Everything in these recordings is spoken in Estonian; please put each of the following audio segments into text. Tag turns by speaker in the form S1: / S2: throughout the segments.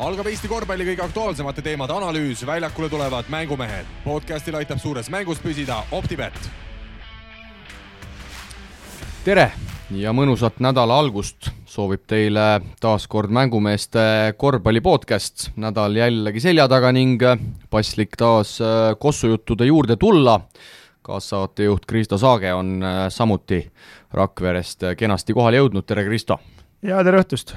S1: Algab Eesti korvpalli kõige aktuaalsemate teemade analüüs, väljakule tulevad mängumehed. Podcastil aitab suures mängus püsida OpTibet.
S2: Tere ja mõnusat nädala algust soovib teile taas kord mängumeeste korvpalli podcast. Nädal jällegi selja taga ning paslik taas kossujuttude juurde tulla. Kaassaatejuht Kristo Saage on samuti Rakverest kenasti kohale jõudnud. Tere Kristo!
S3: Ja tere õhtust!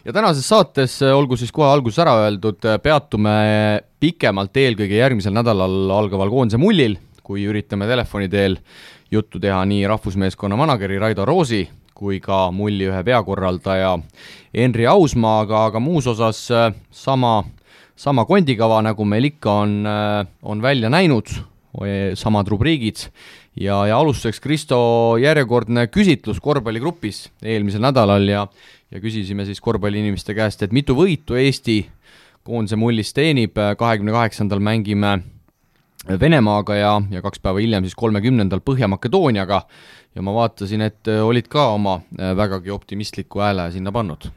S2: Ja tänases saates, olgu siis kohe alguses ära öeldud, peatume pikemalt eelkõige järgmisel nädalal algaval koondise mullil, kui üritame telefoni teel juttu teha nii rahvusmeeskonna manageri Raido Roosi kui ka mulli ühe peakorraldaja Henri Ausmaaga, aga muus osas sama kondikava, nagu meil ikka on välja näinud, samad rubriigid ja alustuseks Kristo järjekordne küsitlus korvpalligrupis eelmisel nädalal ja küsisime siis korvpalliinimeste käest, et mitu võitu Eesti koondise mullis teenib. 28. mängime Venemaaga ja 2 päeva hiljem siis 30. Põhja-Makedooniaga ja ma vaatasin, et olid ka oma vägagi optimistliku hääle sinna pannud.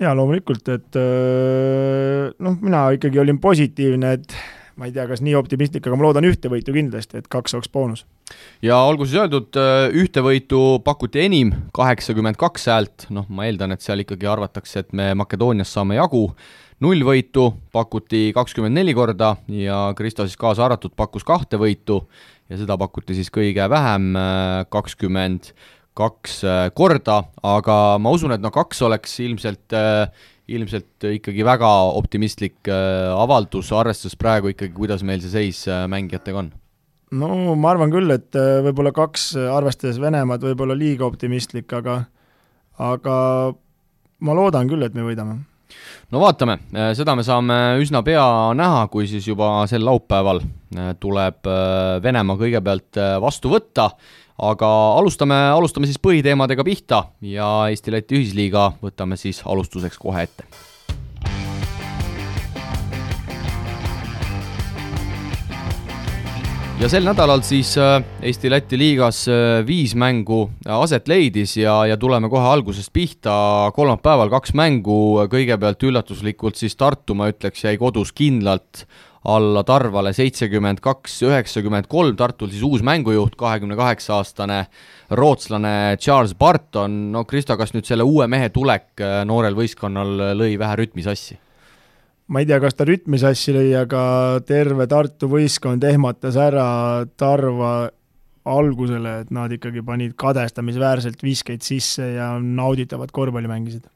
S3: Ja loomulikult, et mina ikkagi olin positiivne, et ma ei tea, kas nii optimistlik, aga ma loodan ühte võitu kindlasti, et 2 oleks boonus.
S2: Ja olgu siis öeldud, ühte võitu pakuti enim 82 häält, ma eeldan, et seal ikkagi arvatakse, et me Makedoonias saame jagu. 0 võitu pakuti 24 korda ja Kristo siis kaasa arvatud pakkus 2 võitu ja seda pakuti siis kõige vähem 22 korda, aga ma usun, et 2 oleks ilmselt ikkagi väga optimistlik avaldus, arvestades praegu ikkagi, kuidas meil see seis mängijatega on.
S3: No ma arvan küll, et võib-olla 2 arvestades Venemaad võib-olla liiga optimistlik, aga ma loodan küll, et me võidame.
S2: No vaatame, seda me saame üsna pea näha, kui siis juba sel laupäeval tuleb Venemaa kõigepealt vastu võtta, aga alustame siis põhiteemadega pihta ja Eesti-Läti ühisliiga võtame siis alustuseks kohe ette. Ja sel nädalal siis Eesti-Läti liigas 5 mängu aset leidis ja tuleme kohe algusest pihta. Kolmapäeval 2 mängu, kõigepealt üllatuslikult siis Tartu, ma ütleks, jäi kodus kindlalt alla Tarvale 72-93. Tartul siis uus mängujuht, 28-aastane rootslane Charles Barton. No Kristo, kas nüüd selle uue mehe tulek noorel võistkonnal lõi vähe rütmisassi?
S3: Ma ei tea, kas ta rütmisassi lõi, aga terve Tartu võistkond ehmatas ära Tarva algusele, et nad ikkagi panid kadestamisväärselt viskeid sisse ja nauditavad korvpalli mängisid.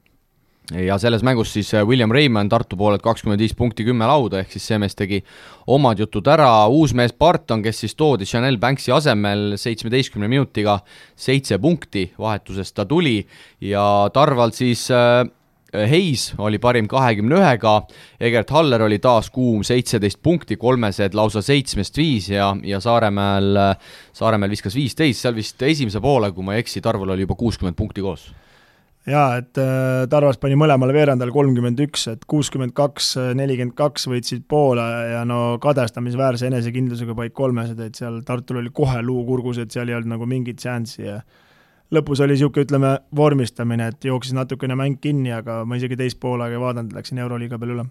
S2: Ja selles mängus siis William Raymond Tartu poolelt 25 punkti 10 lauda, ehk siis see mees tegi omad jutud ära. Uus mees Barton, kes siis toodi Chanel Banksi asemel 17 minutiga 7 punkti vahetusest ta tuli ja Tarval siis Heis oli parim 21-ga, Egert Haller oli taas kuum 17 punkti, 3 lausa 7-5 ja Saaremäel viskas 15, seal vist esimese poole, kui ma ei eksi, Tarval oli juba 60 punkti koos.
S3: Jaa, et Tarvas pani mõlemale veerandal 31, et 62-42 võitsid poole ja kadestamisväärse enesekindlusega paik 3, et seal Tartul oli kohe luukurgus, et seal ei olnud nagu mingit seanssi ja lõpus oli niisugune, vormistamine, et jooksis natukene mäng kinni, aga ma isegi teist poolaga ei vaadanud, läksin Euroliiga peal üle.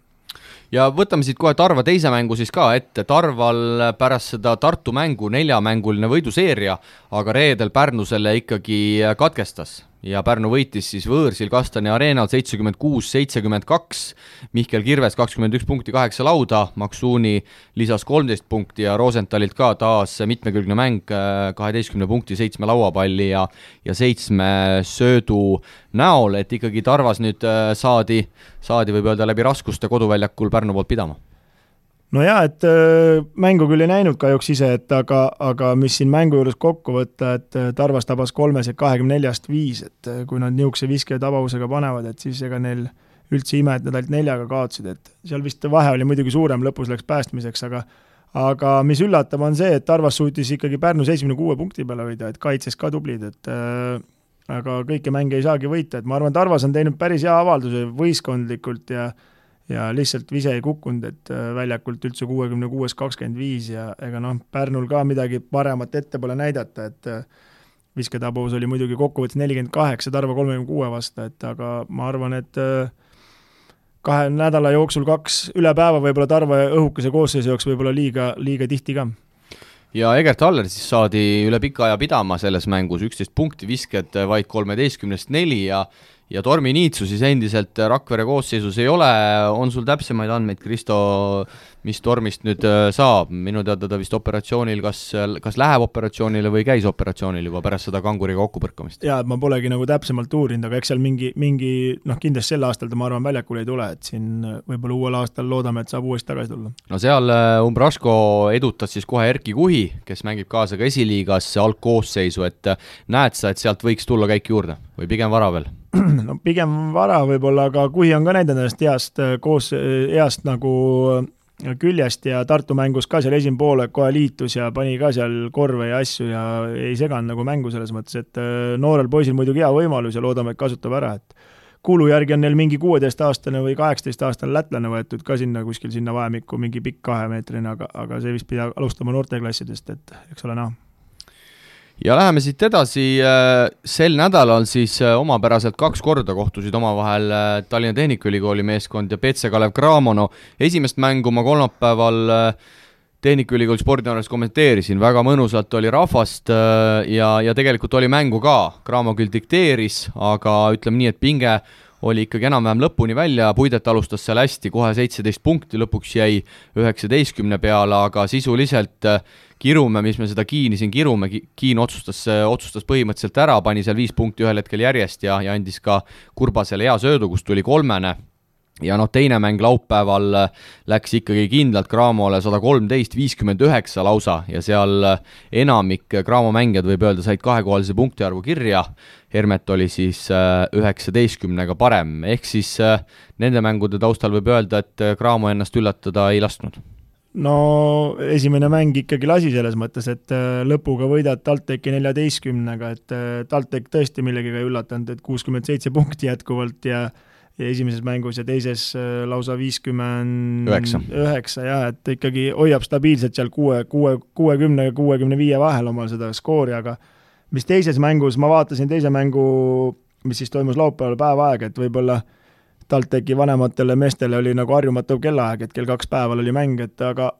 S2: Ja võtame siit kohe Tarva teise mängu siis ka ette. Tarval pärast seda Tartu mängu 4-mänguline võiduseeria, aga reedel Pärnu selle ikkagi katkestas ja Pärnu võitis siis võõrsil Kastani areenal 76-72, Mihkel Kirves 21 punkti 8 lauda, Maksuuni lisas 13 punkti ja Rosenthalit ka taas mitmekülgne mäng 12 punkti 7 lauapalli ja 7 söödu näol, et ikkagi Tarvas nüüd saadi võib öelda läbi raskuste koduväljakul Pärnu poolt pidama.
S3: No jaa, et mängu küll ei näinud kahjuks ise, aga mis siin mängu juures kokku võtta, et Tarvas tabas 3-24-5, et kui nad niisuguse viske tabavusega panevad, et siis ega neil üldse ime, et nad ainult 4-ga kaotsid, et seal vist vahe oli muidugi suurem, lõpus läks päästmiseks, aga mis üllatab on see, et Tarvas suutis ikkagi Pärnu 76 punkti peale hoida, et kaitses ka tublid, et aga kõike mänge ei saagi võita, et ma arvan, Tarvas on teinud päris hea avalduse võistkondlikult ja lihtsalt vise ei kukkunud, et väljakult üldse 66-25 ja ega Pärnul ka midagi paremat ette pole näidata, et visketabavus oli muidugi kokkuvõttes 48, Tarva 36 vastu, et aga ma arvan, et 2 nädala jooksul 2 üle päeva võib-olla Tarva õhukese koosseisu jaoks võib-olla liiga tihti ka.
S2: Ja Egert Haller siis saadi üle pika aja pidama selles mängus, 11 punkti, visked vaid 13-4 ja Tormi Niitsu siis endiselt Rakvere koosseisus ei ole. On sul täpsemaid andmeid, Kristo, mis Tormist nüüd saab? Minu teada ta vist operatsioonil, kas läheb operatsioonile või käis operatsioonil juba pärast seda kanguriga kokkupõrkamist?
S3: Jaa, ma polegi nagu täpsemalt uurinud, aga eks seal mingi kindlasti sel aastal ta, ma arvan, väljakul ei tule, et siin võib-olla uuel aastal loodame, et saab uuesti tagasi tulla.
S2: No seal Umbrasko edutas siis kohe Erki Kuhi, kes mängib kaasa ka esiliigas algkoosseisu, et näed sa, et sealt võiks tulla käik juurde või pigem vara veel?
S3: No pigem vara võib-olla, aga Kuhi on ka näidanud ennast heast nagu küljest ja Tartu mängus ka seal esimene poole kohe liitus ja pani ka seal korve ja asju ja ei seganud nagu mängu selles mõttes, et noorel poisil muidugi hea võimalus ja loodame, et kasutab ära, et kuulu järgi on neil mingi 16-aastane või 18-aastane lätlane võetud ka sinna kuskil sinna vahemikku, mingi pikk 2-meetrine, aga see vist pidi alustama noorteklassidest, et eks ole näha.
S2: Ja läheme siit edasi, sel nädalal siis omapäraselt 2 korda kohtusid omavahel Tallinna Tehnikaülikooli meeskond ja PC Kalev Cramo. Esimest mängu ma kolmapäeval Tehnikaülikooli spordianalüüs kommenteerisin, väga mõnusalt oli rahvast ja tegelikult oli mängu ka. Cramo küll dikteeris, aga ütleme nii, et pinge oli ikkagi enam-vähem lõpuni välja, Puidet alustas seal hästi, kohe 17 punkti, lõpuks jäi 19 peale, aga sisuliselt Kirume, mis me seda Kiini siin kirume, Kiin otsustas põhimõtteliselt ära, pani seal 5 punkti ühel hetkel järjest ja andis ka Kurbasele hea söödu, kus tuli 3. Ja teine mäng laupäeval läks ikkagi kindlalt Cramole 113-59 lausa ja seal enamik Cramo mängijad võib öelda said 2-kohalise punktiarvu kirja. Hermet oli siis 19-ga parem, ehk siis nende mängude taustal võib öelda, et Cramo ennast üllatada ei lasknud.
S3: No esimene mäng ikkagi lasi selles mõttes, et lõpuga võidad TalTechi 14-ga, et TalTech tõesti millegagi ei üllatanud, et 67 punkti jätkuvalt ja esimeses mängus ja teises lausa 59 ja et ikkagi hoiab stabiilselt seal 60 ja 65 vahel omal seda skoori, aga mis teises mängus, ma vaatasin teise mängu, mis siis toimus laupäeval päevaaeg, et võib-olla TalTechi vanematele meestele oli nagu harjumatu kellaaeg, et kell 2 päeval oli mäng, et aga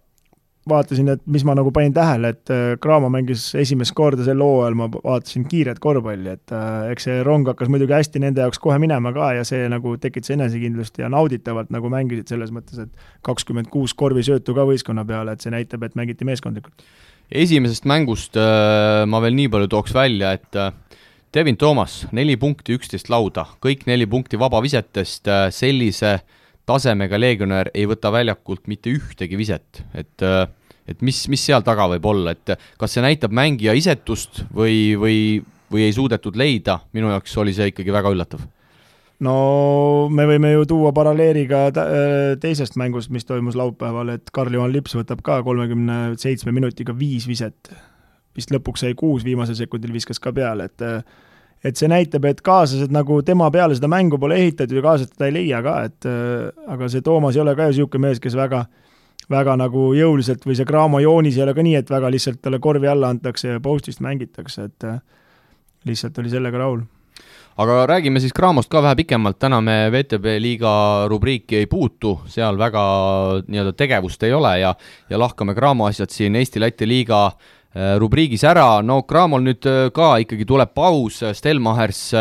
S3: vaatasin, et mis ma nagu panin tähele, et Cramo mängis esimest korda sel hooajal, ma vaatasin kiiret korvpalli, et eks see rong hakkas muidugi hästi nende jaoks kohe minema ka ja see nagu tekitas enesekindlust ja nauditavalt nagu mängisid selles mõttes, et 26 korvisöötu ka võistkonna peale, et see näitab, et mängiti meeskondlikult.
S2: Esimesest mängust ma veel nii palju tooks välja, et Devin Thomas, 4 punkti, 11 lauda, kõik 4 punkti vabavisetest, sellise tasemega leegionär ei võta väljakult mitte ühtegi viset, et mis seal taga võib olla, et kas see näitab mängija isetust või ei suudetud leida, minu jaoks oli see ikkagi väga üllatav.
S3: No me võime ju tuua paralleeliga teisest mängust, mis toimus laupäeval, et Karl-Johan Lips võtab ka 37 minutiga 5 viset, vist lõpuks sai 6 viimasel sekundil viskas ka peale, et see näitab, et kaaslased nagu tema peale seda mängu pole ehitatud ja kaaslased teda ei leia ka, et aga see Toomas ei ole ka ju siuke mees, kes väga nagu jõuliselt või see Cramo joonis ei ole ka nii, et väga lihtsalt talle korvi alla antakse ja postist mängitakse, et lihtsalt oli sellega rahul.
S2: Aga räägime siis Cramost ka vähe pikemalt, täna me VTB liiga rubriiki ei puutu, seal väga nii-öelda tegevust ei ole ja lahkame Cramo asjad siin Eesti-Läti liiga rubriigis ära. No Cramol nüüd ka ikkagi tuleb paus, Stelmachers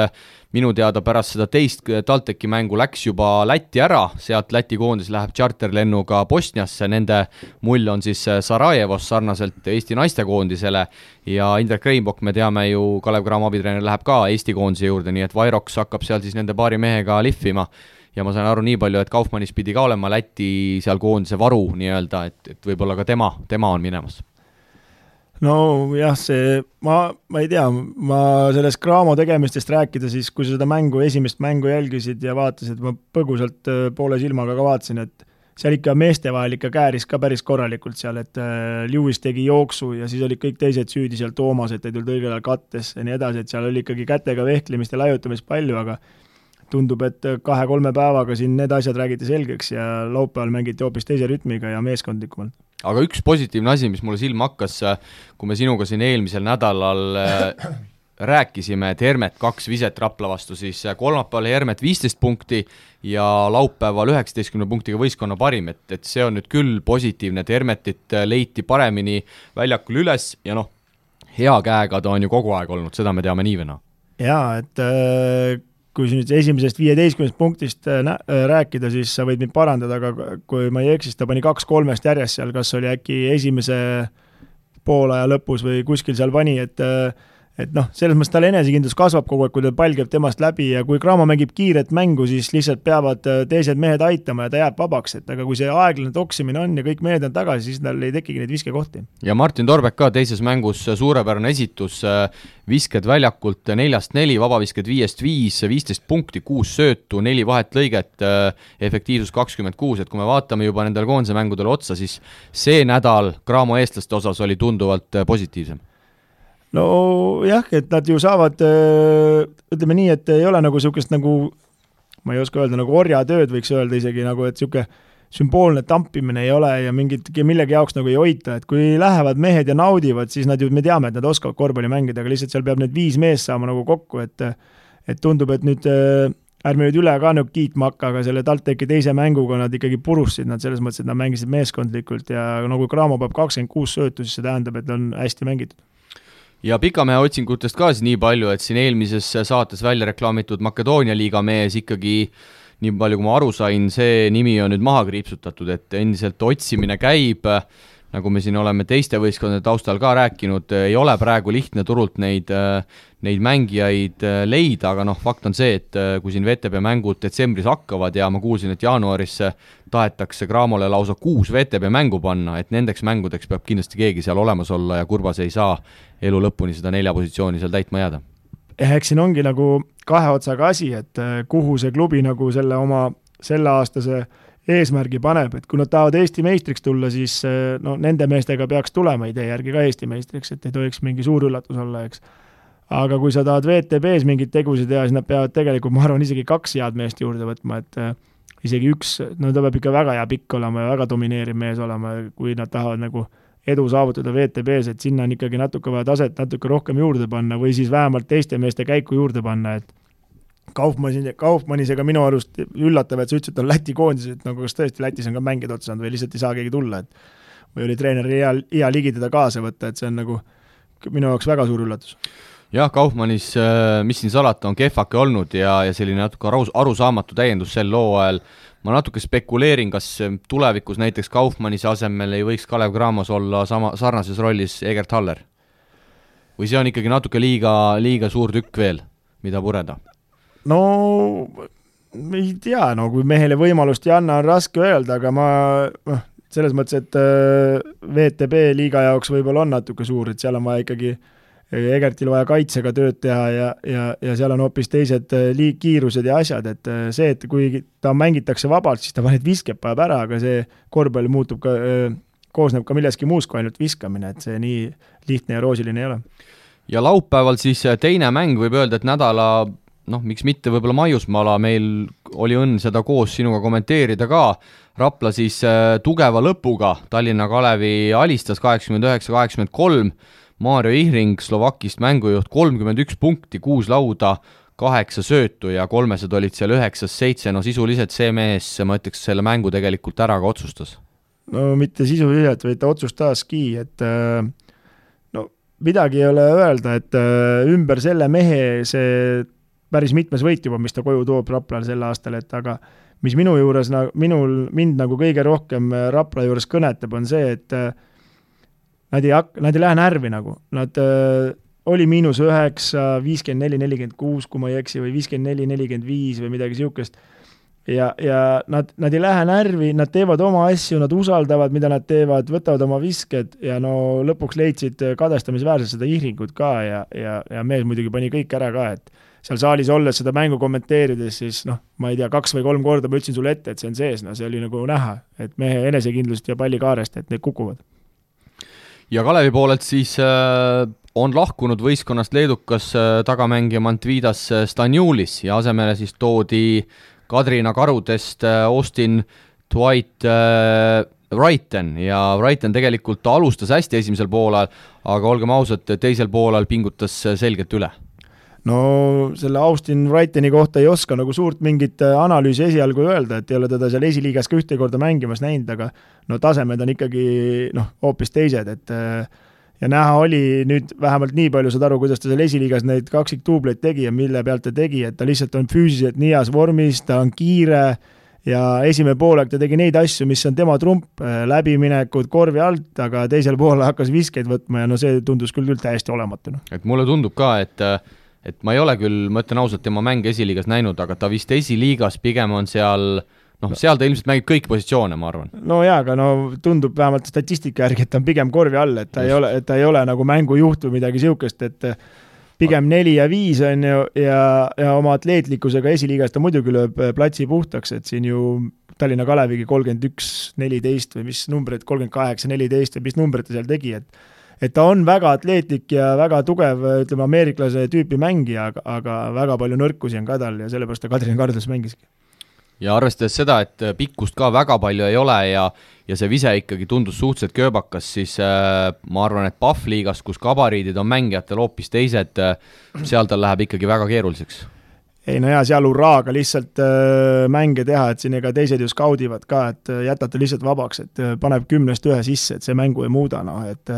S2: minu teada pärast seda teist TalTechi mängu läks juba Lätti ära, sealt Läti koondis läheb charterlennuga Bosniasse, nende mull on siis Sarajevos sarnaselt Eesti naistekoondisele ja Indrek Reinbok, me teame ju, Kalev Cramo abitreener läheb ka Eesti koondise juurde, nii et Vairoks hakkab seal siis nende paari mehega lihvima ja ma sain aru nii palju, et Kaufmannis pidi ka olema Läti seal koondise varu nii-öelda, et võib-olla ka tema on minemas.
S3: No jah, ma ei tea, ma sellest Cramo tegemistest rääkida, siis kui seda esimest mängu jälgisid ja vaatasid, ma põgusalt poole silmaga ka vaatasin, et seal ikka meeste vahel ikka kääris ka päris korralikult seal, et Lewis tegi jooksu ja siis olid kõik teised süüdi seal Toomas, et ei tulnud õigel ajal kattes ja nii edasi, et seal oli ikkagi kätega vehklemist ja laiutamist palju, aga tundub, et 2-3 päevaga siin need asjad räägiti selgeks ja laupäeval mängiti hoopis teise rütmiga ja meeskondlikumalt.
S2: Aga üks positiivne asi, mis mulle silma hakkas, kui me sinuga siin eelmisel nädalal rääkisime, et Hermet 2 viset Rapla vastu, siis kolmapäeval Hermet 15 punkti ja laupäeval 19 punktiga võistkonna parim, et see on nüüd küll positiivne, et Hermetit leiti paremini väljakul üles ja noh, hea käega ta on ju kogu aeg olnud, seda me teame nii või naa.
S3: Jaa, et kui nüüd esimesest 15 punktist rääkida, siis sa võid mind parandada, aga kui ma ei eksis, ta pani 2-3 järjest seal, kas oli äkki esimese poolaja lõpus või kuskil seal pani, et noh, selles mõttes tal enesekindlus kasvab kogu aeg, kui ta pall käib temast läbi ja kui Cramo mängib kiiret mängu, siis lihtsalt peavad teised mehed aitama ja ta jääb vabaks, et aga kui see aeglane toksimine on ja kõik mehed on tagasi, siis tal ei tekigi neid viskekohti.
S2: Ja Martin Torbek ka teises mängus suurepärane esitus, visked väljakult 4-4, vabavisked 5-5, 15 punkti, 6 söötu, 4 vahetlõiget, efektiivsus 26, et kui me vaatame juba nendel koondise mängudel otsa, siis see nädal Cramo eestlaste osas oli tunduvalt positiivsem.
S3: No jah, et nad ju saavad, ütleme nii, et ei ole nagu niisugust nagu, ma ei oska öelda, nagu orjatööd võiks öelda isegi nagu, et niisugune sümboolne tampimine ei ole ja millegi jaoks nagu ei hoita, et kui lähevad mehed ja naudivad, siis nad ju, me teame, et nad oskavad korvpalli mängida, aga lihtsalt seal peab need 5 meest saama nagu kokku, et tundub, et nüüd ärme nüüd üle ka nagu kiitma hakka, aga selle TalTechi teise mänguga nad ikkagi purusid nad selles mõttes, et nad mängisid meeskondlikult ja nagu Cramo peab 26 söötu, siis see tähendab, et on hästi mängitud.
S2: Ja Pikamehe otsingutest ka nii palju, et siin eelmises saates välja reklaamitud Makedoonia liiga mees ikkagi, nii palju kui ma aru sain, see nimi on nüüd maha kriipsutatud, et endiselt otsimine käib, nagu me siin oleme teiste võistkondade taustal ka rääkinud, ei ole praegu lihtne turult neid mängijaid leida, aga noh, fakt on see, et kui siin VTB mängud detsembris hakkavad ja ma kuulsin, et jaanuaris tahetakse Cramole lausa 6 VTB mängu panna, et nendeks mängudeks peab kindlasti keegi seal olemas olla ja Kurbas ei saa elu lõpuni seda 4 positsiooni seal täitma jääda.
S3: Eks siin ongi nagu 2 otsaga asi, et kuhu see klubi nagu selle oma selleaastase eesmärgi paneb, et kui nad tahavad Eesti meistriks tulla, siis no, nende meestega peaks tulema idee järgi ka Eesti meistriks, et ei tohiks mingi suur üllatus olla, eks. Aga kui sa tahad VTB-s mingid tegusid teha, siis nad peavad tegelikult, ma arvan, isegi 2 head meest juurde võtma, et isegi 1, no ta peab ikka väga hea pikk olema ja väga domineeriv mees olema, kui nad tahavad nagu edu saavutada VTB-s, et sinna on ikkagi natuke vaja taset natuke rohkem juurde panna või siis vähemalt teiste meeste käiku juurde panna, et Kaufmannisega minu arust üllatav, et sa ütlesid, et on Läti koondis, et nagu kas tõesti Lätis on ka mängida otsanud või lihtsalt ei saa keegi tulla, et või oli treeneri hea ligi teda kaasa võtta, et see on nagu minu jaoks väga suur üllatus.
S2: Jah, Kaufmannis, mis siin salata, on kehvake olnud ja selline natuke arusaamatu täiendus sel looajal. Ma natuke spekuleerin, kas tulevikus näiteks Kaufmannise asemel ei võiks Kalev Cramos olla sarnases rollis Egert Haller? Või see on ikkagi natuke liiga suur tükk veel, mida pureda?
S3: No ei tea, no kui mehele võimalust ei anna, on raske öelda, aga ma selles mõttes, et VTB liiga jaoks võib-olla on natuke suur, et seal on vaja ikkagi Egertil vaja kaitsega tööd teha ja seal on hoopis teised kiirused ja asjad, et see, et kui ta mängitakse vabalt, siis ta need viskeb päev ära, aga see korvpall muutub ka, koosneb ka milleski muus kui ainult viskamine, et see nii lihtne ja roosiline ei ole.
S2: Ja laupäeval siis teine mäng võib öelda, et nädala miks mitte võib-olla Maiusmaala, meil oli õnn seda koos sinuga kommenteerida ka, Rapla siis tugeva lõpuga, Tallinna Kalevi alistas 89-83, Maarjo Ihring Slovakist mängujuht 31 punkti, 6 lauda, 8 söötu ja 3 olid seal 9-7, no sisuliselt see mees, ma ütleks, selle mängu tegelikult ära ka otsustas.
S3: No mitte sisuliselt, vaid ta otsustaski, et midagi ei ole öelda, et ümber selle mehe see päris mitmes võit juba, mis ta koju toob Raplal sel aastal, et aga mis minu juures, mind nagu kõige rohkem Rapla juures kõnetab, on see, et nad ei lähe närvi nagu. Nad oli -9, 54-46, kui ma ei eksi, või 54-45 või midagi siukest. Ja nad ei lähe närvi, nad teevad oma asju, nad usaldavad, mida nad teevad, võtavad oma visked ja no lõpuks leidsid kadestamisväärselt seda Ihringut ka ja mees muidugi pani kõik ära ka, et seal saalis olles seda mängu kommenteerides, siis ma ei tea, 2 või 3 korda ma ütlesin sulle ette, et see on sees, see oli nagu näha, et mehe enesekindlust ja pallikaarest, et need kukuvad.
S2: Ja Kalevi poolelt siis on lahkunud võistkonnast leedukas tagamängija Mantvidas Stanjulis ja asemele siis toodi Kadrina Karudest Austin Dwight Wrighton ja Wrighton tegelikult alustas hästi esimesel poolal, aga olgem ausad, teisel poolal pingutas selgelt üle.
S3: no selle Austin Wrightoni kohta ei oska nagu suurt mingit analüüsi esialgu öelda, et ei ole teda seal esiliigas ka ühte korda mängimas näinud, aga no tasemed on ikkagi hoopis teised, et ja näha oli nüüd vähemalt nii palju saad aru, kuidas ta seal esiliigas neid kaksiktuubleid tegi ja mille pealt ta tegi, et ta lihtsalt on füüsiliselt nii heas vormis, ta on kiire ja esimene poolek ta tegi neid asju, mis on tema trump, läbiminekud korvi alt, aga teisel poole hakkas viskeid võtma ja no see tundus küll täiesti olematu.
S2: Et mulle tundub ka, et ma ei ole küll, ma ütlen ausalt, tema mänge esiliigas näinud, aga ta vist esiliigas pigem on seal, seal ta ilmselt mängib kõik positsioone, ma arvan.
S3: No jaa, aga tundub vähemalt statistika järgi, et ta on pigem korvi all, et ta ei ole nagu mängujuht või midagi siukest, et pigem 4 ja 5 on ju ja oma atleetlikkusega esiliigas ta muidugi lööb platsi puhtaks, et siin ju Tallinna Kalevigi 31-14 või mis numbrid, 38-14 või mis numbrid ta seal tegi, et ta on väga atleetlik ja väga tugev, ütleme, ameeriklase tüüpi mängija, aga väga palju nõrkusi on ka tal ja sellepärast ta Kadrina Kardas mängiski.
S2: Ja arvestades seda, et pikkust ka väga palju ei ole ja see vise ikkagi tundus suhteliselt kööbakas, siis ma arvan, et Pahv-liigas, kus gabariidid on mängijatel hoopis teised, seal tal läheb ikkagi väga keeruliseks.
S3: Ei no jaa, seal urraaga lihtsalt mänge teha, et siin ega teised ju skaudivad ka, et jätate lihtsalt vabaks, et paneb 10-1 sisse, et see mängu ei muuda, et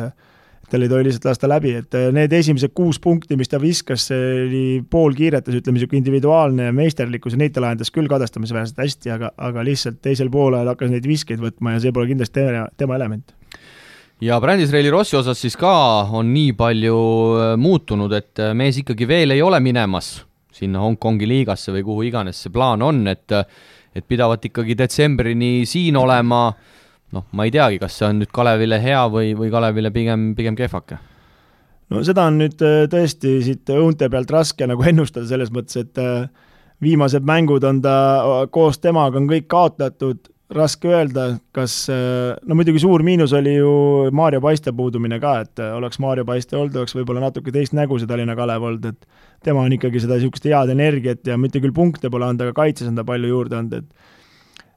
S3: tal ei tohi lihtsalt lasta läbi, et need esimesed 6 punkti, mis ta viskas, see oli pool kiiretas, ütleme siuke individuaalne meisterlikkus ja neid ta lahendas küll kadestamisväärselt hästi, aga lihtsalt teisel poolel hakkas neid viskeid võtma ja see pole kindlasti tema element.
S2: Ja Brandis-Reili Rossi osas siis ka on nii palju muutunud, et mees ikkagi veel ei ole minemas sinna Hongkongi liigasse või kuhu iganes see plaan on, et pidavat ikkagi detsembrini siin olema. Ma ei teagi, kas see on nüüd Kalevile hea või Kalevile pigem kehvake?
S3: No seda on nüüd tõesti siit õunte pealt raske nagu ennustada selles mõttes, et viimased mängud on ta koos temaga on kõik kaotatud, raske öelda, kas, muidugi suur miinus oli ju Maarjo Paiste puudumine ka, et oleks Maarjo Paiste olnud, oleks võib-olla natuke teist nägu see Tallinna Kalev olnud, et tema on ikkagi seda niisugust head energiat ja mitte küll punkte pole anda, aga kaitses on ta palju juurde olnud, et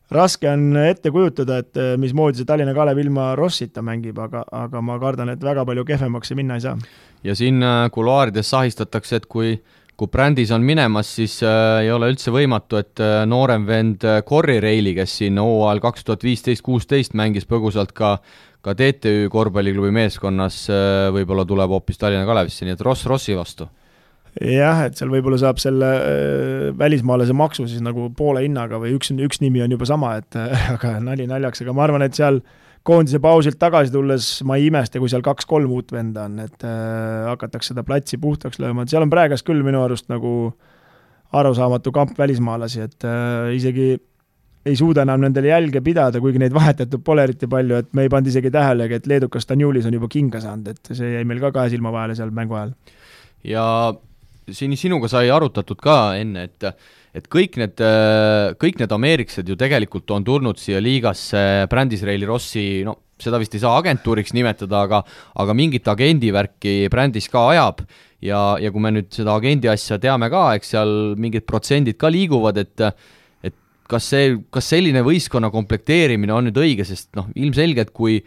S3: raske on ette kujutada, et mismoodi see Tallinna Kalev ilma Rossita mängib, aga ma kardan, et väga palju kehvemaks minna ei saa.
S2: Ja siin kuluaarides sahistatakse, et kui Brändis on minemas, siis ei ole üldse võimatu, et noorem vend Corri Reili, kes siin hooajal 2015-16 mängis põgusalt ka TTÜ korvpalliklubi meeskonnas, võib-olla tuleb hoopis Tallinna Kalevisse, nii et Rossi vastu.
S3: Jah, et seal võib-olla saab selle välismaalase maksu siis nagu poole hinnaga või üks nimi on juba sama, et aga nali naljaks, aga ma arvan, et seal koondise pausilt tagasi tulles ma ei imesta, kui seal 2-3 uut venda on, et hakatakse seda platsi puhtaks lööma, et seal on praegas küll minu arust nagu arusaamatu kamp välismaalasi, et isegi ei suuda enam nendele jälge pidada, kuigi neid vahetatud pole eriti palju, et me ei pand isegi tähelegi, et leedukas Stanjulis on juba kinga saanud, et see jäi meil ka 2 silma vahele seal mängu ajal.
S2: Ja sinuga sai arutatud ka enne, et kõik need ameeriksed ju tegelikult on tulnud siia liigasse Brandis-Reili Rossi, seda vist ei saa agentuuriks nimetada, aga mingit agendivärki Brandis ka ajab ja kui me nüüd seda agendi asja teame ka, eks seal mingid protsendid ka liiguvad, et kas selline võistkonna komplekteerimine on nüüd õige, sest ilmselgelt kui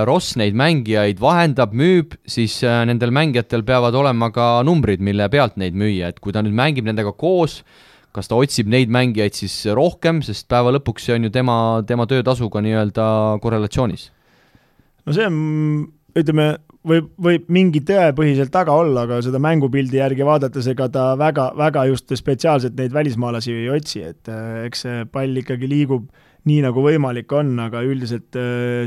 S2: Ross neid mängijaid vahendab, müüb, siis nendel mängijatel peavad olema ka numbrid, mille pealt neid müüa, et kui ta nüüd mängib nendega koos, kas ta otsib neid mängijaid siis rohkem, sest päeva lõpuks see on ju tema töötasuga nii-öelda korrelatsioonis? No
S3: see on, ütleme, võib mingi tõepõhiselt taga olla, aga seda mängupildi järgi vaadates, ega ta väga just spetsiaalselt neid välismaalasi ei otsi, et eks see pall ikkagi liigub nii nagu võimalik on, aga üldiselt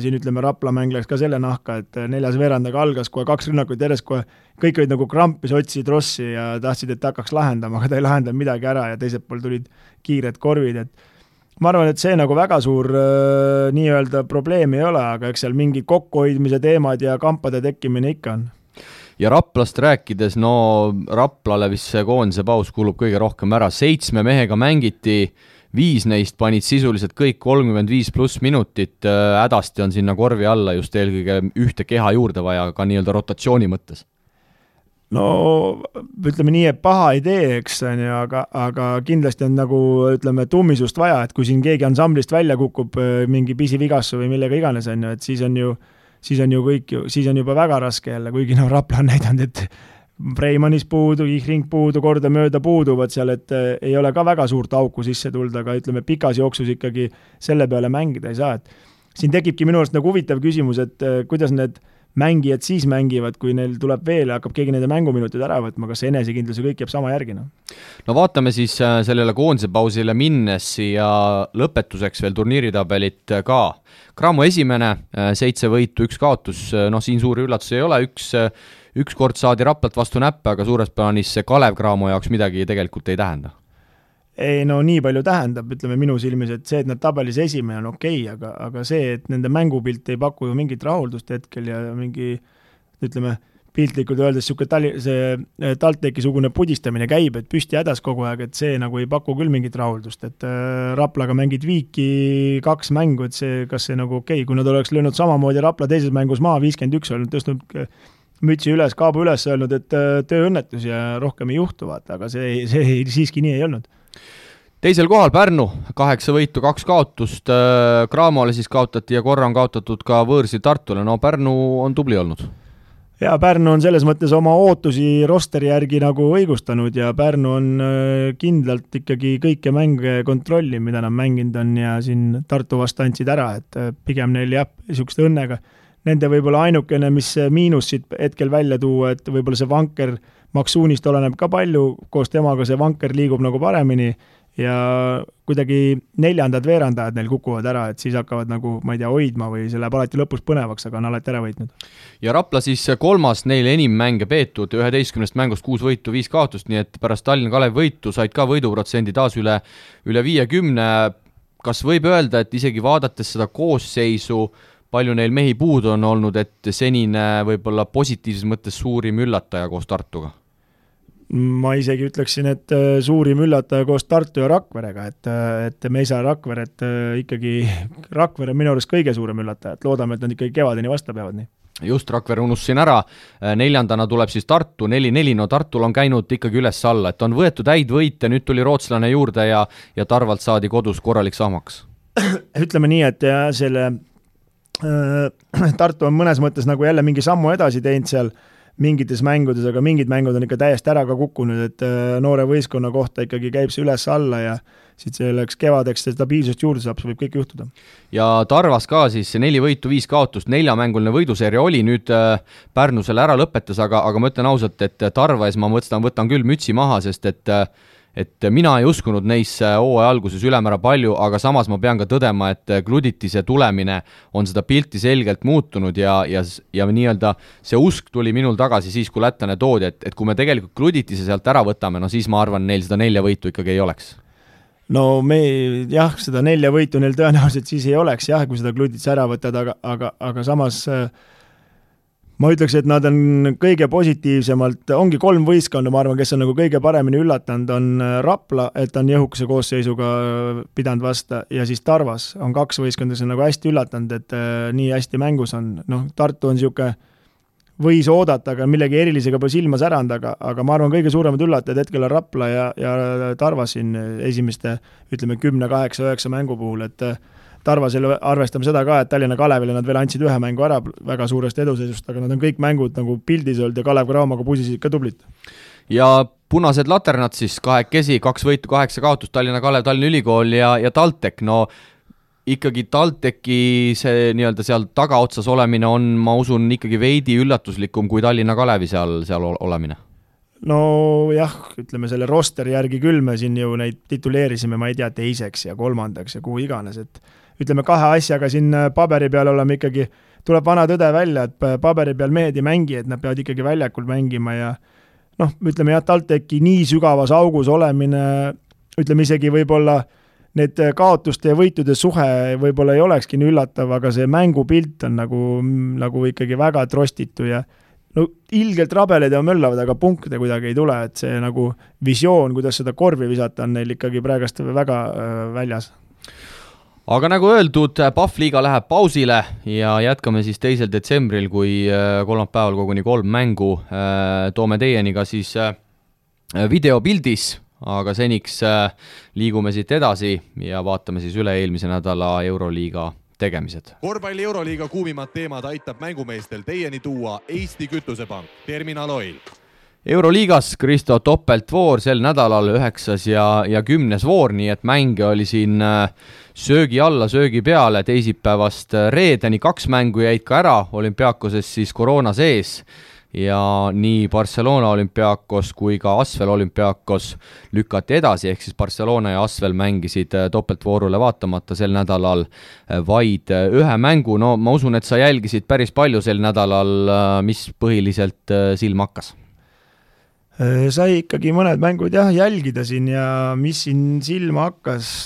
S3: siin ütleme Rapla mäng läks ka selle nahka, et 4. veerandaga algas kohe 2 rünnakut järjest, kohe kõik olid nagu krampis, otsisid Rossi ja tahtsid, et hakkaks lahendama, aga ta ei lahendanud midagi ära ja teiselt pool tulid kiired korvid, et ma arvan, et see nagu väga suur nii-öelda probleem ei ole, aga eks seal mingi kokkuhoidmise teemad ja kampade tekkimine ikka on.
S2: Ja Raplast rääkides, Raplale vist see koondise paus kulub kõige rohkem ära, 7 mehega mängiti, 5 neist panid sisuliselt kõik 35+ minutit, hädasti on sinna korvi alla just eelkõige ühte keha juurde vaja ka nii-öelda rotatsiooni mõttes.
S3: No ütleme nii, et paha idee, eks, aga kindlasti on nagu ütleme tummisust vaja, et kui siin keegi ansamblist välja kukub mingi pisivigassu või millega iganes on ju, et siis on juba väga raske jälle, kuigi Rapla on näidanud, et Freimanis puudu, Ihring puudu, kordamööda puuduvad seal, et ei ole ka väga suurt auku sisse tulda, aga ütleme, pikas jooksus ikkagi selle peale mängida ei saa, et siin tekibki minu arust nagu huvitav küsimus, et kuidas need mängijad siis mängivad, kui neil tuleb veel ja hakkab keegi nende mänguminutid ära võtma, kas see enesekindlus ja kõik jääb sama järgi?
S2: No vaatame siis sellele koondise pausile minnes ja lõpetuseks veel turniiritabelit ka. Cramo esimene, 7 võitu, 1 kaotus, siin suuri üllatusi ei ole, üks kord saadi Raplat vastu näppe, aga suures plaanis see Kalev Cramo jaoks midagi tegelikult ei tähenda.
S3: Ei, no nii palju tähendab, ütleme minu silmis, et see, et nad tabelis esimene on okei, aga see, et nende mängupilt ei paku ju mingit rahuldust hetkel ja mingi, ütleme, piltlikult öeldes see TalTechi-sugune pudistamine käib, et püsti hädas kogu aeg, et see nagu ei paku küll mingit rahuldust, et Raplaga mängid viiki 2 mängu, et see, kas see nagu okei, kui nad oleks löönud samamoodi Rapla teises mängus maa 51, olnud tõstnud mütsi üles, kaabu üles öelnud, et tööõnnetus ja rohkem ei juhtu, vaata, aga see siiski nii ei olnud.
S2: Teisel kohal Pärnu, 8 võitu, 2 kaotust, Cramole siis kaotati ja korra on kaotatud ka võõrsil Tartule, no Pärnu on tubli olnud.
S3: Ja Pärnu on selles mõttes oma ootusi rosteri järgi nagu õigustanud ja Pärnu on kindlalt ikkagi kõike mänge kontrolli, mida nad mänginud on ja siin Tartu vastu andsid ära, et pigem neil jah, niisugust õnnega. Nende võib-olla ainukene, mis miinus siit hetkel välja tuua, et võib-olla see vanker Maksuunist oleneb ka palju, koos temaga see vanker liigub nagu paremini ja kuidagi 4. veerandajad neil kukuvad ära, et siis hakkavad nagu, ma ei tea, hoidma või see läheb alati lõpus põnevaks, aga on alati ära võitnud.
S2: Ja Rapla siis 3. neil enim mänge peetud, 11 mängust 6 võitu, 5 kaotust, nii et pärast Tallinna Kalev võitu said ka võiduprotsendi taas üle 50. Kas võib öelda, et isegi vaadates seda koosseisu, palju neil mehi puudu on olnud, et senine võib-olla positiivses mõttes suurim üllataja koos Tartuga?
S3: Ma isegi ütleksin, et suurim üllataja koos Tartu ja Rakverega, et me ei saa Rakveret ikkagi, Rakvere on minu arust kõige suurem üllataja, et loodame, et nad ikkagi kevadeni vasta peavad nii.
S2: Just, Rakvere unustasin ära, 4. tuleb siis Tartu, 4-4, no Tartul on käinud ikkagi üles-alla, et on võetud häid võite, nüüd tuli rootslane juurde ja Tarvalt saadi kodus korralik sahmaks.
S3: Ütleme nii, et selle Tartu on mõnes mõttes nagu jälle mingi sammu edasi teinud seal mingites mängudes, aga mingid mängud on ikka täiesti ära ka kukkunud, et noore võistkonna kohta ikkagi käib see üles alla ja siit selleks kevadeks stabiilsust juurde saab, see võib kõik juhtuda.
S2: Ja Tarvas ka siis 4 võitu, 5 kaotust, 4-mänguline võiduseeria oli, nüüd Pärnu selle ära lõpetas, aga ma ütlen ausalt, et Tarva ees ma võtan küll mütsi maha, sest et mina ei uskunud neisse hooaja alguses ülemäära palju, aga samas ma pean ka tõdema, et Gluditise tulemine on seda pilti selgelt muutunud ja nii-öelda see usk tuli minul tagasi siis, kui lätlane toodi, et kui me tegelikult Gluditise sealt ära võtame, no siis ma arvan, neil seda 4 võitu ikkagi ei oleks.
S3: No jah, seda 4 võitu neil tõenäoliselt siis ei oleks, jah, kui seda Gluditise ära võtad, aga samas ma ütleks, et nad on kõige positiivsemalt, ongi 3 võistkonda, ma arvan, kes on nagu kõige paremini üllatanud, on Rapla, et on jõhukese koosseisuga pidanud vasta, ja siis Tarvas on 2 võistkonda, kes on nagu hästi üllatanud, et nii hästi mängus on. Tartu on niisugune, võis oodata, aga millegi erilisega pole silma säranud, aga ma arvan, kõige suuremad üllatajad hetkel on Rapla ja Tarvas siin esimeste, ütleme, 10, 8, 9 mängu puhul, et Tarvasel arvestame seda ka, et Tallinna Kalevile nad veel andsid 1 mängu ära väga suurest eduseisust, aga nad on kõik mängud nagu pildis olnud ja Kalev Cramoga pusisid ka tublit.
S2: Ja punased laternad siis 2 võitu, 8 kaotust, Tallinna Kalev, Tallinna Ülikool ja TalTech, no ikkagi TalTechi see nii-öelda seal tagaotsas olemine on, ma usun, ikkagi veidi üllatuslikum kui Tallinna Kalevi seal olemine.
S3: No jah, ütleme selle rosteri järgi küll me siin ju neid tituleerisime, ma ei tea, 2. ja 3. ja kuhu iganes, et ütleme 2 asjaga siin paberi peal oleme ikkagi, tuleb vana tõde välja, et paberi peal mehed ei mängi, et nad peavad ikkagi väljakul mängima ja ütleme jah, TalTechi nii sügavas augus olemine, ütleme isegi võib-olla need kaotuste ja võitude suhe võib-olla ei olekski nii üllatav, aga see mängupilt on nagu ikkagi väga trostitu ja ilgelt rabeled ja möllavad, aga punkte kuidagi ei tule, et see nagu visioon, kuidas seda korvi visata, on neil ikkagi praegast väga väljas.
S2: Aga nagu öeldud, Pahvliiga läheb pausile ja jätkame siis 2. detsembril, kui kolmapäeval koguni 3 mängu toome teieni ka siis videopildis, aga seniks liigume siit edasi ja vaatame siis üle eelmise nädala Euroliiga tegemised.
S1: Korvpalli Euroliiga kuumimad teemad aitab mängumeestel teieni tuua Eesti Kütusepank, Terminal Oil.
S2: Euroliigas Kristo topeltvoor sel nädalal 9. ja 10. voor, nii et mänge oli siin söögi alla, söögi peale teisipäevast reedeni, 2 mängu jäid ka ära, Olümpiakoses siis koroona sees ja nii Barcelona Olümpiakos kui ka Asvel Olümpiakos lükati edasi, ehk siis Barcelona ja Asvel mängisid topeltvoorule vaatamata sel nädalal vaid 1 mängu. No ma usun, et sa jälgisid päris palju sel nädalal, mis põhiliselt silma hakkas?
S3: Sai ikkagi mõned mängud jälgida siin ja mis siin silma hakkas,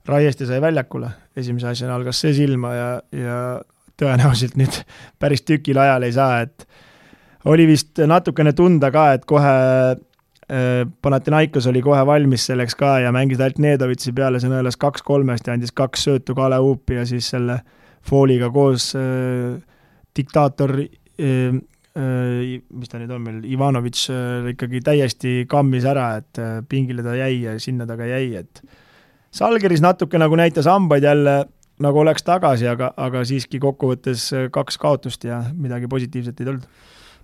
S3: Raieste sai väljakule, esimese asjana algas see silma ja tõenäoliselt nüüd päris tükil ajal ei saa, et oli vist natukene tunda ka, et kohe Panathinaikos oli kohe valmis selleks ka ja mängis ainult Nedovitsi peale, see nõelas 2-3 ja andis 2 söötu Kale Uupi ja siis selle fooliga koos diktaator mis ta nüüd on meil, Ivanovic ikkagi täiesti kammis ära, et pingile ta jäi ja sinna ta ka jäi, et Salgeris natuke nagu näitas hambaid jälle, nagu oleks tagasi, aga siiski kokkuvõttes 2 kaotust ja midagi positiivset ei tulnud.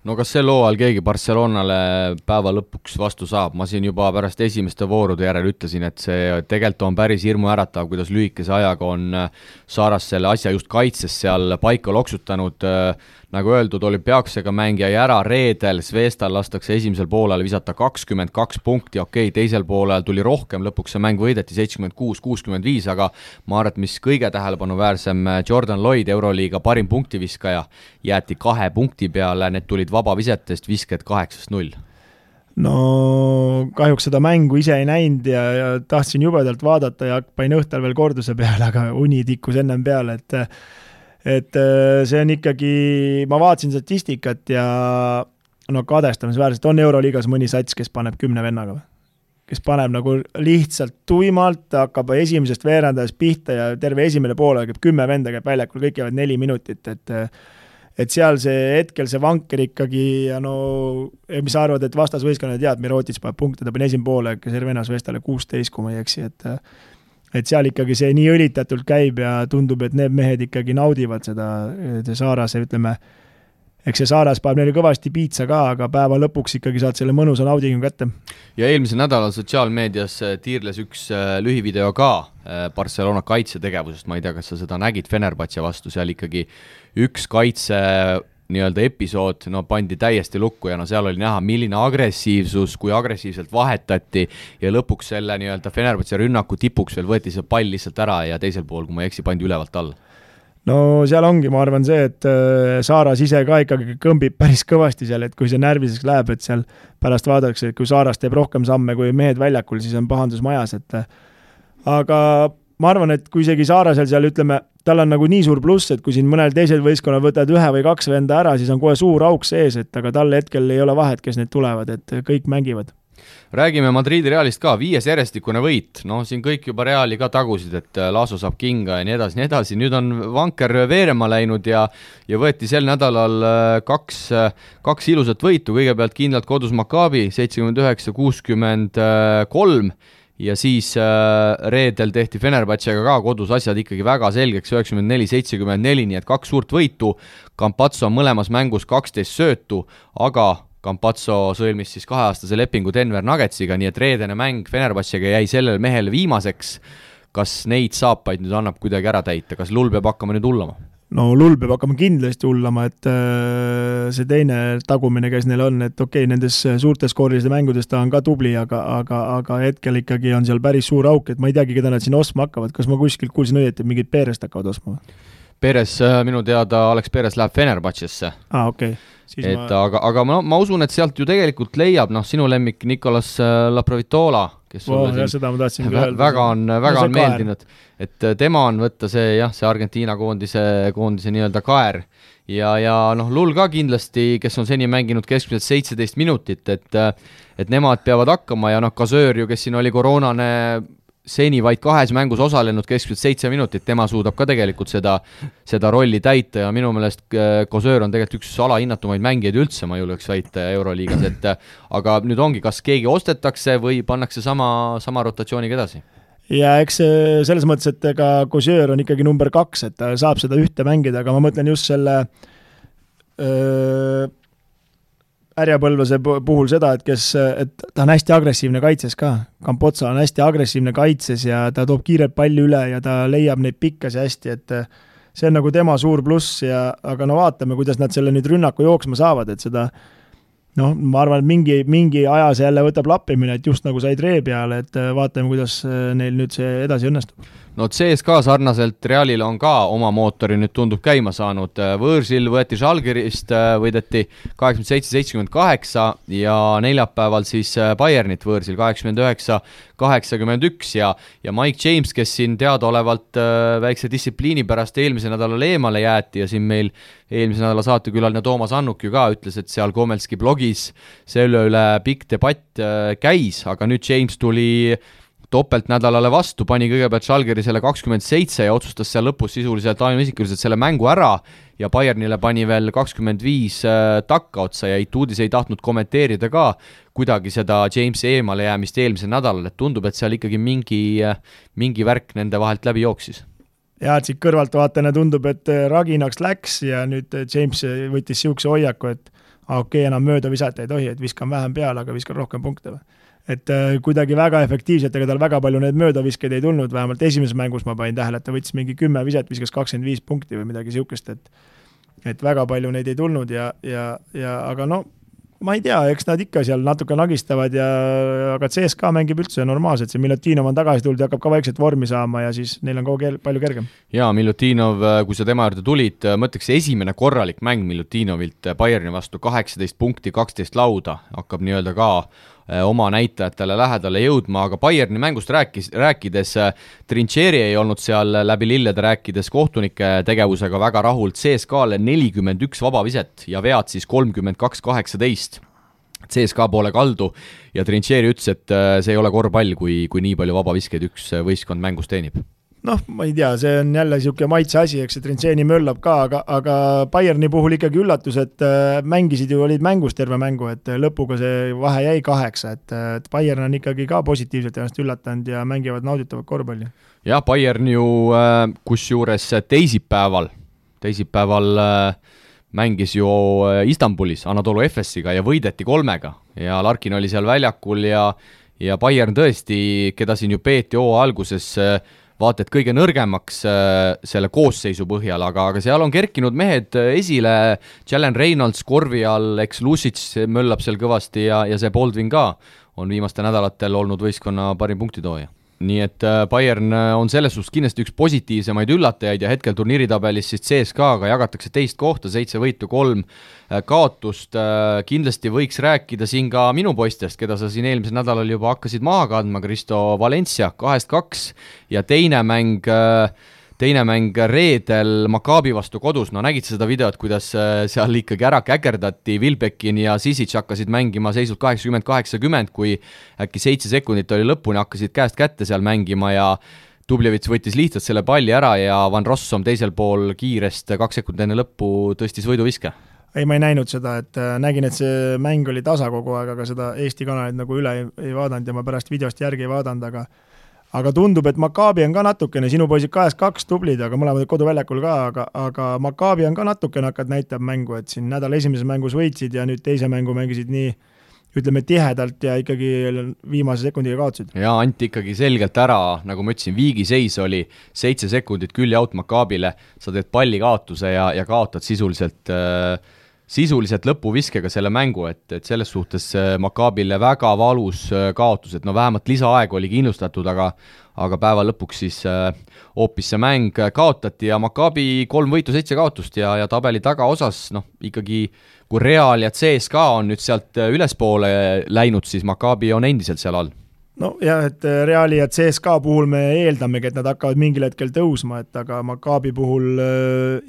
S2: No kas sel hooajal keegi Barcelonale päeva lõpuks vastu saab? Ma siin juba pärast esimeste voorude järel ütlesin, et see tegelikult on päris hirmuäratav, kuidas lühikese ajaga on Saaras selle asja just kaitses seal paika loksutanud. Nagu öeldud, Olümpiaksega mängija ära reedel, Zvestal lastakse esimesel poolel visata 22 punkti, teisel poolel tuli rohkem, lõpuks see mäng võideti 76-65, aga ma arvan, et mis kõige tähelepanuväärsem, Jordan Lloyd, Euroliiga parim punktiviskaja, jäeti 2 punkti peale, need tulid vabavisetest, visked 8-0.
S3: No kahjuks seda mängu ise ei näinud ja tahtsin jubedalt vaadata ja pain õhtal veel korduse peale, aga uni tikkus ennem peale, et see on ikkagi, ma vaatasin statistikat ja no kadestamisväärselt on Euroliigas mõni sats, kes paneb 10 vennaga, kes paneb nagu lihtsalt tuimalt, hakkab esimesest veerandajast pihta ja terve esimene poole käib 10 venda käib väljakul, kõik jäävad 4 minutit, et seal see hetkel see vanker ikkagi ja no, mis arvad, et vastasvõistkonna tead, Mirotic paneb punkte, ta pani esimene poole, Cervenas Vestale 16, kui ma ei eksi, et seal ikkagi see nii õlitatult käib ja tundub, et need mehed ikkagi naudivad seda Saarase, ütleme, eks see Saaras paneb neile kõvasti piitsa ka, aga päeva lõpuks ikkagi saad selle mõnusa naudingu kätte. Ja
S2: eelmisel nädalal sotsiaalmeedias tiirles üks lühivideo ka Barcelona kaitsetegevusest, ma ei tea, kas sa seda nägid Fenerbahce vastu, seal ikkagi üks kaitse nii-öelda episood, no pandi täiesti lukku ja no seal oli näha, milline agressiivsus, kui agressiivselt vahetati ja lõpuks selle nii-öelda Fenerbahce rünnaku tipuks veel võeti see pall lihtsalt ära ja teisel pool, kui ma ei eksi, pandi ülevalt all.
S3: No seal ongi, ma arvan see, et Saaras ise ka ikkagi kõmbib päris kõvasti seal, et kui see närviseks läheb, et seal pärast vaadatakse, et kui Saaras teeb rohkem samme kui mehed väljakul, siis on pahandus majas, aga ma arvan, et kui isegi Saarasel seal ütleme, tal on nagu nii suur pluss, et kui siin mõnel teisel võistkonnal võtad 1 või 2 venda ära, siis on kohe suur auk sees, et aga tal hetkel ei ole vahet, kes need tulevad, et kõik mängivad.
S2: Räägime Madridi Realist ka, 5 järjestikune võit, no siin kõik juba Reali ka tagusid, et Laso saab kinga ja nii edasi, nüüd on vanker veerema läinud ja võeti sel nädalal 2 ilusat võitu, kõigepealt kindlalt kodus Maccabi 79-63 ja siis reedel tehti Fenerbahcega ka kodus asjad ikkagi väga selgeks, 94-74, nii et 2 suurt võitu, Campazzo on mõlemas mängus 12 söötu, aga Campazzo sõlmis siis 2-aastase lepingu Denver Nuggetsiga, nii et reedene mäng Fenerbahcega jäi sellele mehele viimaseks. Kas neid saapaid nüüd annab kuidagi ära täita, kas Lull peab hakkama nüüd hullama?
S3: No Lull peab hakkama kindlasti hullama, et see teine tagumine, kes neil on, et nendes suurtes skooriliste mängudes ta on ka tubli, aga hetkel ikkagi on seal päris suur auk, et ma ei teagi, keda nad siin ostma hakkavad, kas ma kuskilt kuulsin õieti, et mingid Perest hakkavad ostma?
S2: Peres, minu teada Alex Peres läheb Fenerbahcesse. Aga ma usun, et sealt ju tegelikult leiab, sinu lemmik Nicolas Laprovitola, kes väga on meeldinud, et tema on võtta see Argentiina koondise nii-öelda kaer ja Lull ka kindlasti, kes on seni mänginud keskmiselt 17 minutit, et nemad peavad hakkama ja Kasöör ju, kes siin oli koroonane seni vaid 2 mängus osalenud keskmiselt 7 minutit, tema suudab ka tegelikult seda rolli täita ja minu meelest Kasöör on tegelikult üks alahinnatumaid mängijaid üldse, ma julgeks väita Euroliigas, aga nüüd ongi, kas keegi ostetakse või pannakse sama rotatsiooniga edasi?
S3: Ja eks selles mõttes, et ega Kasöör on ikkagi number 2, et ta saab seda ühte mängida, aga ma mõtlen just selle Härjapõlvase puhul seda, et ta on hästi agressiivne kaitses ka. Campozzo on hästi agressiivne kaitses ja ta toob kiirelt palli üle ja ta leiab neid pikkasi hästi, et see on nagu tema suur pluss aga no vaatame, kuidas nad selle nüüd rünnaku jooksma saavad, et seda ma arvan, et mingi aja see jälle võtab lappimine, et just nagu said ree peale, et vaatame, kuidas neil nüüd see edasi õnnestub.
S2: No CSKA sarnaselt Realile on ka oma mootori nüüd tundub käima saanud. Võõrsil võeti Žalgirist, võideti 87-78 ja neljapäeval siis Bayernit võõrsil 89-81 ja Mike James, kes siin teadaolevalt väikse distsipliini pärast eelmise nädalal eemale jäeti ja siin meil eelmise nädala saatekülaline Toomas Annuk ju ka ütles, et seal Komelski blogis selle üle pikk debatt käis, aga nüüd James tuli topeltnädalale vastu, pani kõigepealt Žalgiri selle 27 ja otsustas seal lõpus sisuliselt ainuisikuliselt selle mängu ära ja Bayernile pani veel 25 takka otsa ja Ituudis ei tahtnud kommenteerida ka kuidagi seda Jamesi eemale jäämist eelmisel nädalal, et tundub, et seal ikkagi mingi värk nende vahelt läbi jooksis.
S3: Ja et siit kõrvalt vaatena tundub, et raginaks läks ja nüüd James võttis siukse hoiaku, et okei, enam mööda visata ei tohi, et viskan vähem peale, aga viskan rohkem punkte või. Et kuidagi väga efektiivselt, ega tal väga palju need möödaviskeid ei tulnud, vähemalt esimeses mängus ma panin tähele, et ta võttis mingi 10 viset, viskas 25 punkti või midagi siukest, et väga palju neid ei tulnud aga no ma ei tea, eks nad ikka seal natuke nagistavad aga CSKA mängib üldse normaalselt, see Milutinov on tagasi tulnud ja hakkab ka vaikselt vormi saama ja siis neil on kogu palju kergem.
S2: Jaa, Milutinov, kui sa tema juurde tulid, mõtleks esimene korralik mäng Milutinovilt Bayerni vastu 18 punkti, 12 lauda, hakkab nii-öelda ka oma näitajatele lähedale jõudma, aga Bayerni mängust rääkides Trincheri ei olnud seal läbi lillede rääkides kohtunike tegevusega väga rahul, CSKA-le 41 vabaviset ja vead siis 32-18 CSKA poole kaldu ja Trincheri ütles, et see ei ole korvpall, kui nii palju vabaviskeid üks võistkond mängus teenib.
S3: Ma ei tea, see on jälle siuke maitse asi, eks see Trincheri möllab ka, aga Bayerni puhul ikkagi üllatus, et mängisid ju, olid mängus terve mängu, et lõpuga see vahe jäi 8, et Bayern on ikkagi ka positiivselt ennast üllatanud ja mängivad nauditavat korvpalli.
S2: Jah, Bayern ju kusjuures teisipäeval mängis ju Istanbulis Anadolu Efesiga ja võideti 3 ja Larkin oli seal väljakul ja Bayern tõesti, keda siin ju peeti alguses vaata, et kõige nõrgemaks selle koosseisu põhjal, aga seal on kerkinud mehed esile, Jalen Reynolds korvi all, eks Lusic möllab seal kõvasti ja see Baldwin ka on viimaste nädalatel olnud võistkonna parim punktitooja. Nii et Bayern on selles suhtes kindlasti üks positiivsemaid üllatajaid ja hetkel turniiritabelis siis CSKA-ga jagatakse 2 kohta, 7 võitu, 3 kaotust. Kindlasti võiks rääkida siin ka minu poistest, keda sa siin eelmisel nädalal juba hakkasid maha kandma, Kristo Valencia 2-2 ja teine mäng reedel Maccabi vastu kodus, no nägid seda videot, kuidas seal ikkagi ära käkerdati, Wilbekin ja Sisic hakkasid mängima seisult 80-80, kui äkki 7 sekundit oli lõpuni, hakkasid käest kätte seal mängima ja Dublevits võttis lihtsalt selle palli ära ja Van Rossum teisel pool kiirest 2 sekundit enne lõppu tõstis võiduviske.
S3: Ei, ma ei näinud seda, et nägin, et see mäng oli tasa kogu aeg, aga seda Eesti kanalit nagu üle ei vaadanud ja ma pärast videost järgi ei vaadanud, aga tundub, et Maccabi on ka natukene, sinu poisid 2-2 tublid, aga mõlemad koduväljakul ka, aga Maccabi on ka natukene hakkad näitab mängu, et siin nädala esimeses mängus võitsid ja nüüd teise mängu mängisid nii, ütleme tihedalt ja ikkagi viimase sekundiga kaotsid.
S2: Ja anti ikkagi selgelt ära, nagu ma ütlesin, viigiseis oli 7 sekundit külje out Maccabile, sa teed palli kaotuse ja kaotad sisuliselt lõpuviskega selle mängu, et selles suhtes Maccabile väga valus kaotus, et no vähemalt lisaaeg oli kindlustatud, aga päeva lõpuks siis hoopis see mäng kaotati ja Maccabi 3 võitu 7 kaotust ja tabeli tagaosas, ikkagi kui Real ja CSKA on nüüd sealt ülespoole läinud, siis Maccabi on endiselt seal all.
S3: No jah, et Reali ja CSKA puhul me eeldamegi, et nad hakkavad mingil hetkel tõusma, et aga Maccabi puhul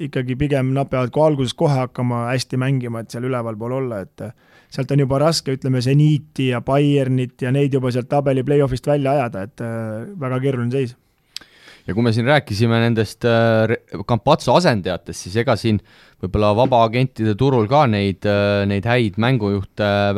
S3: ikkagi pigem nad peavad kui alguses kohe hakkama hästi mängima, et seal üleval pool olla, et sealt on juba raske, ütleme, Zeniti ja Bayernit ja neid juba sealt tabeli play-offist välja ajada, et väga keeruline seis.
S2: Ja kui me siin rääkisime nendest Campazzo asendajatest, siis ega siin võib-olla vabaagentide turul ka neid häid mängujuhte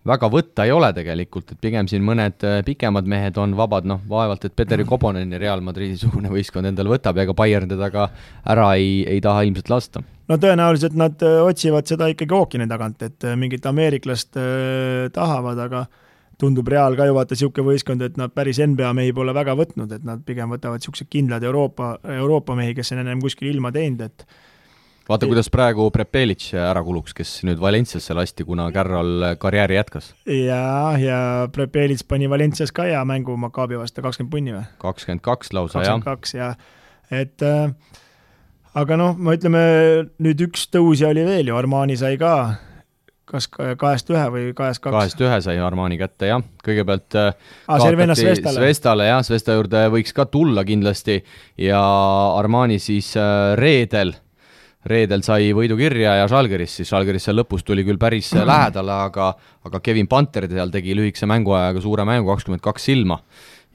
S2: väga võtta ei ole tegelikult, et pigem siin mõned pikemad mehed on vabad, vaevalt, et Petteri Koponeni Real Madridi sugune võistkond endale võtab, ega Bayern teda ka ära ei taha ilmselt lasta.
S3: No tõenäoliselt nad otsivad seda ikkagi ookeani tagant, et mingit ameeriklast tahavad, aga tundub Real ka ju vaata siuke võistkond, et nad päris NBA mehi pole väga võtnud, et nad pigem võtavad siuksed kindlad Euroopa mehi, kes on ennem kuskil ilma teinud, et
S2: vaata, kuidas praegu Prepelic ära kuluks, kes nüüd Valenciasse lasti, kuna Carroll karjääri jätkas.
S3: Ja Prepelic pani Valencias ka ja mängu Maccabi vastu 20 punni või?
S2: 22 lausa,
S3: 22, jah. Et aga ma ütleme, nüüd üks tõusja oli veel ju, Armani sai ka kas 2-1 või 2-2?
S2: 2-1 sai Armani kätte, jah. Kõigepealt
S3: kaotati
S2: Svestale, jah, Svesta juurde võiks ka tulla kindlasti ja Armani siis reedel sai võidu kirja ja Žalgiris seal lõpus tuli küll päris lähedale, aga Kevin Panter seal tegi lühikese mänguajaga suure mängu 22 silma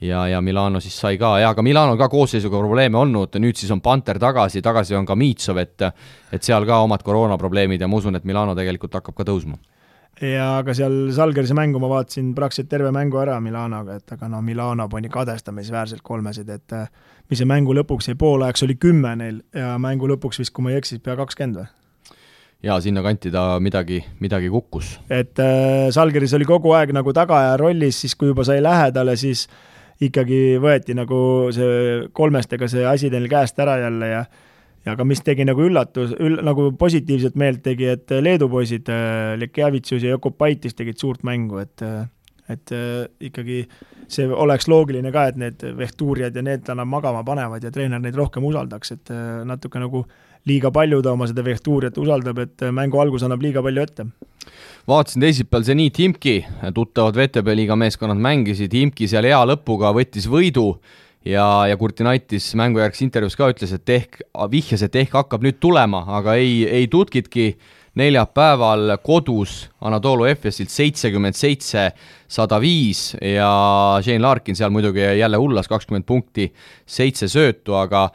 S2: ja Milano siis sai ka, ja aga Milano ka koosseisuga probleeme olnud, nüüd siis on Panter tagasi on ka Miitsov, et seal ka omad koroonaprobleemid ja ma usun, et Milano tegelikult hakkab ka tõusma.
S3: Ja aga seal Žalgirise mängu ma vaatasin praktiliselt terve mängu ära Milanoga, et aga Milano pani kadestamisväärselt kolmesid, et mis see mängu lõpuks jäi poolajaks oli 10 neil ja mängu lõpuks vist, kui ma ei eksis, pea 20 või?
S2: Ja sinna kanti ta midagi kukkus.
S3: Et Žalgiris oli kogu aeg nagu tagaja rollis, siis kui juba sai lähedale, siis ikkagi võeti nagu see kolmestega see asi teil käest ära jälle ja aga mis tegi nagu nagu positiivset meelt tegi, et Leedu poisid Lekjavitsus ja Jokopaitis tegid suurt mängu, et ikkagi see oleks loogiline ka, et need vehtuurijad ja need annab magama panevad ja treener neid rohkem usaldaks, et natuke nagu liiga palju ta oma seda vehtuurijat usaldab, et mängu algus annab liiga palju ette.
S2: Vaatasin teisipäeval Zenit Imki, tuttavad VTB liiga meeskonnad mängisid, Imki seal hea lõpuga võttis võidu ja Kurtinaitis mängujärgs intervjuus ka ütles, et vihjas, et hakkab nüüd tulema, aga ei tutkitki neljapäeval kodus Anadolu Efesilt 77-105 ja Shane Larkin seal muidugi jälle hullas 20 punkti, 7 söötu, aga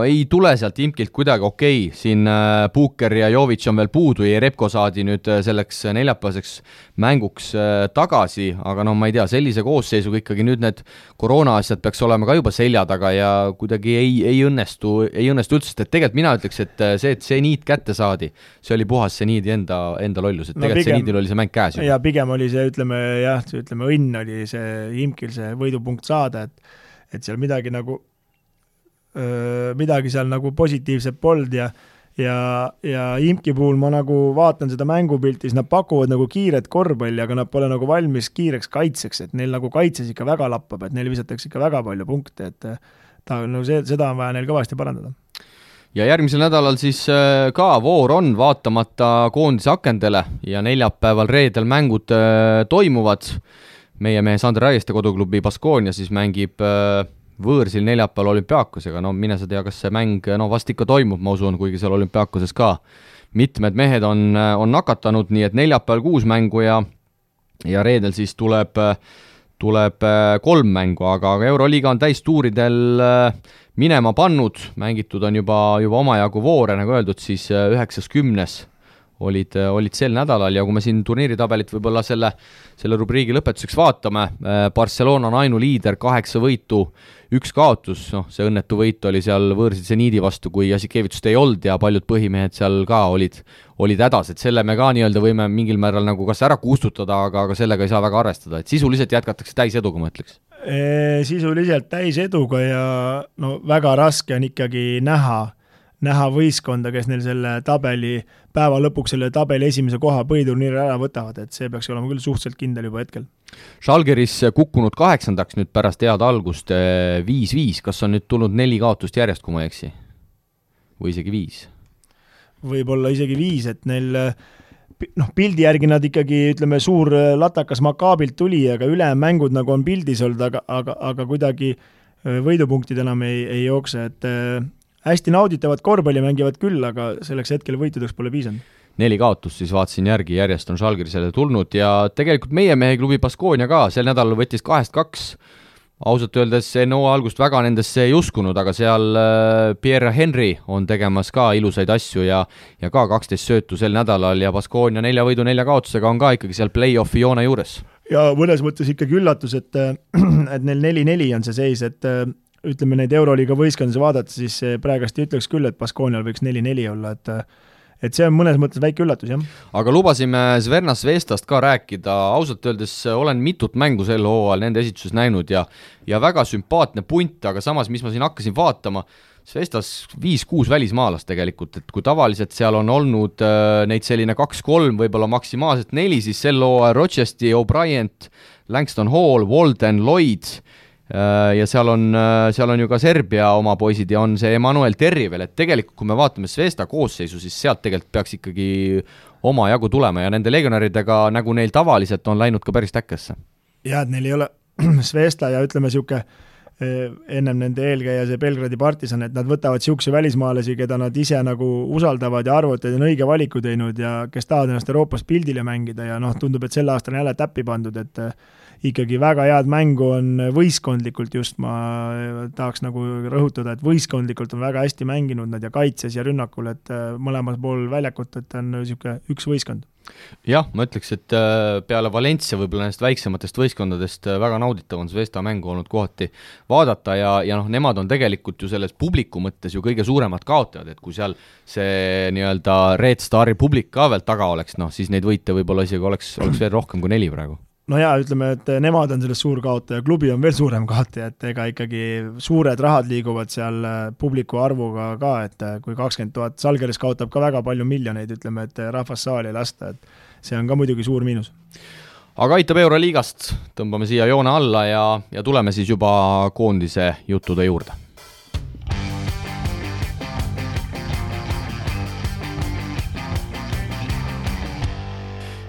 S2: ei tule sealt Imkilt kuidagi okei. Siin Puuker ja Jovic on veel puudu ja Repko saadi nüüd selleks neljapäevaseks mänguks tagasi, aga ma ei tea, sellise koosseisuga ikkagi nüüd need koroona asjad peaks olema ka juba selja taga ja kuidagi ei õnnestu üldse, sest et tegelikult mina ütleks, et see Zenit kätte saadi, see oli puhas Zenidi enda lollus, et tegelikult Zenidil oli see mäng käes.
S3: Ja pigem oli see, ütleme õnn oli see Imkil see võidupunkt saada, et seal midagi seal nagu positiivset pold ja Imki puhul ma nagu vaatan seda mängupiltis, nad pakuvad nagu kiiret korvpalli, aga nad pole nagu valmis kiireks kaitseks, et neil nagu kaitses ikka väga lappab, et neil visatakse ikka väga palju punkte, et seda on vaja neil kõvasti parandada.
S2: Ja järgmisel nädalal siis ka voor on vaatamata koondise akendele ja neljapäeval reedel mängud toimuvad. Meie mehe Sander Raieste koduklubi Baskonia siis mängib võõrsil neljapäeval Olümpiaakosega, mine sa tea, kas see mäng vast ikka toimub, ma usun, kuigi seal Olümpiaakoses ka mitmed mehed on nakatanud, nii et neljapäeval 6 mängu ja reedel siis tuleb 3 mängu, aga Euroliiga on täistuuridel minema pannud, mängitud on juba omajagu voore, nagu öeldud, siis 9-10 olid sel nädalal ja kui me siin turniiritabelit võib-olla selle rubriigi lõpetuseks vaatame, Barcelona on ainuliider, 8 võitu, 1 kaotus, see õnnetu võit oli seal võõrsil Zenidi vastu, kui Jasikevitsust ei olnud ja paljud põhimehed seal ka olid hädas, et selle me ka nii-öelda võime mingil määral nagu kas ära kustutada, aga sellega ei saa väga arvestada, et sisuliselt jätkatakse täiseduga, ma ütleks.
S3: Sisuliselt täiseduga ja väga raske on ikkagi näha võistkonda, kes neil selle tabeli päeva lõpuks selle tabeli esimese koha põhiturniiri ära võtavad, et see peaks olema küll suhteliselt kindel juba hetkel.
S2: Žalgiris kukkunud 8. nüüd pärast head algust 5-5, kas on nüüd tulnud 4 kaotust järjest, kui ma ei eksi? Või isegi 5? Võib-olla
S3: isegi 5, et neil pildi järgi nad ikkagi, ütleme, suur latakas Maccaabilt tuli, aga ülejäänud mängud nagu on pildis olnud, aga kuidagi võidupunktid enam ei jookse, et hästi nauditavad korvpalli mängivad küll, aga selleks hetkel võitudeks pole piisanud.
S2: 4 kaotust siis vaatasin järgi, järjest on Žalgirisele tulnud ja tegelikult meie mehe klubi Baskonia ka sel nädalal võttis 2-2 ausalt öeldes enne hooaja algust väga nendesse ei uskunud, aga seal Pierre Henry on tegemas ka ilusaid asju ja ka 12 söötu sel nädalal ja Baskonia 4 võidu 4 kaotusega on ka ikkagi seal play-offi joone juures.
S3: Ja mõnes mõttes ikkagi üllatus, et neil 4-4 on see seis, et ütleme neid Euroliiga võistkondades vaadata, siis praegast ütleks küll, et Baskonial võiks 4-4 olla, et see on mõnes mõttes väike üllatus, jah.
S2: Aga lubasime Zvezda Zvezdast ka rääkida, ausalt öeldes olen mitut mängu sel hooajal nende esituses näinud ja väga sümpaatne punt, aga samas, mis ma siin hakkasin vaatama, Zvezdas 5-6 välismaalast tegelikult, et kui tavaliselt seal on olnud neid selline 2-3, võib-olla maksimaalselt 4, siis sel hooajal Rochester, O'Brien, Langston Hall, Walden, Lloyd ja seal on ju ka Serbia oma poisid ja on see Emmanuel Terri veel, et tegelikult kui me vaatame Zvezda koosseisu, siis sealt tegelikult peaks ikkagi oma jagu tulema ja nende legionäridega, nagu neil tavaliselt on läinud ka päris täkkesse.
S3: Ja, et neil ei ole Zvezda ja ütleme siuke ennem nende eelkäija see Belgradi Partisan, et nad võtavad siukse välismaalasi, keda nad ise nagu usaldavad ja arvavad, et on õige valiku teinud ja kes tahavad ennast Euroopas pildile mängida ja tundub, et sel aastal on jälle täppi pandud, et ikkagi väga head mängu on võistkondlikult just, ma tahaks nagu rõhutada, et võistkondlikult on väga hästi mänginud nad ja kaitses ja rünnakul, et mõlemal pool väljakut, et on siuke üks võistkond.
S2: Jah, ma ütleks, et peale Valencia võib-olla nendest väiksematest võistkondadest väga nauditav on Zvezda mängu olnud kohati vaadata ja nemad on tegelikult ju selles publiku mõttes ju kõige suuremad kaotajad, et kui seal see nii-öelda Red Stari publik ka veel taga oleks, siis neid võite võib-olla isegi oleks veel rohkem kui 4 praegu.
S3: No jaa, ütleme, et nemad on sellest suur kaotaja, klubi on veel suurem kaotaja, et ega ikkagi suured rahad liiguvad seal publiku arvuga ka, et kui 20 000, Salgeris kaotab ka väga palju miljoneid, ütleme, et rahvas saali lasta, et see on ka muidugi suur miinus.
S2: Aga aitab Euroliigast, tõmbame siia joone alla ja tuleme siis juba koondise juttude juurde.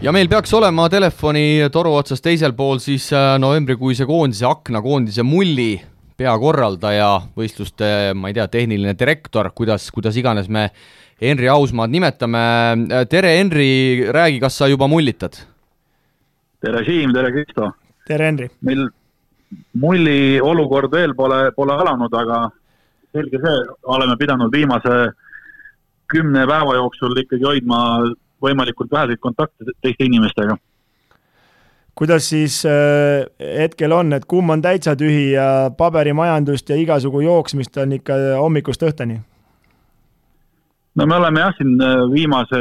S2: Ja meil peaks olema telefoni toru otsas teisel pool siis novembrikuise koondise akna, koondise mulli peakorraldaja, võistluste, ma ei tea, tehniline direktor, kuidas iganes me Henri Ausmaad nimetame. Tere Henri, räägi, kas sa juba mullitad?
S4: Tere Siim, tere Kristo.
S3: Tere Henri.
S4: Meil mulli olukord veel pole alanud, aga selge see, oleme pidanud viimase 10 päeva jooksul ikkagi hoidma võimalikult väheseid kontakte teiste inimestega.
S3: Kuidas siis hetkel on, et kumm on täitsa tühi ja paberimajandust ja igasugu jooksmist on ikka hommikust õhtani?
S4: No me oleme jah, siin viimase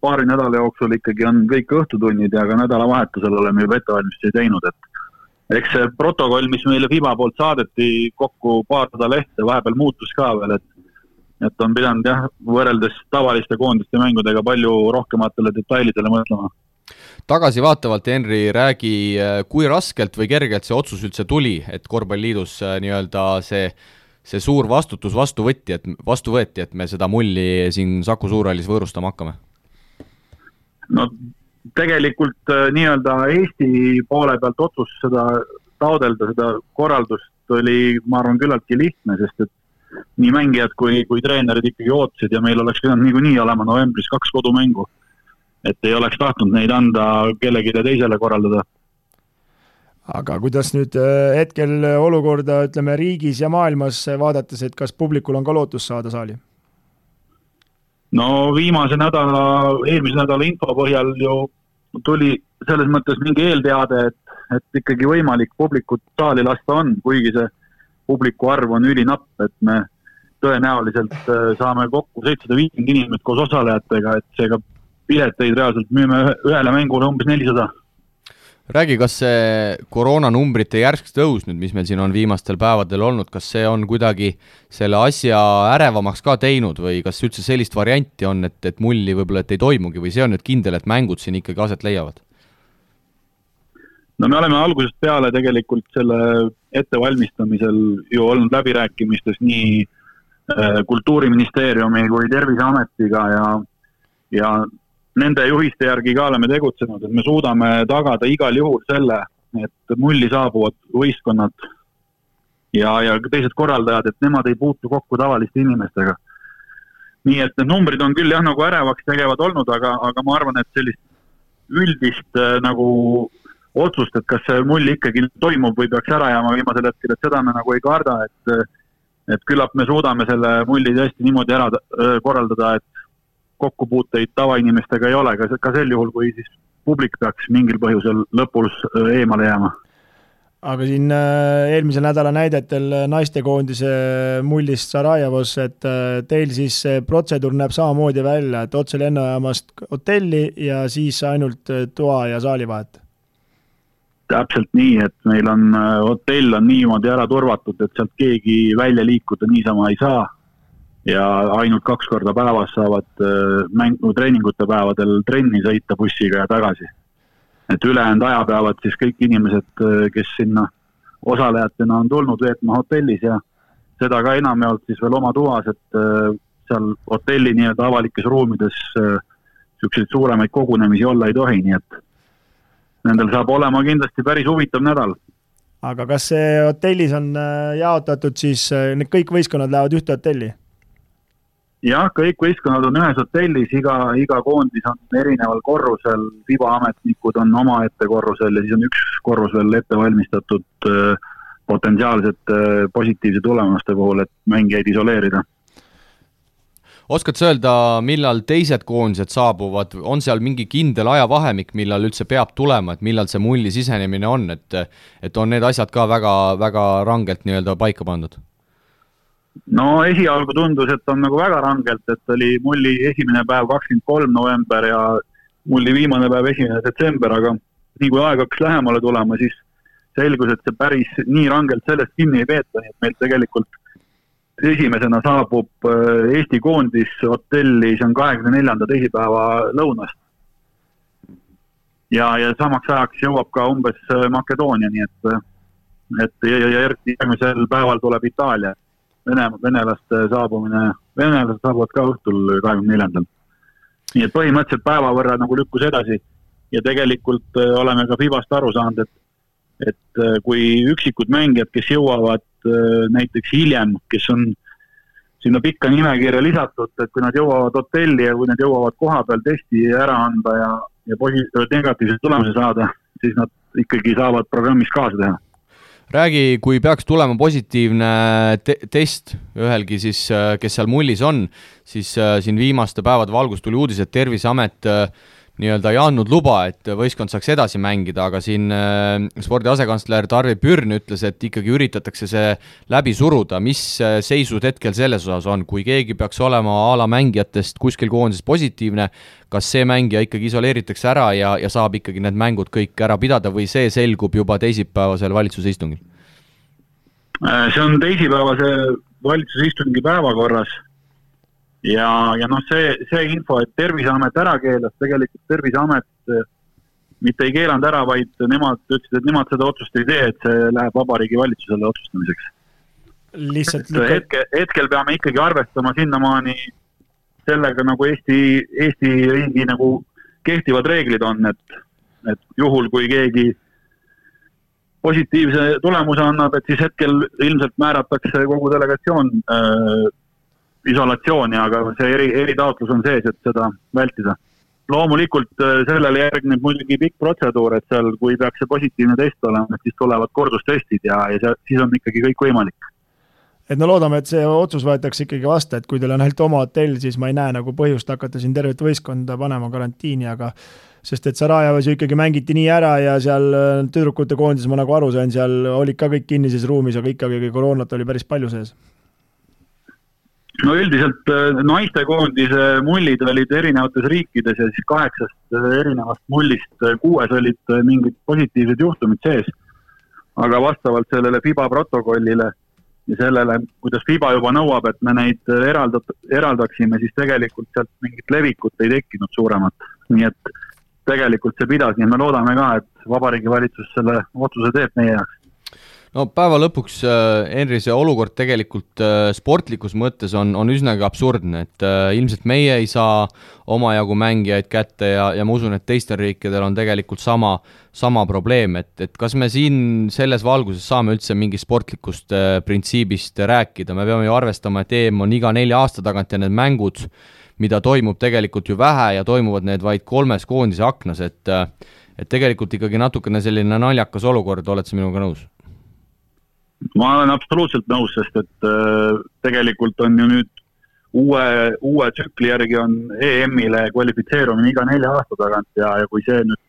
S4: paari nädala jooksul ikkagi on kõik õhtutunnid ja ka nädalavahetusel oleme juba ettevalmistusi teinud, et eks see protokoll, mis meile FIBA poolt saadeti kokku paar lehte, vahepeal muutus ka veel, et on pidanud jah, võrreldes tavaliste koondiste mängudega palju rohkematele detailidele mõtlema.
S2: Tagasi vaatavalt, Henri, räägi, kui raskelt või kergelt see otsus üldse tuli, et Korvpalliliidus nii-öelda see suur vastutus vastu võeti, et me seda mulli siin Saku Suurhallis võõrustama hakkame?
S4: No tegelikult nii-öelda Eesti poole pealt otsus seda taodelda, seda korraldust oli, ma arvan, küllaltki lihtne, sest et nii mängijad kui treenerid ikkagi ootasid ja meil oleks pidanud niikuinii olema novembris 2 kodumängu, et ei oleks tahtnud neid anda kellegile teisele korraldada.
S3: Aga kuidas nüüd hetkel olukorda, ütleme, riigis ja maailmas vaadates, et kas publikul on ka lootus saada saali?
S4: No eelmise nädala info põhjal ju tuli selles mõttes mingi eelteade, et ikkagi võimalik publikut saali lasta on, kuigi see publiku arv on ülinapp, et me tõenäoliselt saame kokku 750 inimest koos osalejatega, et seega pileteid reaalselt müüme ühele mängule umbes 400.
S2: Räägi, kas see koroonanumbrite järsk tõus nüüd, mis meil siin on viimastel päevadel olnud, kas see on kuidagi selle asja ärevamaks ka teinud või kas üldse sellist varianti on, et mulli võib-olla et ei toimugi või see on nüüd kindel, et mängud siin ikkagi aset leiavad?
S4: No me oleme algusest peale tegelikult selle ettevalmistamisel ju olnud läbirääkimistes nii Kultuuriministeeriumi kui Terviseametiga ja nende juhiste järgi ka oleme tegutsenud, et me suudame tagada igal juhul selle, et mulli saabuvad võistkonnad ja teised korraldajad, et nemad ei puutu kokku tavaliste inimestega. Nii et need numbrid on küll jah nagu ärevaks tegevad olnud, aga ma arvan, et sellist üldist nagu otsust, et kas see mull ikkagi toimub või peaks ära jääma viimasel hetkel, et seda me nagu ei karda, et küllap me suudame selle mulli tõesti niimoodi ära korraldada, et kokkupuuteid tavainimestega ei ole, ka sel juhul, kui siis publik peaks mingil põhjusel lõpus eemale jääma.
S3: Aga siin eelmisel nädala näidetel naistekoondise mullist Sarajevos, et teil siis see protseduur näeb samamoodi välja, et otse lennujaamast hotelli ja siis ainult toa ja saali vahet?
S4: Täpselt nii, et meil on hotell on niimoodi ära turvatud, et sealt keegi välja liikuda niisama ei saa ja ainult 2 korda päevas saavad treeningute päevadel trenni sõita bussiga ja tagasi. Et ülejäänud aja peavad siis kõik inimesed, kes sinna osalejatena on tulnud veetma hotellis ja seda ka enamjaolt siis veel oma tuas, et seal hotelli nii-öelda avalikes ruumides selliseid suuremaid kogunemisi olla ei tohi, nii et nendel saab olema kindlasti päris huvitav nädal.
S3: Aga kas see hotellis on jaotatud siis, need kõik võistkonnad lähevad ühte hotelli?
S4: Jah, kõik võistkonnad on ühes hotellis, iga koondis on erineval korrusel, FIBA ametnikud on oma ette korrusel ja siis on üks korrus veel ette valmistatud potentsiaalsete positiivse tulemuste puhul, et mängijaid isoleerida.
S2: Oskad sa öelda, millal teised koondised saabuvad, on seal mingi kindel ajavahemik, millal üldse peab tulema, et millal see mulli sisenemine on, et on need asjad ka väga, väga rangelt nii-öelda paika pandud?
S4: No esialgu tundus, et on nagu väga rangelt, et oli mulli esimene päev 23 november ja mulli viimane päev 1. detsember, aga nii kui aeg hakkas lähemale tulema, siis selgus, et see päris nii rangelt sellest kinni ei peeta, nii et meil tegelikult esimesena saabub Eesti koondis hotelli, see on 24. teisipäeva lõunast. Ja samaks ajaks jõuab ka umbes Makedoonia, nii et järgmisel päeval tuleb Itaalia. Venelaste saabuvad ka õhtul 24. Nii et põhimõtteliselt päeva võrra nagu lükkus edasi ja tegelikult oleme ka FIBast aru saanud, et kui üksikud mängijad, kes jõuavad näiteks hiljem, kes on sinna pikka nimekirja lisatud, et kui nad jõuavad hotelli ja kui nad jõuavad koha peal testi ära anda ja negatiivse tulemuse saada, siis nad ikkagi saavad programmis kaasa teha.
S2: Räägi, kui peaks tulema positiivne test ühelgi siis, kes seal mullis on, siis siin viimaste päevade valgus tuli uudis, et Terviseamet nii-öelda ei andnud luba, et võistkond saaks edasi mängida, aga siin spordi asekantsler Tarvi Pürn ütles, et ikkagi üritatakse see läbi suruda. Mis seisud hetkel selles osas on, kui keegi peaks olema ala mängijatest kuskil koondises positiivne, kas see mängija ikkagi isoleeritakse ära ja saab ikkagi need mängud kõik ära pidada või see selgub juba teisipäevasel valitsuse istungil?
S4: See on teisipäevase valitsuse istungi päevakorras. Ja noh, see info, et Terviseamet ära keelas, tegelikult Terviseamet mitte ei keelanud ära, vaid nemad ütlesid, et nemad seda otsust ei tee, et see läheb Vabariigi valitsusele otsustamiseks.
S3: Lihtsalt
S4: hetkel peame ikkagi arvestama sinnamaani sellega, nagu Eesti riigi nagu kehtivad reeglid on, et juhul, kui keegi positiivse tulemuse annab, et siis hetkel ilmselt määratakse kogu delegatsioon isolatsiooni, aga see eritaotlus on sees, et seda vältida. Loomulikult sellele järgneb muidugi pikk protseduur, et seal, kui peaks see positiivne test olema, siis tulevad kordustestid ja siis on ikkagi kõik võimalik.
S3: Et no loodame, et see otsus võetakse ikkagi vasta, et kui teil on ainult oma hotell, siis ma ei näe nagu põhjust hakata siin tervet võistkonda panema karantiini, aga sest et Sarajevas ju ikkagi mängiti nii ära ja seal tüdrukute koondis, ma nagu aru sain, seal olid ka kõik kinnises ruumis, aga ikkagi koroonat oli päris palju sees.
S4: No üldiselt naistekoondise mullid olid erinevates riikides ja siis 8 erinevast mullist 6 olid mingid positiivsed juhtumid sees. Aga vastavalt sellele FIBA protokollile ja sellele, kuidas FIBA juba nõuab, et me neid eraldaksime, siis tegelikult sealt mingit levikut ei tekkinud suuremat. Nii et tegelikult see pidas, nii me loodame ka, et Vabariigi valitsus selle otsuse teeb meie jaoks.
S2: No päeva lõpuks, Henri, see olukord tegelikult sportlikus mõttes on üsnagi absurdne, et ilmselt meie ei saa omajagu mängijaid kätte ja ma usun, et teistel riikidel on tegelikult sama probleem, et kas me siin selles valguses saame üldse mingi sportlikust printsiibist rääkida, me peame ju arvestama, et EM on iga 4 aasta tagant ja need mängud, mida toimub tegelikult ju vähe ja toimuvad need vaid 3 koondise aknas, et tegelikult ikkagi natukene selline naljakas olukord, oled sa minuga nõus?
S4: Ma olen absoluutselt nõus, sest et tegelikult on ju nüüd uue tsükli järgi on EM-ile kvalifitseerumine iga 4 aasta tagant ja kui see nüüd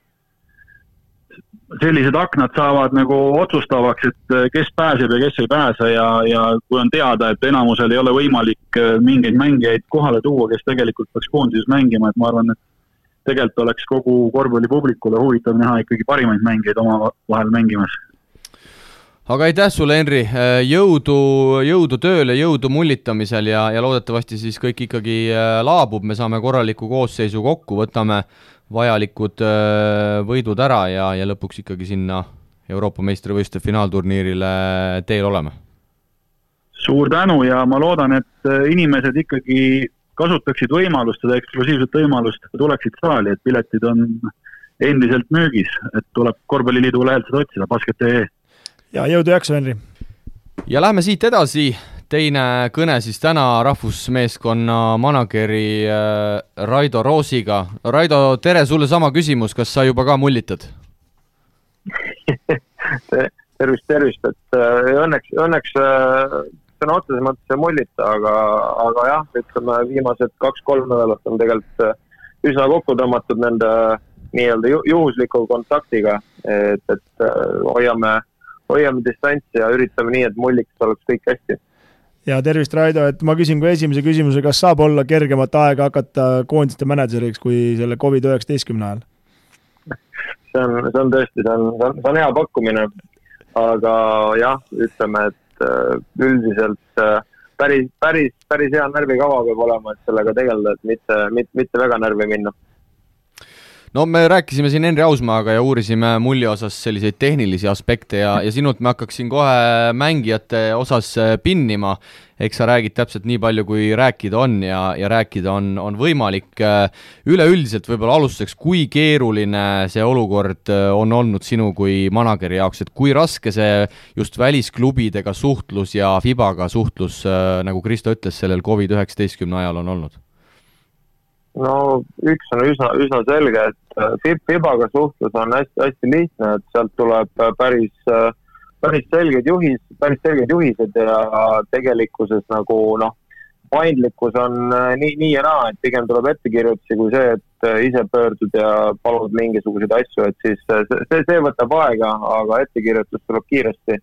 S4: sellised aknad saavad nagu otsustavaks, et kes pääseb ja kes ei pääse ja kui on teada, et enamusel ei ole võimalik mingeid mängijaid kohale tuua, kes tegelikult peaks koondises mängima, et ma arvan, et tegelikult oleks kogu korvpallipublikule huvitav näha ikkagi parimaid mängijaid oma vahel mängimas.
S2: Aga aitäh sulle, Henri, jõudu tööle, jõudu mullitamisel ja loodetavasti siis kõik ikkagi laabub, me saame korraliku koosseisu kokku, võtame vajalikud võidud ära ja lõpuks ikkagi sinna Euroopa meistrivõistluste finaalturniirile teel oleme.
S4: Suur tänu ja ma loodan, et inimesed ikkagi kasutaksid võimalust, seda eksklusiivset võimalust, tuleksid saali, et piletid on endiselt müügis, et tuleb Korvpalliliidu lehelt seda otsida, basket.ee.
S3: Ja jõudu jaksu, Henri!
S2: Ja lähme siit edasi, teine kõne siis täna rahvusmeeskonna manageri Raido Roosiga. Raido, tere, sulle sama küsimus, kas sa juba ka mullitad?
S5: tervist, et õnneks sõna otseses mõttes ei mullita, aga jah, ütleme viimased 2-3 nädalat on tegelikult üsna kokku tõmmatud nende nii-öelda juhusliku kontaktiga, et hoiame distantsi ja üritame nii, et mulliks oleks kõik hästi.
S3: Ja tervist, Raido, et ma küsin kui esimese küsimuse, kas saab olla kergemat aega hakata koondiste mänedžeriks kui selle COVID-19 ajal?
S5: See on tõesti, see on hea pakkumine, aga jah, ütleme, et üldiselt päris hea närvikava peab olema, et sellega tegeleda, et mitte väga närvi minna.
S2: No me rääkisime siin Henri Ausmaaga ja uurisime mulli osas selliseid tehnilisi aspekte ja sinult me hakkaksin kohe mängijate osas pinnima. Eks sa räägid täpselt nii palju, kui rääkida on ja rääkida on võimalik. Üleüldiselt võib-olla alustuseks, kui keeruline see olukord on olnud sinu kui manageri jaoks, et kui raske see just välisklubidega suhtlus ja FIBaga suhtlus, nagu Kristo ütles, sellel COVID-19 ajal on olnud?
S5: No üks on üsna selge, et FIBaga suhtlus on hästi lihtne, et sealt tuleb päris selged juhised ja tegelikkuses nagu paindlikkus on nii ja naa, et pigem tuleb ettekirjutusi kui see, et ise pöördud ja palud mingisuguseid asju, et siis see võtab aega, aga ettekirjutus tuleb kiiresti.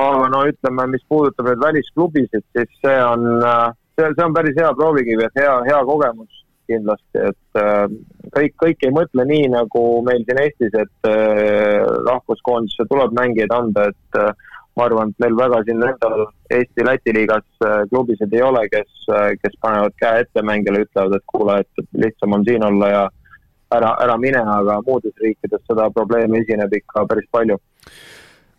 S5: Aga ütleme, mis puudutab need välisklubisid, siis see on päris hea proovikivi, et hea kogemus kindlasti, et kõik ei mõtle nii, nagu meil siin Eestis, et rahvuskoondisse tuleb mängijaid anda, et ma arvan, et meil väga siin endal Eesti-Läti liigas klubisid ei ole, kes panevad käe ette mängijale, ütlevad, et kuule, et lihtsam on siin olla ja ära mine, aga muudes riikides seda probleemi esineb ikka päris palju.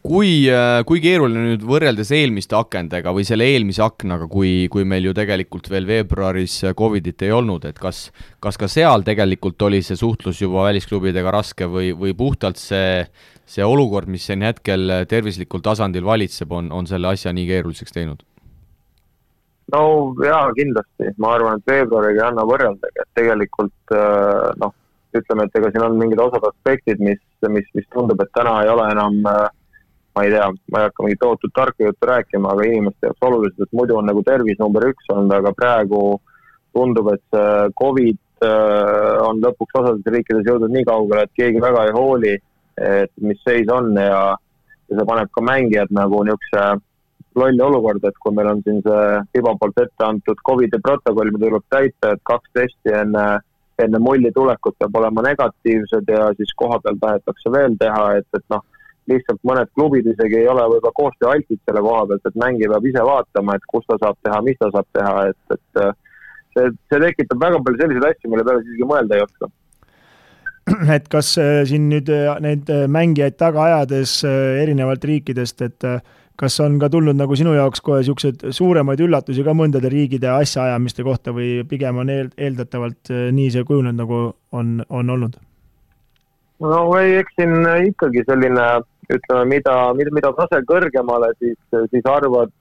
S2: Kui keeruline nüüd võrreldes eelmiste akendega või selle eelmise aknaga, kui meil ju tegelikult veel veebruaris COVIDit ei olnud, et kas ka seal tegelikult oli see suhtlus juba välisklubidega raske või puhtalt see olukord, mis siin hetkel tervislikul tasandil valitseb, on selle asja nii keeruliseks teinud?
S5: No jaa, kindlasti. Ma arvan, et veebruariga ei anna võrreldagi, et tegelikult ütleme, et ega siin on mingid osad aspektid, mis tundub, et täna ei ole enam ma ei tea, ma ei hakka mingit tohutut tarka juttu rääkima, aga inimeste jaoks oluliselt, et muidu on nagu tervis number 1 olnud, aga praegu tundub, et see COVID on lõpuks osades riikides jõudnud nii kaugele, et keegi väga ei hooli, et mis seis on ja see paneb ka mängijad nagu niisuguse lolli olukord, et kui meil on siin see FIBA poolt ette antud COVID-i protokoll, mida tuleb täita, et 2 testi enne mulli tulekut peab olema negatiivsed ja siis koha peal tahetakse veel teha, et lihtsalt mõned klubid isegi ei ole võib-olla koostöö altid selle koha pealt, et mängi peab ise vaatama, et kus ta saab teha, mis ta saab teha, et see tekitab väga palju selliseid asju, mille peale siiski mõelda ei oska.
S3: Et kas siin nüüd neid mängijaid taga ajades erinevalt riikidest, et kas on ka tulnud nagu sinu jaoks kohe niisugused suuremaid üllatusi ka mõndade riigide asjaajamiste kohta või pigem on eeldatavalt nii see kujunenud, nagu on olnud?
S5: No eks siin ikkagi selline, ütleme, mida tase kõrgemale, siis arvad,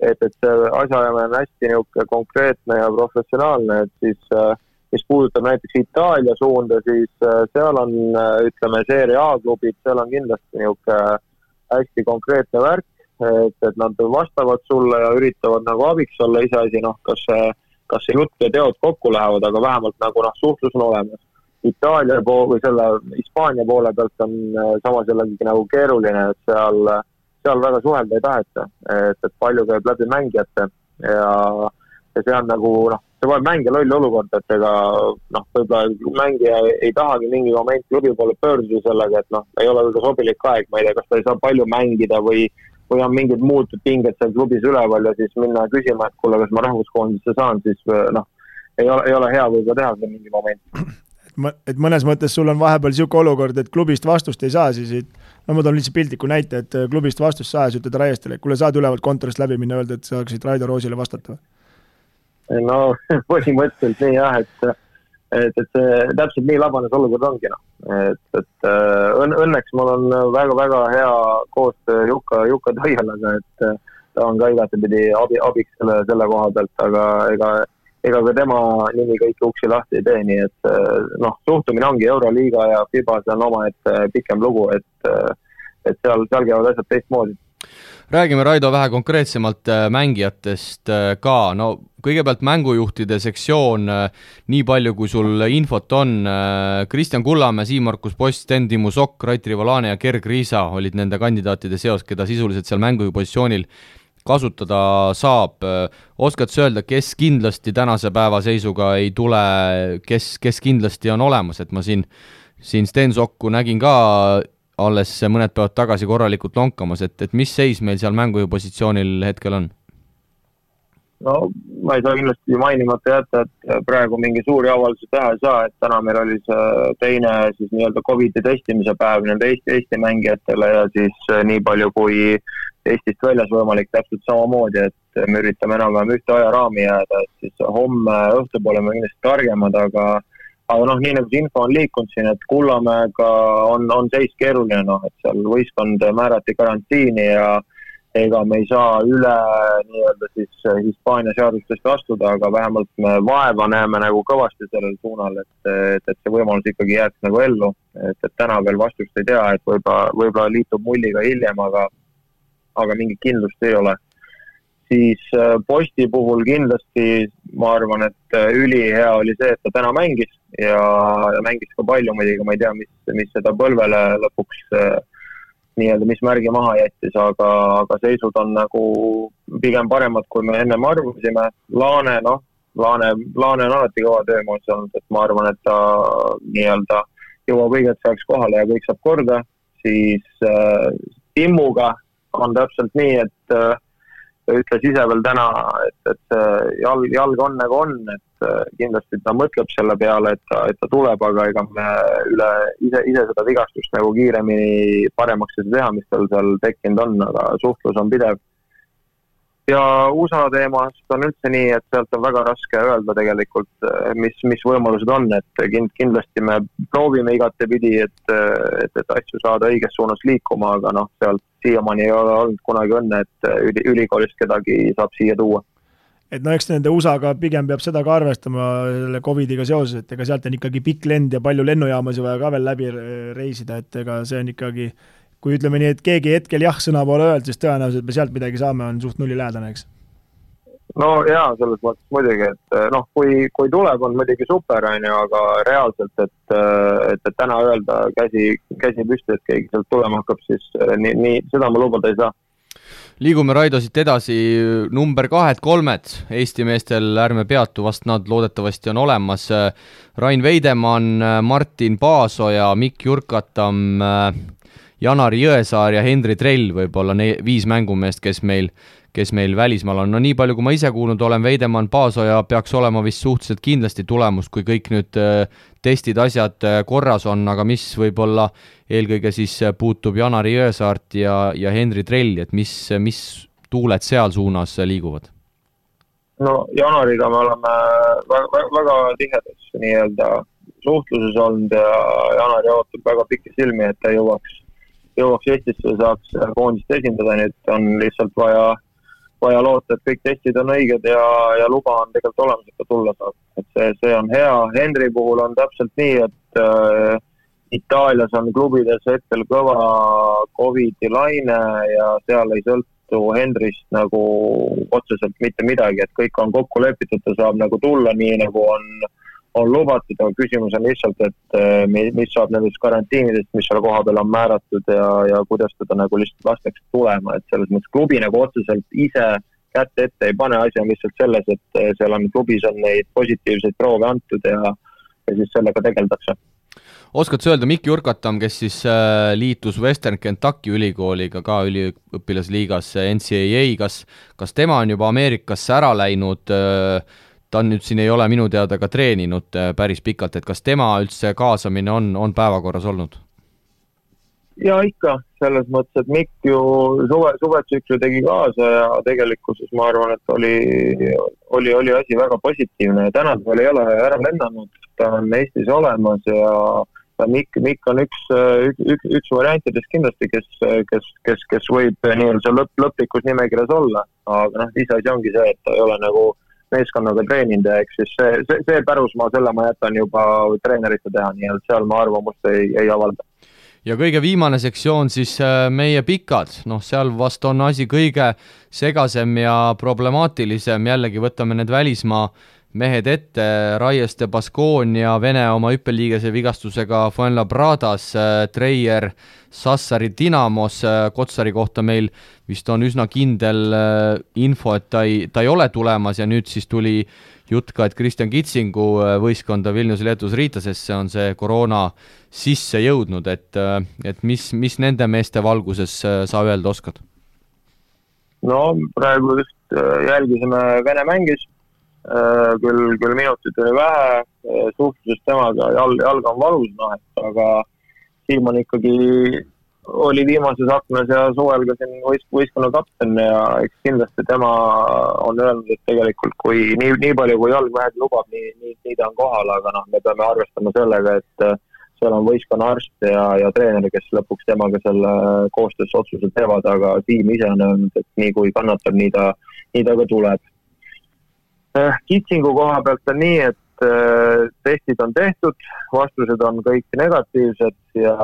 S5: et see asjaajamine on hästi niisugune konkreetne ja professionaalne, et mis puudutab näiteks Itaalia suunda, siis seal on, ütleme, Serie A klubid, seal on kindlasti niisugune hästi konkreetne värk, et nad vastavad sulle ja üritavad nagu abiks olla, iseasi, kas see jutt ja teod kokku lähevad, aga vähemalt nagu suhtlus on olemas. Itaalia või selle Hispaania poole pealt on samas jällegi nagu keeruline, et seal väga suhelda ei taheta, et palju käib läbi mängijate ja see on nagu, see võib mängija loll olukord, et ega võib-olla mängija ei tahagi mingi moment klubi poole pöörduda sellega, et ei ole väga sobilik aeg, ma ei tea, kas ta ei saa palju mängida või on mingid muud pinged seal klubis üleval ja siis minna küsima, et kuule, kas ma rahvuskoondisse saan, siis ei ole hea võib-olla teha seda mingi moment.
S3: Et mõnes mõttes sul on vahepeal niisugune olukord, et klubist vastust ei saa, siis ma toon lihtsalt piltliku näite, et klubist vastust saa ja ütled Raiestele, et kuule saad ülevalt kontorist läbi minna öelda, et saaksid Raido Roosile vastata või?
S5: No põhimõtteliselt nii jah, et see täpselt nii labanes olukord ongi. Et õnneks mul on väga-väga hea koostöö Jukka Toialaga, et ta on ka igatepidi abiks selle koha pealt, aga ega ka tema nimi kõiki uksi lahti ei tee, nii et suhtumine ongi Euroliiga ja FIBA, see on oma pikem lugu, et seal käivad asjad teistmoodi.
S2: Räägime, Raido, vähe konkreetsemalt mängijatest ka. No kõigepealt mängujuhtide sektsioon, nii palju kui sul infot on. Kristjan Kullamäe, Siim-Markus Post, Sten Timmu Sokk, Rait Rivolane ja Gerg Riisa olid nende kandidaatide seos, keda sisuliselt seal mängupositsioonil kasutada saab. Oskad sa öelda, kes kindlasti tänase päeva seisuga ei tule, kes kindlasti on olemas, et ma siin Sten Sokku nägin ka alles mõned päevad tagasi korralikult lonkamas, et mis seis meil seal mängupositsioonil hetkel on?
S5: No ma ei saa kindlasti mainimata jätta, et praegu mingi suuri avaldusi teha ei saa, et täna meil oli see teine siis nii-öelda COVID-i testimise päev nende Eesti mängijatele ja siis nii palju kui Eestist väljas võimalik täpselt samamoodi, et me üritame enam-vähem ühte ajaraami jääda, et siis homme õhtupoole me kindlasti targemad, aga nii nagu see info on liikunud siin, et Kullamäega on seis keeruline, et seal võistkond määrati karantiini ja ega me ei saa üle nii-öelda siis Hispaania seadustest astuda, aga vähemalt me vaeva näeme nagu kõvasti sellel suunal, et see võimalus ikkagi jääks nagu ellu, et täna veel vastust ei tea, et võib-olla liitub mulliga hiljem, aga mingit kindlust ei ole. Siis Posti puhul kindlasti ma arvan, et ülihea oli see, et ta täna mängis ja mängis ka palju muidugi, ma ei tea, mis seda põlvele lõpuks nii-öelda, mis märgi maha jättis, aga seisud on nagu pigem paremad, kui me ennem arvasime. Laane on alati kõva töömoos olnud, et ma arvan, et ta nii-öelda jõuab õigelt saaks kohale ja kõik saab korda. Siis Timmuga on täpselt nii, et ütles ise veel täna, et jalg on nagu on, et kindlasti ta mõtleb selle peale, et ta tuleb, aga ega me ise seda vigastust nagu kiiremini paremaks ei teha, mis tal seal tekkinud on, aga suhtlus on pidev. Ja USA teemast on üldse nii, et sealt on väga raske öelda tegelikult, mis võimalused on, et kindlasti me proovime igatepidi, et asju saada õiges suunas liikuma, aga sealt siiamaani ei ole olnud kunagi õnne, et ülikoolist kedagi saab siia tuua.
S3: Et eks nende USA-ga pigem peab seda ka arvestama selle COVID-iga seoses, et ega sealt on ikkagi pikk lend ja palju lennujaamasi vaja ka veel läbi reisida, et ega see on ikkagi, kui ütleme nii, et keegi hetkel jah sõna poole öelda, siis tõenäoliselt me sealt midagi saame, on suht nulli lähedane, eks?
S5: No jaa, selles mõttes muidugi, et kui tuleb, on muidugi super, aga reaalselt, et täna öelda käsi püsti, et keegi sealt tulema hakkab, siis nii seda ma lubada ei saa.
S2: Liigume, Raido, siit edasi number 2-3 Eesti meestel, ärme peatu, vast nad loodetavasti on olemas. Rain Veidemann, Martin Paasoja, Mikk Jurkatam, Janari Jõesaar ja Hendri Trell võib-olla 5 mängumeest, kes meil välismaal on. No nii palju, kui ma ise kuulnud olen, Veidemann, Paasoja peaks olema vist suhteliselt kindlasti tulemus, kui kõik nüüd testid, asjad korras on, aga mis võib-olla eelkõige siis puutub Janari Jõesaart ja Hendri Trelli, et mis tuuled seal suunas liiguvad?
S5: No Janariga me oleme väga tihedas nii-öelda suhtluses olnud ja Janari ootab väga pikki silmi, et ta jõuaks Eestisse, saaks koondist esindada, nii et on lihtsalt vaja vaja loota, et kõik testid on õiged ja luba on tegelikult olemas, et tulla saab. Et see on hea. Henry puhul on täpselt nii, et Itaalias on klubides hetkel kõva COVID-i laine ja seal ei sõltu Henryst nagu otseselt mitte midagi, et kõik on kokku lepitud, ta saab nagu tulla nii, nagu on lubatud, aga küsimus on lihtsalt, et mis saab nendest karantiinidest, mis seal koha peal on määratud ja kuidas teda nagu lihtsalt lastakse tulema, et selles mõttes klubi nagu otseselt ise kätte ette ei pane, asi on lihtsalt selles, et seal on klubis on neid positiivseid proove antud ja siis sellega tegeldakse.
S2: Oskad sa öelda, Mikki Urkatam, kes siis liitus Western Kentucky ülikooliga ka üliõpilasliigas NCAA, kas tema on juba Ameerikasse ära läinud, ta nüüd siin ei ole minu teada ka treeninud päris pikalt, et kas tema üldse kaasamine on päevakorras olnud?
S5: Ja ikka, selles mõttes, et Mikk ju suvetsükli tegi kaasa ja tegelikkuses ma arvan, et oli asi väga positiivne ja täna ta veel ei ole ära lennanud, ta on Eestis olemas ja Mikk on üks variantidest kindlasti, kes võib nii-öelda lõplikus nimekirjas olla, aga ise asi ongi see, et ta ei ole nagu meeskonnaga treeninud ja eks siis see pärusmaa, selle ma jätan juba treenerite teha, nii et seal ma arvamust ei avalda.
S2: Ja kõige viimane sektsioon siis meie pikad, seal vast on asi kõige segasem ja problemaatilisem, jällegi võtame need välismaa mehed ette, Raieste Baskonia, Vene oma hüppeliigese vigastusega Fuenlabradas, Treier Sassari Dinamos, Kotsari kohta meil vist on üsna kindel info, et ta ei ole tulemas ja nüüd siis tuli jutt ka, et Kristjan Kitsingu võistkonda Vilniuse Leetus Riitasesse on see koroona sisse jõudnud, et mis nende meeste valguses sa öelda oskad?
S5: No praegu just jälgisime Vene mängis, küll minutit oli vähe, suhtlusest temaga jalga on valus, aga Siim on ikkagi oli viimases aknas ja suvel ka siin võistkonna kapten ja eks kindlasti tema on öelnud, et tegelikult kui nii palju kui jalg vähegi lubab, nii ta on kohal, aga me peame arvestama sellega, et seal on võistkonna arst ja treener, kes lõpuks temaga selle koostöös otsuse teevad, aga Siim ise on öelnud, et nii kui kannatab, nii ta ka tuleb. Kitsingu koha pealt on nii, et testid on tehtud, vastused on kõik negatiivsed ja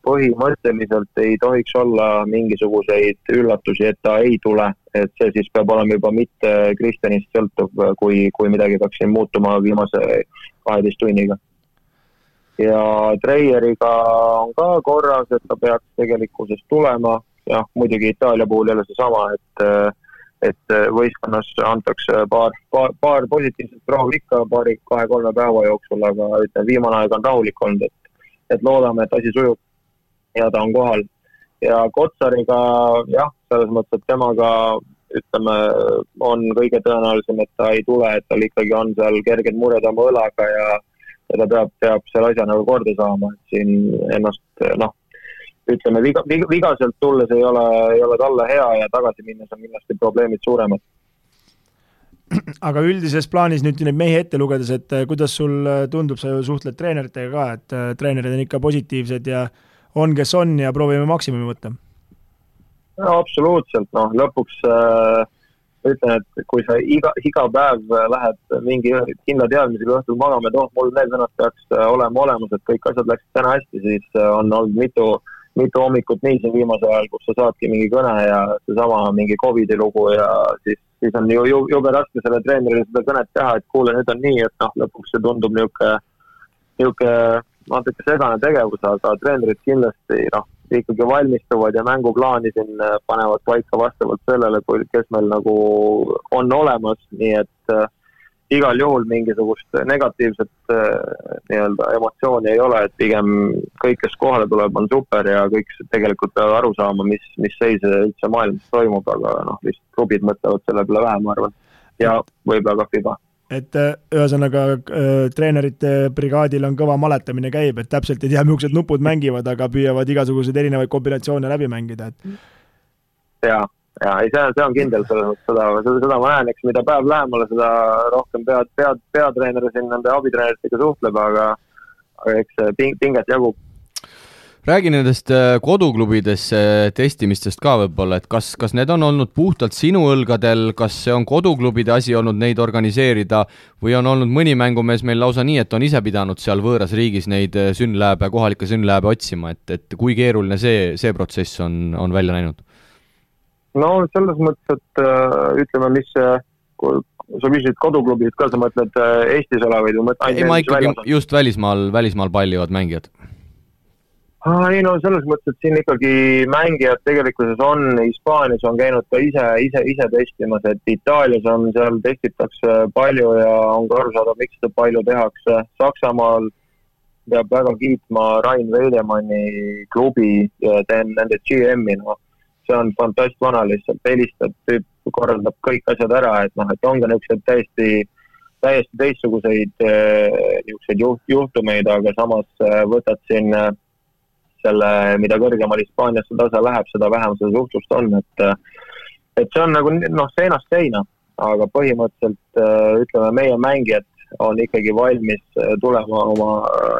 S5: põhimõtteliselt ei tohiks olla mingisuguseid üllatusi, et ta ei tule, et see siis peab olema juba mitte Kristjanist sõltuv, kui midagi peaks siin muutuma viimase 12 tunniga. Ja Treieriga on ka korras, et ta peaks tegelikkuses tulema, ja muidugi Itaalia puhul jälle see sama, et võistkonnas antakse paar positiivset proovi ikka 2-3 päeva jooksul, aga viimane aeg on rahulik olnud, et loodame, et asi sujub ja ta on kohal. Ja Kotsariga, selles mõttes, et temaga on kõige tõenäolisem, et ta ei tule, et tal ikkagi on seal kerged mured oma õlaga ja ta peab selle asja nagu korda saama, et siin ennast, vigaselt tulles ei ole talle hea ja tagasi minnes on kindlasti probleemid suuremad.
S3: Aga üldises plaanis nüüd neid mehi ette lugedes, et kuidas sul tundub, sa ju suhtled treeneritega ka, et treenerid on ikka positiivsed ja on, kes on ja proovime maksimumi võtta?
S5: No absoluutselt, lõpuks ütlen, et kui sa iga päev lähed mingi kindla teadmisega õhtul magama, et mul need vennad peaks olema olemas, et kõik asjad läksid täna hästi, siis on olnud mitu hommikut nii siin viimase ajal, kus sa saadki mingi kõne ja seesama mingi COVID-i lugu ja siis on jube raske selle treenerile seda kõnet teha, et kuule, nüüd on nii, et lõpuks see tundub niuke natuke segane tegevus, aga treenerid kindlasti ikkagi valmistuvad ja mänguplaani siin panevad paika vastavalt sellele, kes meil nagu on olemas, nii et igal juhul mingisugust negatiivset emotsiooni ei ole, et pigem kõik, kes kohale tuleb, on super ja kõik tegelikult peavad aru saama, mis seis üldse maailmas toimub, aga lihtsalt klubid mõtlevad selle peale vähem, ma arvan, ja võib-olla ka FIBA.
S3: Et ühesõnaga treenerite brigaadil on kõva maletamine käib, et täpselt ei tea, millised nupud mängivad, aga püüavad igasuguseid erinevaid kombinatsioone läbi mängida.
S5: Ja, see on kindel, seda ma näen, eks mida päev lähemale, seda rohkem peatreener siin nende abitreeneritega suhtleb, aga eks pinget jagub.
S2: Räägi nendest koduklubidesse testimistest ka võib-olla, et kas need on olnud puhtalt sinu õlgadel, kas see on koduklubide asi olnud neid organiseerida või on olnud mõni mängumees meil lausa nii, et on ise pidanud seal võõras riigis neid kohalikke sünnlääbe otsima, et kui keeruline see protsess on välja näinud?
S5: No selles mõttes, et ütleme, mis sa küsisid koduklubid ka, sa mõtled Eestis olevaid või
S2: ei, ma ikkagi just välismaal pallivad mängijad.
S5: Ei no selles mõttes, et siin ikkagi mängijad tegelikkuses on, Hispaanias on käinud ka ise testimas, et Itaalias on seal testitakse palju ja on ka aru saada, miks seda palju tehakse. Saksamaal peab väga kiitma Rain Veidemanni klubi ja teen nende GM-i, no see on fantast vana lihtsalt, helistab, korraldab kõik asjad ära, et ongi niisugused täiesti teistsuguseid juhtumeid, aga samas võtad siin selle, mida kõrgemal Hispaaniasse tasa läheb, seda vähem seda suhtlust on, et see on nagu seinast seina, aga põhimõtteliselt ütleme, meie mängijad on ikkagi valmis tulema oma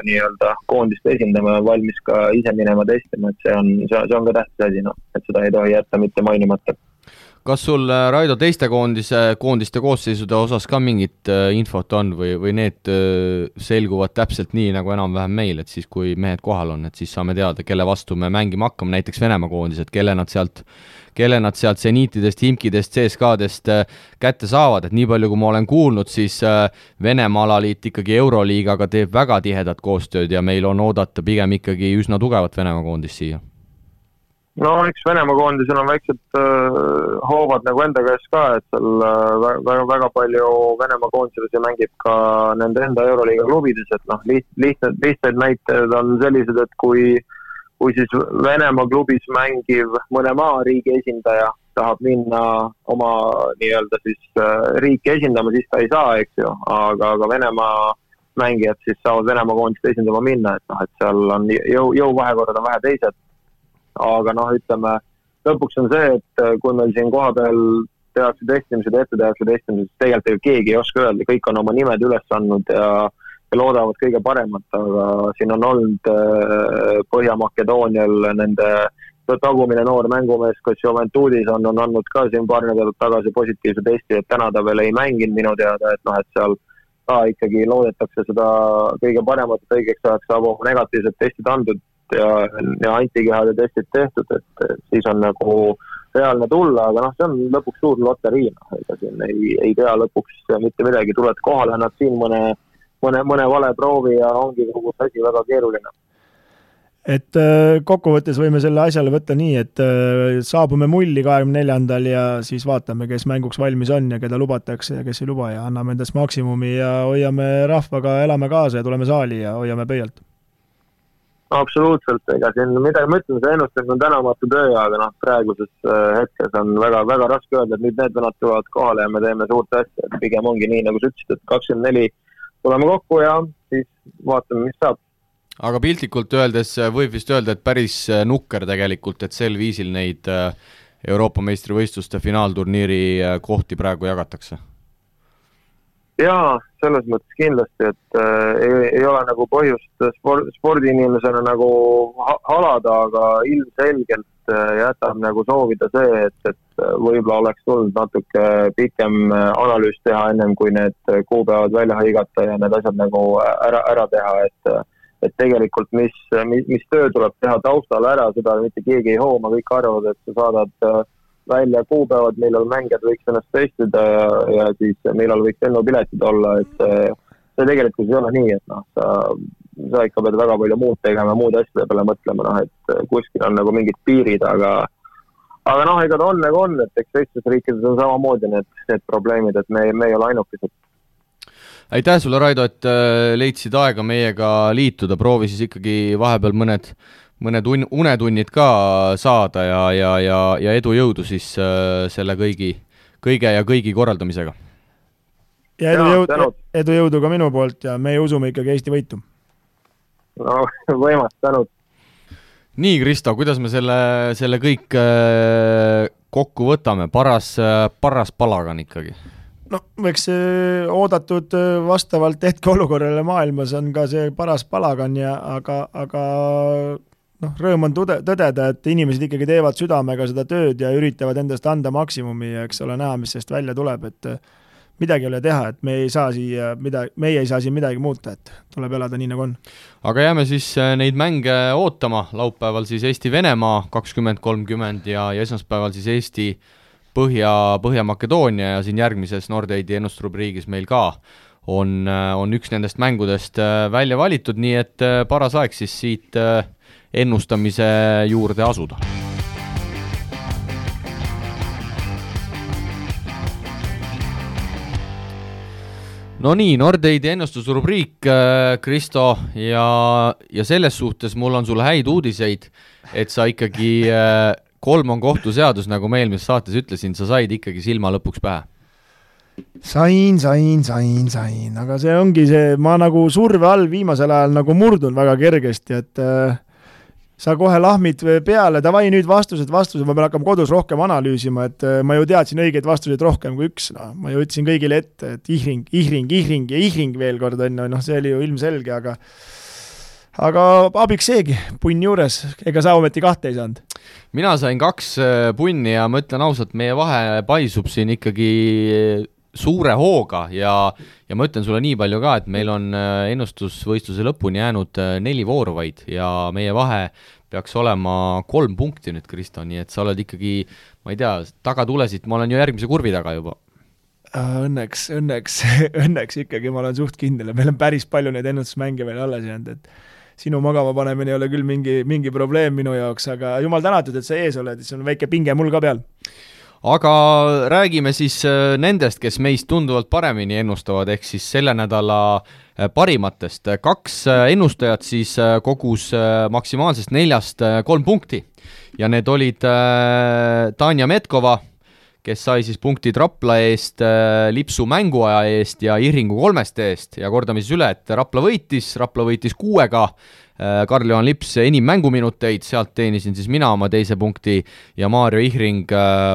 S5: nii-öelda koondist esindama ja valmis ka ise minema testima, et see on ka tähtis asi, et seda ei tohi jätta mitte mainimata.
S2: Kas sul, Raido, teiste koondiste koosseisude osas ka mingit infot on või need selguvad täpselt nii nagu enam-vähem meil, et siis kui mehed kohal on, et siis saame teada, kelle vastu me mängima hakkame, näiteks Venemaa koondised, kelle nad sealt seniitidest, Himkidest, CSKA-dest kätte saavad, et nii palju, kui ma olen kuulnud, siis Venemaa alaliit ikkagi Euroliigaga teeb väga tihedat koostööd ja meil on oodata pigem ikkagi üsna tugevat Venemaa koondist siia.
S5: No eks Venemaa koondisel on väiksed hoovad nagu enda käes ka, et seal väga palju Venemaa koondisel mängib ka nende enda Euroliiga klubides, et lihtsaid näited on sellised, et kui siis Venemaa klubis mängiv mõne maariigi esindaja tahab minna oma nii-öelda siis riiki esindama, siis ta ei saa, eks ju, aga Venemaa mängijad siis saavad Venemaa koondist esindama minna, et seal on jõuvahekorrad on vähe teised. Aga ütleme, lõpuks on see, et kui meil siin koha peal tehakse testimised, siis tegelikult keegi ei oska öelda, kõik on oma nimed üles andnud ja loodavad kõige paremat, aga siin on olnud Põhja-Makedoonial nende tagumine noor mängumees, kes Juventudis on andnud ka siin paar nädalat tagasi positiivse testi, et täna ta veel ei mänginud minu teada, et seal ka ikkagi loodetakse seda kõige paremat, et õigeks ajaks saab oma negatiivsed testid andnud ja antikehade testid tehtud, et siis on nagu reaalne tulla, aga see on lõpuks suur loterii, ega siin ei tea lõpuks mitte midagi, tuled kohale, nad siin mõne vale proovi ja ongi kogu asi väga keeruline.
S3: Et kokkuvõttes võime selle asjale võtta nii, et saabume mulli 24. ja siis vaatame, kes mänguks valmis on ja keda lubatakse ja kes ei luba ja anname endast maksimumi ja hoiame rahvaga, elame kaasa ja tuleme saali ja hoiame pöialt.
S5: Absoluutselt, ega siin midagi ma ütlen, see ennustamine on tänamatu töö, aga praeguses hetkes on väga, väga raske öelda, et nüüd need venad tulevad kohale ja me teeme suurt asja, et pigem ongi nii, nagu sa ütlesid, et 24 tuleme kokku ja siis vaatame, mis saab.
S2: Aga piltlikult öeldes võib vist öelda, et päris nukker tegelikult, et sel viisil neid Euroopa meistrivõistluste finaalturniiri kohti praegu jagatakse.
S5: Jaa, selles mõttes kindlasti, et ei ole nagu põhjust spordiinimesena nagu halada, aga ilmselgelt jätab nagu soovida see, et võib-olla oleks tulnud natuke pikem analüüs teha ennem, kui need kuupäevad välja hõigata ja need asjad nagu ära teha, et tegelikult mis töö tuleb teha taustal ära, seda mitte keegi ei hooma, kõik arvavad, et sa saadad välja kuupäevad, millal mängijad võiks ennast testida ja siis millal võiks lennupiletid olla, et see tegelikult ei ole nii, et sa ikka pead väga palju muud tegema, muud asjade peale mõtlema, et kuskil on nagu mingid piirid, aga ega ta on nagu on, et eks teistes riikides on samamoodi need probleemid, et me ei ole ainukesed.
S2: Aitäh sulle, Raido, et leidsid aega meiega liituda, proovi siis ikkagi vahepeal mõned unetunnid ka saada ja edu jõudu siis selle kõigi korraldamisega.
S3: Ja edu jõudu ka minu poolt ja me usume ikkagi Eesti võitu.
S5: No, võimas, tänud.
S2: Nii, Kristo, kuidas me selle kõik kokku võtame? Paras palagan ikkagi.
S3: No, eks oodatud vastavalt hetke olukorrale maailmas on ka see paras palagan, aga rõõm on tõdeda, et inimesed ikkagi teevad südamega seda tööd ja üritavad endast anda maksimumi ja eks ole näha, mis sellest välja tuleb, et midagi ei ole teha, et meie ei saa siin midagi muuta, et tuleb elada nii, nagu on.
S2: Aga jääme siis neid mänge ootama, laupäeval siis Eesti-Venemaa 20:30 ja esmaspäeval siis Eesti Põhja-Makedoonia ja siin järgmises Nordeidi ennustusrubriigis meil ka on üks nendest mängudest välja valitud, nii et paras aeg siis siit ennustamise juurde asuda. No nii, Nordeidi ennustusrubriik, Kristo, ja selles suhtes mul on sulle häid uudiseid, et sa ikkagi 3 on kohtuseadus, nagu ma eelmises saates ütlesin, sa said ikkagi silma lõpuks pähe.
S3: Sain, aga see ongi see, ma nagu surve all viimasel ajal nagu murdun väga kergesti, et sa kohe lahmid peale, davai nüüd vastused, ma pean hakkama kodus rohkem analüüsima, et ma ju teadsin õigeid vastuseid rohkem kui üks, ma ju ütlesin kõigile ette, et ihring veel kord on, see oli ju ilmselge, aga abiks seegi, punn juures, ega sa ometi 2 ei saanud?
S2: Mina sain 2 punni ja ma ütlen ausalt, meie vahe paisub siin ikkagi suure hooga ja ma ütlen sulle nii palju ka, et meil on ennustusvõistluse lõpuni jäänud 4 vooru vaid ja meie vahe peaks olema 3 punkti nüüd, Kristo, nii et sa oled ikkagi, ma ei tea, taga tulesid, ma olen ju järgmise kurvi taga juba.
S3: Õnneks ikkagi ma olen suht kindel ja meil on päris palju neid ennustusmänge veel alles jäänud, et sinu magama panemine ei ole küll mingi probleem minu jaoks, aga jumal tänatud, et sa ees oled, siis on väike pinge mul ka peal.
S2: Aga räägime siis nendest, kes meist tunduvalt paremini ennustavad, ehk siis selle nädala parimatest. 2 ennustajat siis kogus maksimaalsest 4 3 punkti ja need olid Tanja Metkova, kes sai siis punktid Rapla eest, Lipsu mänguaja eest ja Ihringu 3 eest ja kordame siis üle, et Rapla võitis 6-ga, Karl-Johan Lips enim mänguminuteid, sealt teenisin siis mina oma 2 punkti ja Maarjo Ihring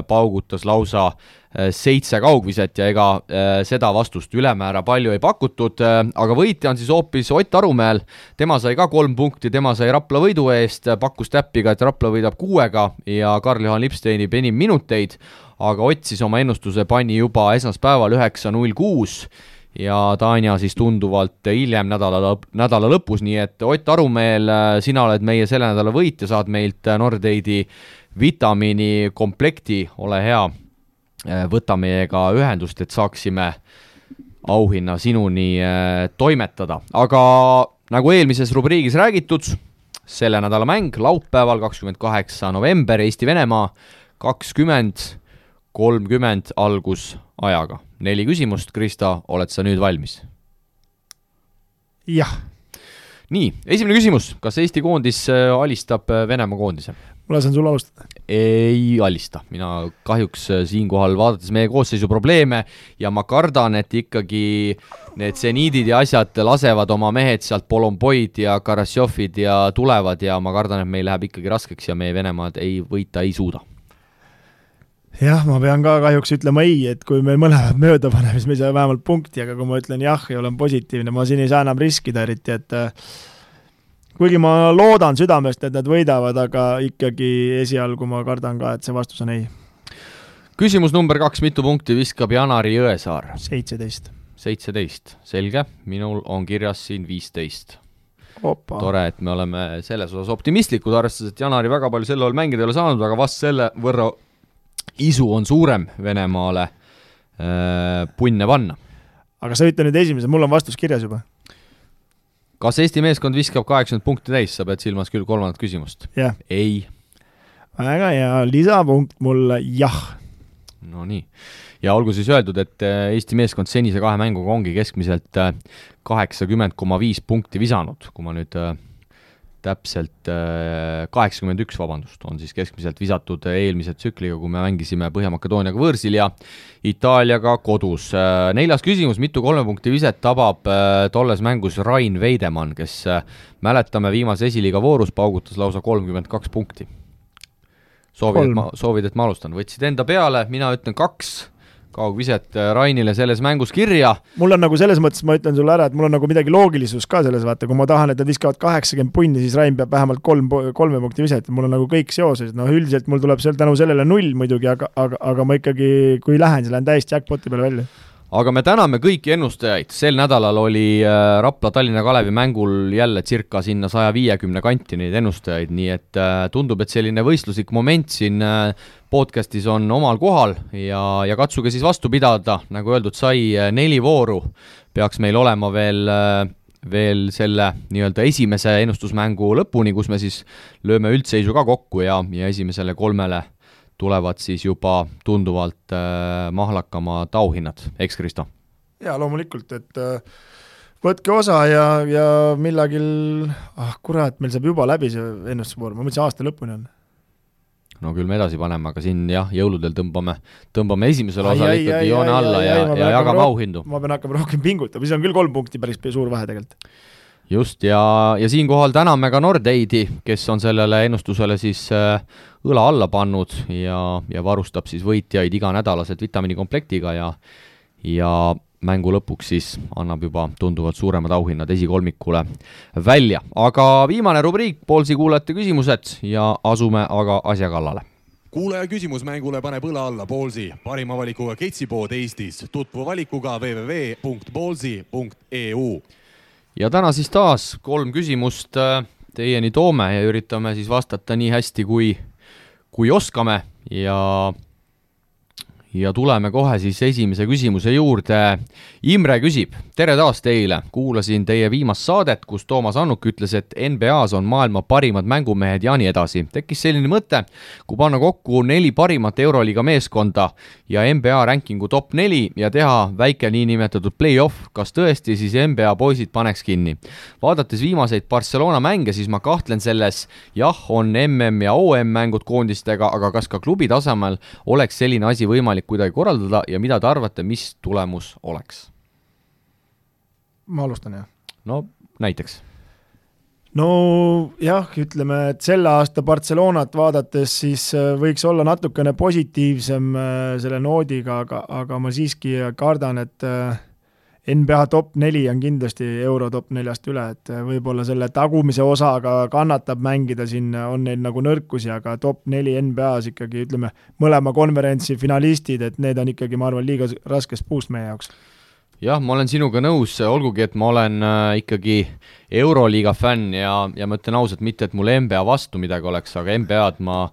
S2: paugutas lausa 7 kaugviset ja ega seda vastust ülemäära palju ei pakutud, aga võitja on siis hoopis Ott Arumäel, tema sai ka 3 punkti, tema sai Rapla võidu eest, pakkus täppiga, et Rapla võidab 6-ga ja Karl-Johan Lips teenib enim minuteid, aga Ott siis oma ennustuse pani juba esmaspäeval 9.06 ja Tanja siis tunduvalt hiljem nädala lõpus, nii et Ott Arumeel, sina oled meie selle nädala võit ja saad meilt Nordeidi vitamiini komplekti, ole hea, võta meiega ühendust, et saaksime auhinna sinuni toimetada. Aga nagu eelmises rubriigis räägitud, selle nädala mäng laupäeval 28. november Eesti-Venemaa 20:30 algusajaga. 4 küsimust, Krista, oled sa nüüd valmis?
S3: Jah.
S2: Nii, esimene küsimus, kas Eesti koondis alistab Venemaa koondise?
S3: Ma lasen sul alustada.
S2: Ei alista, mina kahjuks siinkohal vaadates meie koosseisu probleeme ja ma kardan, et ikkagi need seniidid ja asjad lasevad oma mehed sealt Polomboid ja Karassjofid ja tulevad ja ma kardan, et meil läheb ikkagi raskeks ja meie Venemaad võita ei suuda.
S3: Jah, ma pean ka kahjuks ütlema ei, et kui meil mõlemad mööda paneme, siis me ei saa vähemalt punkti, aga kui ma ütlen jah ja olen positiivne, ma siin ei saa enam riskida eriti, et kuigi ma loodan südamest, et nad võidavad, aga ikkagi esialgu ma kardan ka, et see vastus on ei.
S2: Küsimus number 2, mitu punkti viskab Janari Jõesaar?
S3: 17.
S2: 17, selge, minul on kirjas siin 15.
S3: Opa.
S2: Tore, et me oleme selles osas optimistlikud, arvestades, et Janari väga palju selle all mängida ei ole saanud, aga vast selle võrra isu on suurem Venemaale punne panna.
S3: Aga sa ütle nüüd esimese, mul on vastus kirjas juba.
S2: Kas Eesti meeskond viskab 80 punkti täis, sa pead silmas küll 3. küsimust?
S3: Jah.
S2: Ei.
S3: Väga hea, lisapunkt mulle jah.
S2: No nii. Ja olgu siis öeldud, et Eesti meeskond senise 2 mänguga ongi keskmiselt 80,5 punkti visanud, kui ma nüüd täpselt 81, vabandust, on siis keskmiselt visatud eelmise tsükliga, kui me mängisime Põhja-Makedooniaga võõrsil ja Itaaliaga kodus. 4. küsimus, mitu 3 punkti viset tabab tolles mängus Rain Veidemann, kes mäletame viimase esiliiga voorus paugutas lausa 32 punkti. Soovid, et ma alustan. Võtsid enda peale, mina ütlen 2 kaugviset Rainile selles mängus kirja.
S3: Mul on nagu selles mõttes, ma ütlen sulle ära, et mul on nagu midagi loogilisus ka selles, vaata, kui ma tahan, et nad viskavad 80 punni, siis Rain peab vähemalt 3 punkti viset, mul on nagu kõik seoses, üldiselt mul tuleb tänu sellele 0 muidugi, aga ma ikkagi, kui lähen, siis lähen täiesti jackpoti peale välja.
S2: Aga me täname kõiki ennustajaid, sel nädalal oli Rapla Tallinna Kalevi mängul jälle circa sinna 150 kanti neid ennustajaid, nii et tundub, et selline võistluslik moment siin podcastis on omal kohal ja katsuge siis vastu pidada, nagu öeldud sai, 4 vooru peaks meil olema veel selle nii-öelda esimese ennustusmängu lõpuni, kus me siis lööme üldseisu ka kokku ja esimesele 3 tulevad siis juba tunduvalt mahlakamad auhinnad, eks Kristo?
S3: Jaa, loomulikult, et võtke osa ja millagil, kurat, meil saab juba läbi see ennustusvoor, ma mõtlesin aasta lõpuni on.
S2: No küll me edasi paneme, aga siin jah, jõuludel tõmbame esimesel osal ikkagi joone alla ja jagame auhindu.
S3: Ma pean hakkama rohkem pingutama, siis on küll 3 punkti päris suur vahe tegelikult.
S2: Just, ja siinkohal täname ka Nordeidi, kes on sellele ennustusele siis õla alla pannud ja varustab siis võitjaid iganädalaselt vitamiinikomplektiga ja mängu lõpuks siis annab juba tunduvalt suuremad auhinnad esikolmikule välja. Aga viimane rubriik, Poolsi kuulajate küsimused ja asume aga asja kallale.
S1: Kuulaja küsimusmängule paneb õla alla Poolsi, parima valikuga ketsipood Eestis, tutvu valikuga www.poolsi.eu.
S2: Ja täna siis taas 3 küsimust teieni toome ja üritame siis vastata nii hästi, kui oskame ja tuleme kohe siis esimese küsimuse juurde. Imre küsib, tere taas teile, kuulasin teie viimast saadet, kus Toomas Annuk ütles, et NBAs on maailma parimad mängumehed ja nii edasi. Tekkis selline mõte, kui panna kokku 4 parimat Euroliiga meeskonda ja NBA rankingu top 4 ja teha väike niinimetatud play-off, kas tõesti siis NBA poisid paneks kinni. Vaadates viimaseid Barcelona mänge, siis ma kahtlen selles, jah, on MM ja OM mängud koondistega, aga kas ka klubi tasemel oleks selline asi võimalik kuidagi korraldada ja mida te arvate, mis tulemus oleks?
S3: Ma alustan, jah.
S2: No, näiteks.
S3: No jah, ütleme, et selle aasta Barcelonat vaadates siis võiks olla natukene positiivsem selle noodiga, aga ma siiski kardan, et NBA top 4 on kindlasti euro top 4-st üle, et võib-olla selle tagumise osaga kannatab mängida siin, on neil nagu nõrkusi, aga top 4 NBA-s ikkagi, ütleme, mõlema konverentsi finalistid, et need on ikkagi, ma arvan, liiga raskes puust meie jaoks.
S2: Jah, ma olen sinuga nõus, olgugi, et ma olen ikkagi Euroliiga fänn ja ma ütlen ausalt mitte, et mul NBA vastu midagi oleks, aga NBA-d ma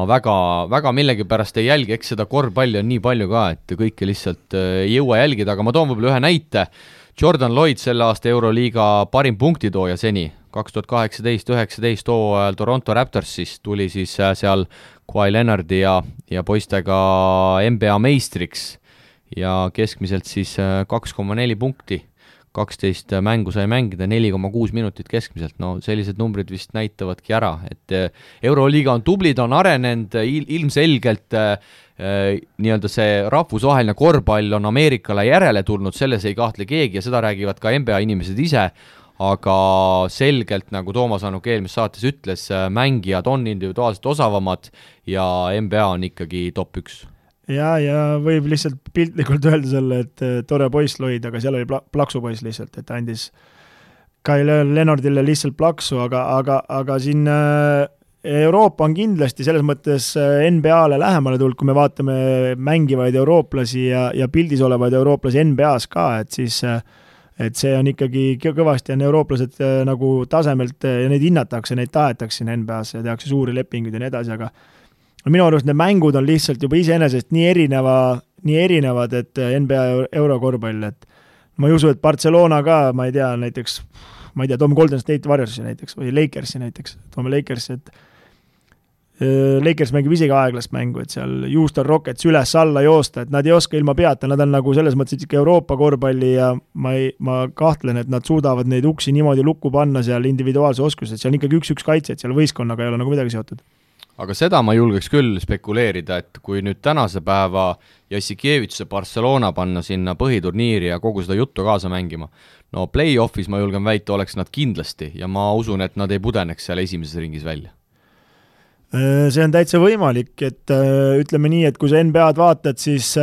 S2: väga millegipärast ei jälgi, eks seda korvpalli on nii palju ka, et kõike lihtsalt ei jõua jälgida, aga ma toon võib-olla ühe näite. Jordan Lloyd selle aasta Euroliiga parim punktitooja seni, 2018-19 hooajal Toronto Raptorsis tuli siis seal Kawhi Leonardi ja poistega NBA meistriks ja keskmiselt siis 2,4 punkti, 12 mängu sai mängida, 4,6 minutit keskmiselt, no sellised numbrid vist näitavadki ära, et Euroliiga on tublid, on arenenud, ilmselgelt nii-öelda see rahvusvaheline korvpall on Ameerikale järele tulnud, selles ei kahtle keegi ja seda räägivad ka NBA inimesed ise, aga selgelt, nagu Toomas Annuk eelmises saates ütles, mängijad on individuaalselt osavamad ja NBA on ikkagi top 1.
S3: Ja võib lihtsalt piltlikult öelda selle, et tore poiss Lloyd, aga seal oli plaksu poiss lihtsalt, et andis Kyle Leonardile lihtsalt plaksu, aga siin Euroopa on kindlasti selles mõttes NBA-le lähemale tulnud, kui me vaatame mängivaid eurooplasi ja pildis olevaid eurooplasi NBA-s ka, et siis et see on ikkagi kõvasti on eurooplased nagu tasemelt ja neid hinnatakse, neid tahetakse siin NBA-s ja tehakse suuri lepinguid ja nii edasi, aga minu arust need mängud on lihtsalt juba iseenesest nii erinevad, et NBA eurokorvpall, et ma ei usu, et Barcelona ka, ma ei tea, toome Golden State Warriorsi näiteks või Lakersi näiteks, toome Lakersi, et Lakers mängib isegi aeglast mängu, et seal Houston Rockets üles-alla joosta, et nad ei oska ilma peata, nad on nagu selles mõttes ikka Euroopa korvpalli ja ma kahtlen, et nad suudavad neid uksi niimoodi lukku panna seal individuaalse oskused, seal on ikkagi 1-1 kaitse, et seal võistkonnaga ei ole nagu midagi seotud.
S2: Aga seda ma julgeks küll spekuleerida, et kui nüüd tänase päeva Jassikevituse Barcelona panna sinna põhiturniiri ja kogu seda juttu kaasa mängima, no play-offis ma julgen väita, oleks nad kindlasti ja ma usun, et nad ei pudeneks seal esimeses ringis välja.
S3: See on täitsa võimalik, et ütleme nii, et kui sa NBA-d vaatad, siis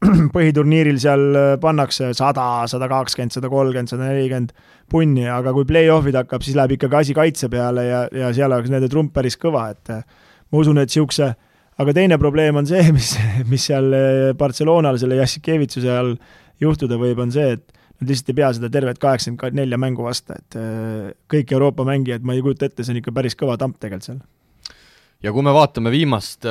S3: põhiturniiril seal pannakse 100, 120, 130, 140 punni, aga kui play-off'id hakkab, siis läheb ikkagi asi kaitse peale ja seal oleks nende trump päris kõva, et ma usun, et siukse, aga teine probleem on see, mis seal Barcelonal selle Jassikevitsuse all juhtuda võib, on see, et nad lihtsalt ei pea seda tervet 84 mängu vasta, et kõik Euroopa mängijad, ma ei kujuta ette, see on ikka päris kõva tamp tegelikult seal.
S2: Ja kui me vaatame viimast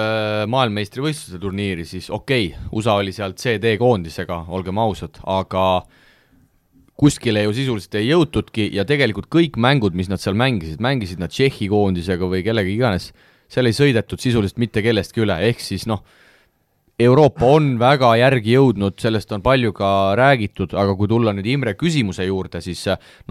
S2: maailmameistrivõistluse turniiri, siis USA oli sealt CD-koondisega, olgem ausad, aga kuskile ju sisuliselt ei jõutudki ja tegelikult kõik mängud, mis nad seal mängisid nad Tšehhi koondisega või kellegi iganes, seal ei sõidetud sisuliselt mitte kellestki üle, ehk siis Euroopa on väga järgi jõudnud, sellest on palju ka räägitud, aga kui tulla nüüd Imre küsimuse juurde, siis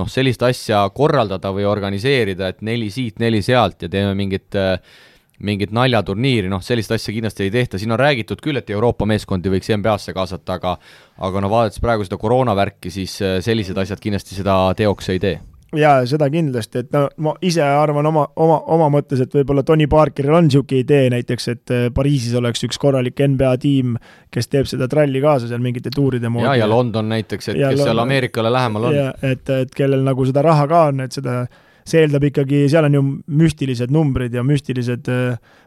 S2: sellist asja korraldada või organiseerida, et 4 siit, 4 sealt ja teeme mingit naljaturniiri, sellist asja kindlasti ei tehta, siin on räägitud küll, et Euroopa meeskondi võiks NBA-sse kaasata, aga vaadates praegu seda koroonavärki, siis sellised asjad kindlasti seda teoks ei tee.
S3: Jaa, seda kindlasti, et ma ise arvan oma mõttes, et võib-olla Tony Parkeril on niisugune idee näiteks, et Pariisis oleks üks korralik NBA tiim, kes teeb seda tralli kaasa seal mingite tuuride moodi.
S2: Ja London näiteks, et kes seal Ameerikale lähemal on.
S3: Ja, et kellel nagu seda raha ka on, et see eeldab ikkagi, seal on ju müstilised numbrid ja müstilised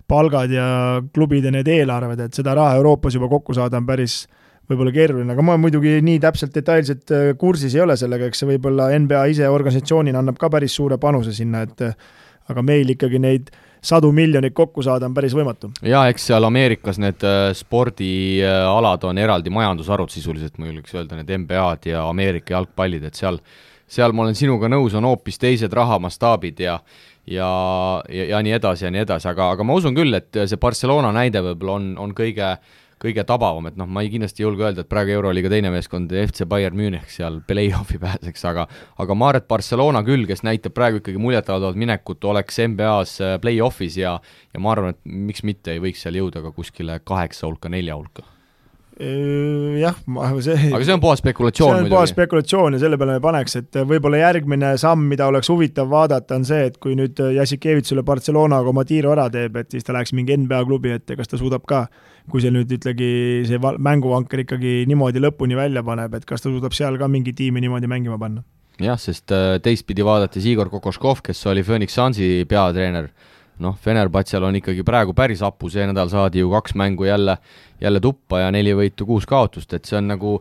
S3: palgad ja klubide need eelarved, et seda raha Euroopas juba kokku saada on päris võib-olla keeruline, aga ma muidugi nii täpselt detailselt kursis ei ole sellega, eks see võib-olla NBA ise organisatsioonina annab ka päris suure panuse sinna, et aga meil ikkagi neid 100 miljonit kokku saada on päris võimatu.
S2: Ja eks seal Ameerikas need spordialad on eraldi majandusarvud sisuliselt, ma julgeks öelda, need NBA-d ja Ameerika jalgpallid, et seal ma olen sinuga nõus, on hoopis teised rahamastaabid ja nii edasi, aga ma usun küll, et see Barcelona näide võib-olla on kõige tabavam, et ma ei kindlasti julge öelda, et praegu Euroliiga teine meeskond FC Bayern Munich seal play-offi pääseks, aga ma arvan, et Barcelona küll, kes näitab praegu ikkagi muljetavalt minekut, oleks NBA-s play-offis ja ma arvan, et miks mitte ei võiks seal jõuda ka kuskile 8 hulka, 4 hulka.
S3: Jah,
S2: aga see on puhas spekulatsioon.
S3: See on puhas spekulatsioon ja selle peale me paneks, et võib-olla järgmine samm, mida oleks huvitav vaadata, on see, et kui nüüd Jassikevitsule Barcelonaga oma tiiru ära teeb, et siis ta läheks mingi NBA klubi ette, kas ta suudab ka, kui see nüüd ütlegi see mänguvanker ikkagi niimoodi lõpuni välja paneb, et kas ta suudab seal ka mingi tiimi niimoodi mängima panna.
S2: Jah, sest teistpidi vaadates Igor Kokoškov, kes oli Phoenix Sunsi peatreener, Fenerbahčel on ikkagi praegu päris apu, see nädal saadi ju 2 mängu jälle tuppa ja 4 võitu 6 kaotust, et see on nagu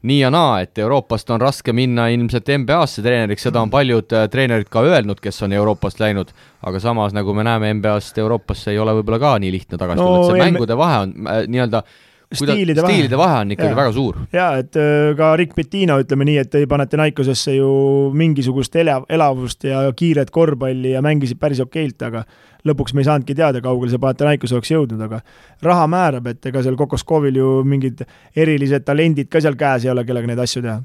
S2: nii ja naa, et Euroopast on raske minna ilmselt NBA-sse treeneriks, seda on paljud treenerid ka öelnud, kes on Euroopast läinud, aga samas nagu me näeme NBA-st Euroopasse ei ole võib-olla ka nii lihtne tagasi tulla, et see mängude vahe on nii-öelda stiilide vahe on ikkagi väga suur.
S3: Jaa, et ka Rick Pitino ütleme nii, et ei Panathinaikosesse ju mingisugust elavust ja kiiret korvpalli ja mängisid päris okeilt, aga lõpuks me ei saanudki teada, kaugel see Panathinaikos oleks jõudnud, aga raha määrab, et ega seal Kokoskovil ju mingid erilised talendid ka seal käes ei ole, kellega neid asju teha.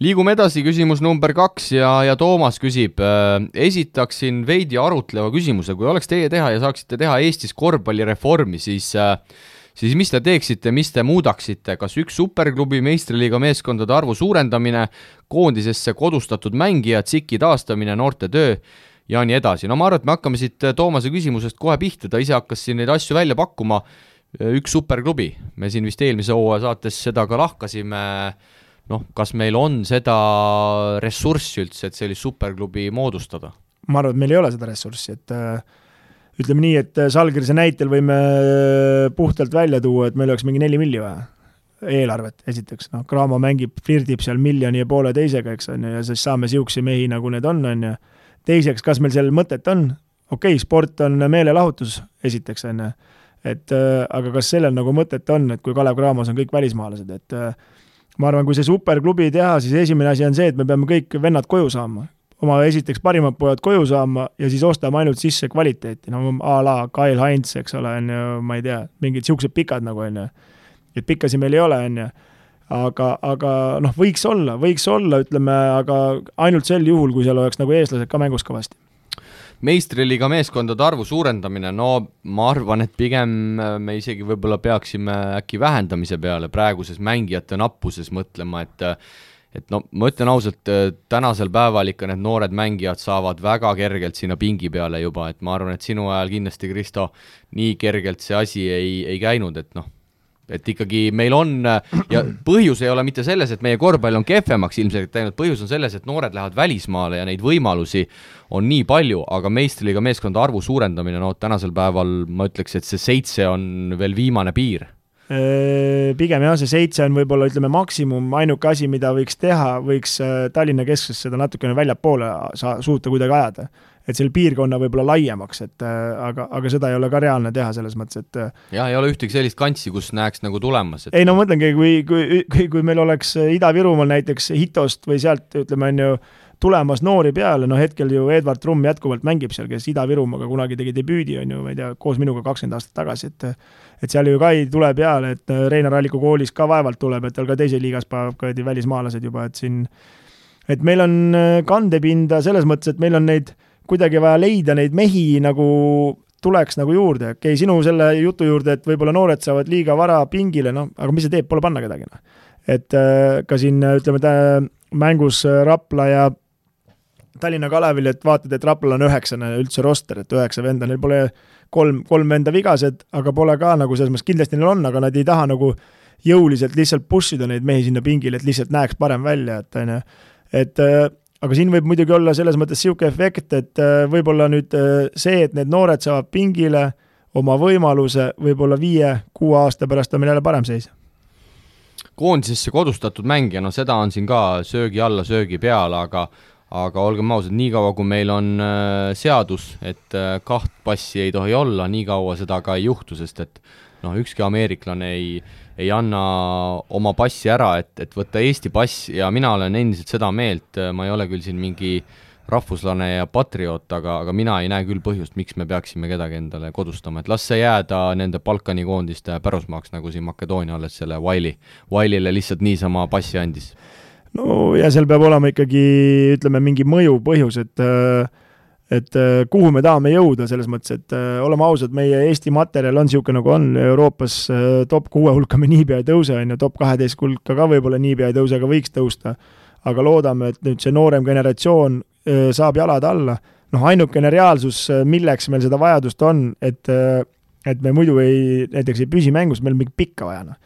S2: Liigume edasi, küsimus number 2 ja Toomas küsib, esitaksin veidi arutleva küsimuse, kui oleks teie teha ja saaksite teha Eestis korvpallireformi, siis mis te teeksite, mis te muudaksite, kas üks superklubi meistriliiga meeskondade arvu suurendamine, koondisesse kodustatud mängijad, SIK-i taastamine, noorte töö ja nii edasi. Ma arvan, et me hakkame siit Toomase küsimusest kohe pihta, ta ise hakkas siin neid asju välja pakkuma, üks superklubi. Me siin vist eelmise hooaja saates seda ka lahkasime, kas meil on seda ressurssi üldse, et sellist superklubi moodustada?
S3: Ma arvan, et meil ei ole seda ressurssi, et ütleme nii, et Salgrise näitel võime puhtalt välja tuua, et meil oleks mingi 4 milli vaja eelarvet, esiteks. Kraamo flirdib seal 1,5 miljoni teisega, eks on, ja siis saame siuksi mehi, nagu need on. Ja teiseks, kas meil seal mõtet on? Sport on meelelahutus, esiteks on. Aga kas sellel nagu mõtet on, et kui Kalev Cramos on kõik välismaalased, et ma arvan, kui see superklubi teha, siis esimene asi on see, et me peame kõik vennad koju saama. Oma esiteks parimad pojad koju saama ja siis ostame ainult sisse kvaliteeti, a la Kyle Heinz, eks ole, ma ei tea, mingid siuksed pikad nagu on, et pikkasi meil ei ole, on, aga võiks olla, ütleme, aga ainult sel juhul, kui seal oleks nagu eestlased ka mängus kõvasti.
S2: Meistriliiga meeskondade arvu suurendamine, ma arvan, et pigem me isegi võib-olla peaksime äkki vähendamise peale praeguses mängijate nappuses mõtlema, et ma ütlen ausalt, tänasel päeval ikka need noored mängijad saavad väga kergelt sinna pingi peale juba, et ma arvan, et sinu ajal kindlasti, Kristo, nii kergelt see asi ei käinud, et et ikkagi meil on ja põhjus ei ole mitte selles, et meie korvpall on kehvemaks ilmselt teinud, põhjus on selles, et noored lähevad välismaale ja neid võimalusi on nii palju, aga meistriliiga meeskonda arvu suurendamine, no tänasel päeval ma ütleks, et see 7 on veel viimane piir.
S3: Pigem jah, see 7 on võib-olla ütleme maksimum, ainuke asi, mida võiks teha, võiks Tallinna kesksest seda natukene väljapoole suuta kuidagi ajada, et selle piirkonna võib-olla laiemaks, et aga seda ei ole ka reaalne teha selles mõttes, et
S2: jah, ei ole ühtegi sellist kantsi, kus näeks nagu tulemas.
S3: Ei no mõtlengi, kui meil oleks Ida-Virumaal näiteks Hitost või sealt ütleme on ju tulemas noori peale, no hetkel ju Edvard Trumm jätkuvalt mängib seal, kes Ida-Virumaaga kunagi tegi debüüdi, on ju, ma ei tea, koos minuga 20 aastat tagasi, et seal ju ka ei tule peale, et Reinar Alliku koolis ka vaevalt tuleb, et tal ka teise liigas paneb välismaalased juba, et siin, et meil on kandepinda selles mõttes, et meil on neid kuidagi vaja leida neid mehi nagu tuleks nagu juurde, okei, sinu selle jutu juurde, et võib-olla noored saavad liiga vara pingile, no, aga mis see teeb, pole panna kedagi, no. Et ka siin, ütleme, mängus Rapla ja Tallinna Kalevil, et vaatad, et Raplal on 9 üldse roster, et 9 venda, neil pole kolm venda vigased, aga pole ka nagu selles mõttes, kindlasti neil on, aga nad ei taha nagu jõuliselt lihtsalt pushida neid mehi sinna pingile, et lihtsalt näeks parem välja, et aga siin võib muidugi olla selles mõttes siuke efekt, et võib-olla nüüd see, et need noored saavad pingile oma võimaluse, võib-olla 5-6 aasta pärast on meil jälle parem seis.
S2: Koondisesse kodustatud mängija, no seda on siin ka söögi alla, söögi peal, aga olgem ausad, nii kaua kui meil on seadus, et 2 passi ei tohi olla, nii kaua seda ka ei juhtu, sest et ükski ameeriklane ei anna oma passi ära, et võtta Eesti pass ja mina olen endiselt seda meelt, ma ei ole küll siin mingi rahvuslane ja patrioot, aga mina ei näe küll põhjust, miks me peaksime kedagi endale kodustama, et las see jääda nende Balkani koondiste pärusmaaks, nagu siin Makedoonia alles selle Wiley'le lihtsalt niisama passi andis.
S3: No ja seal peab olema ikkagi, ütleme, mingi mõju põhjus, et kuhu me tahame jõuda selles mõttes, et oleme ausad, meie Eesti materjal on siuke nagu on, Euroopas top 6 hulka me niipea ei tõuse, top 12 hulka ka võib-olla niipea ei tõuse, aga võiks tõusta, aga loodame, et nüüd see noorem generatsioon saab jalad alla, ainukene reaalsus, milleks meil seda vajadust on, et me muidu näiteks ei püsi mängus, meil mingi pikka vajana.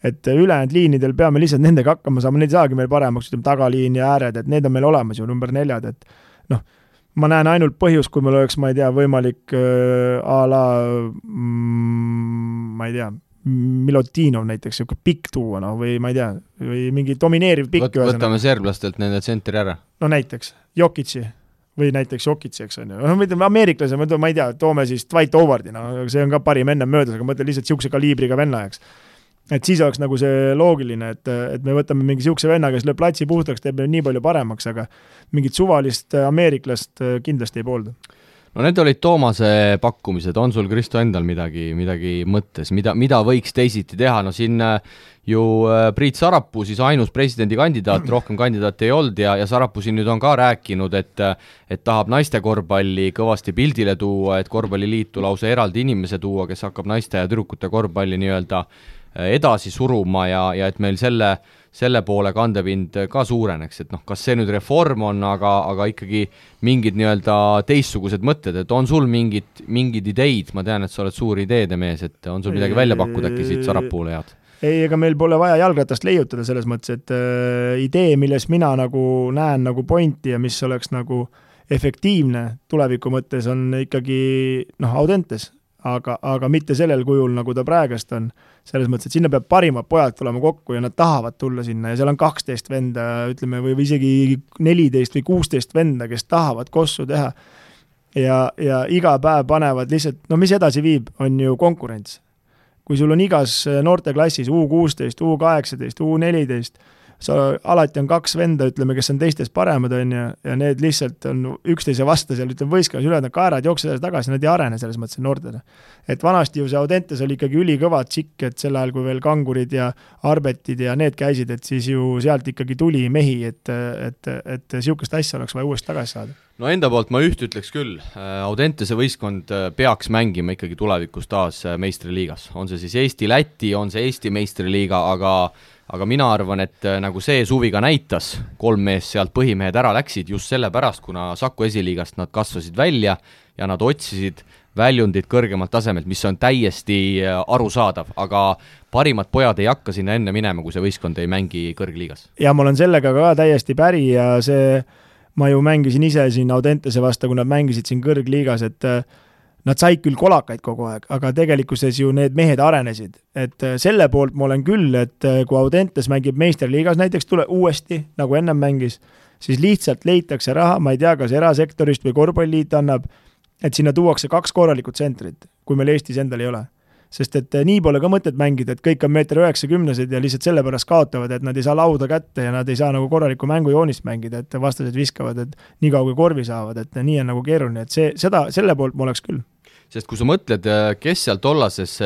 S3: Et ülejäänud liinidel peame lihtsalt nendega hakkama saama, neid saagi meil paremaks, ütleme tagaliin ja ääred, et need on meil olemas ju, number 4, et ma näen ainult põhjus, kui meil oleks, ma ei tea, võimalik a la, ma ei tea, Milotinov näiteks, siuke pikk tuua, või ma ei tea, või mingi domineeriv pikk.
S2: Võtame serblastelt nende tsentri ära.
S3: No näiteks, Jokitsi või näiteks Jokitsi, eks on ju. Ameeriklase, ma ei tea, toome siis Dwight Howardi, see on ka parim enne möödas, aga mõtle lihtsalt siukse kaliibriga venna, eks. Et siis oleks nagu see loogiline, et me võtame mingi siukse venna, kes lööb platsi puhtaks, teeb nii palju paremaks, aga mingit suvalist ameeriklast kindlasti ei poolda.
S2: No need olid Toomase pakkumised, on sul Kristo endal midagi mõttes, mida võiks teisiti teha, no siin ju Priit Sarapuu, siis ainus presidendikandidaat, rohkem kandidaat ei olnud ja Sarapuu siin nüüd on ka rääkinud, et tahab naiste korvpalli kõvasti pildile tuua, et korvpalliliitu lausa eraldi inimese tuua, kes hakkab naiste ja tüdrukute korvpalli nii-öelda edasi suruma ja et meil selle poole kandepind ka suureneks, et kas see nüüd reform on, aga ikkagi mingid nii-öelda teistsugused mõtted, et on sul mingid ideid, ma tean, et sa oled suur ideede mees, et on sul midagi välja pakkuda äkki siit Sarapuule head?
S3: Ei, ega meil pole vaja jalgratast leiutada selles mõttes, et idee, milles mina nagu näen nagu pointi ja mis oleks nagu efektiivne tuleviku mõttes on ikkagi Audentes, aga mitte sellel kujul, nagu ta praegast on. Selles mõttes, et sinna peab parimad pojad tulema kokku ja nad tahavad tulla sinna ja seal on 12 venda, ütleme, või isegi 14 või 16 venda, kes tahavad kossu teha. Ja iga päev panevad lihtsalt, mis edasi viib, on ju konkurents. Kui sul on igas noorteklassis U16, U18, U14, alati on 2 venda, ütleme, kes on teistest paremad, ja need lihtsalt on üksteise vasta seal, ütleme, võistkas üle, nad kaerad jooksevad tagasi, nad ei arene selles mõttes noortele. Et vanasti ju see Audentes oli ikkagi ülikõva tšikk, et sel ajal, kui veel kangurid ja arbetid ja need käisid, et siis ju sealt ikkagi tuli mehi, et siukest asja oleks vaja uuesti tagasi saada.
S2: No enda poolt ma ütleks küll, Audentese võistkond peaks mängima ikkagi tulevikus taas meistriliigas. On see siis Eesti-Läti, on see Eesti meistriliiga, aga mina arvan, et nagu see suvi ka näitas, 3 mees sealt põhimehed ära läksid just sellepärast, kuna Saku esiliigast nad kasvasid välja ja nad otsisid väljundid kõrgemalt tasemelt, mis on täiesti arusaadav, aga parimad pojad ei hakka sinna enne minema, kui see võistkond ei mängi kõrgliigas.
S3: Ja ma olen sellega ka täiesti päri ja ma ju mängisin ise siin Audentese vastu, kui nad mängisid siin kõrgliigas, et nad said küll kolakaid kogu aeg, aga tegelikkuses ju need mehed arenesid. Et selle poolt ma olen küll, et kui Audentes mängib meisterliigas näiteks uuesti, nagu ennem mängis, siis lihtsalt leitakse raha, ma ei tea, kas erasektorist või korvpalliliit annab, et sinna tuuakse 2 korralikut tsentrit, kui meil Eestis endal ei ole. Sest et nii pole ka mõtet mängida, et kõik on 1,90 m ja lihtsalt sellepärast kaotavad, et nad ei saa lauda kätte ja nad ei saa nagu korralikku mängujoonist mängida, et vastased viskavad, et nii kaua kui korvi saavad, et nii on nagu keeruline, et selle poolt ma oleks küll.
S2: Sest kui sa mõtled, kes seal tollases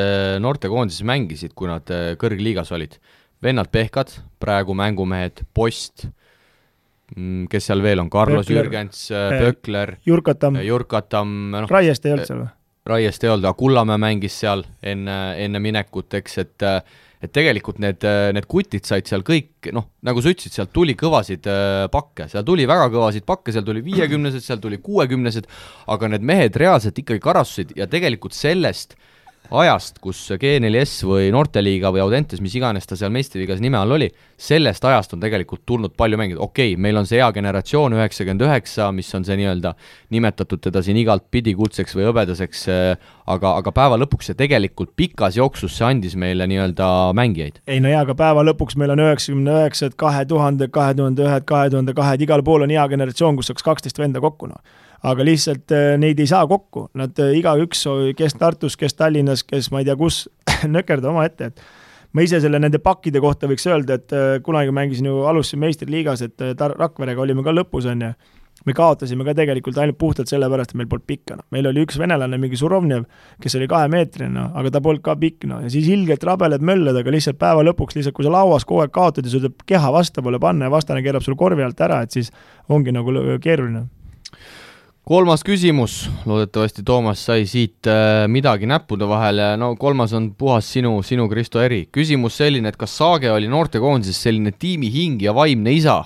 S2: noortekoondises mängisid, kui nad kõrgliigas olid, vennad Pehkad, praegu mängumehed, Post, kes seal veel on, Carlos Pökler, Jürgens, Pökler, Jurkatam
S3: Raiest ei olnud seal või?
S2: Raiest ei olnud, aga Kullamäe mängis seal enne minekut, eks, et tegelikult need kutid said seal kõik, nagu sa ütlesid, sealt tuli kõvasid pakke, seal tuli väga kõvasid pakke, seal tuli 50-sed, seal tuli 60-sed, aga need mehed reaalselt ikkagi karassusid ja tegelikult sellest ajast, kus G4S või Noorteliiga või Audentes, mis iganes ta seal meistriliigas nime all oli, sellest ajast on tegelikult tulnud palju mängida. Okei, meil on see hea generatsioon 99, mis on see nii-öelda nimetatud teda siin igalt pidi kuldseks või hõbedaseks, aga päeva lõpuks see tegelikult pikas jooksus see andis meile nii-öelda mängijaid.
S3: Ei no jaa, aga päeva lõpuks meil on 99, 2000, 2001, 2002, igal pool on hea generatsioon, kus saaks 12 venda kokku. Aga lihtsalt neid ei saa kokku, nad igaüks, kes Tartus, kes Tallinnas, kes ma ei tea kus, nökerda oma ette, et ma ise selle nende pakkide kohta võiks öelda, et kunagi mängisin ju alustasin meistriliigas, et Rakverega olime ka lõpus on ja me kaotasime ka tegelikult ainult puhtalt selle pärast, et meil polnud pikka. Meil oli üks venelane, mingi Surovnev, kes oli 2-meetrine, aga ta polnud ka pikk. Ja siis ilgelt rabeled mölled, aga lihtsalt päeva lõpuks, lihtsalt kui sa lauas kogu aeg kaotad ja sul tuleb keha vasta poole panna ja vastane keerab sul korvi alt ära, et siis ongi nagu keeruline.
S2: 3. küsimus, loodetavasti Toomas sai siit midagi näppude vahele, no 3. on puhas sinu Kristo eri. Küsimus selline, et kas Saage oli noortekoondises selline tiimi hing ja vaimne isa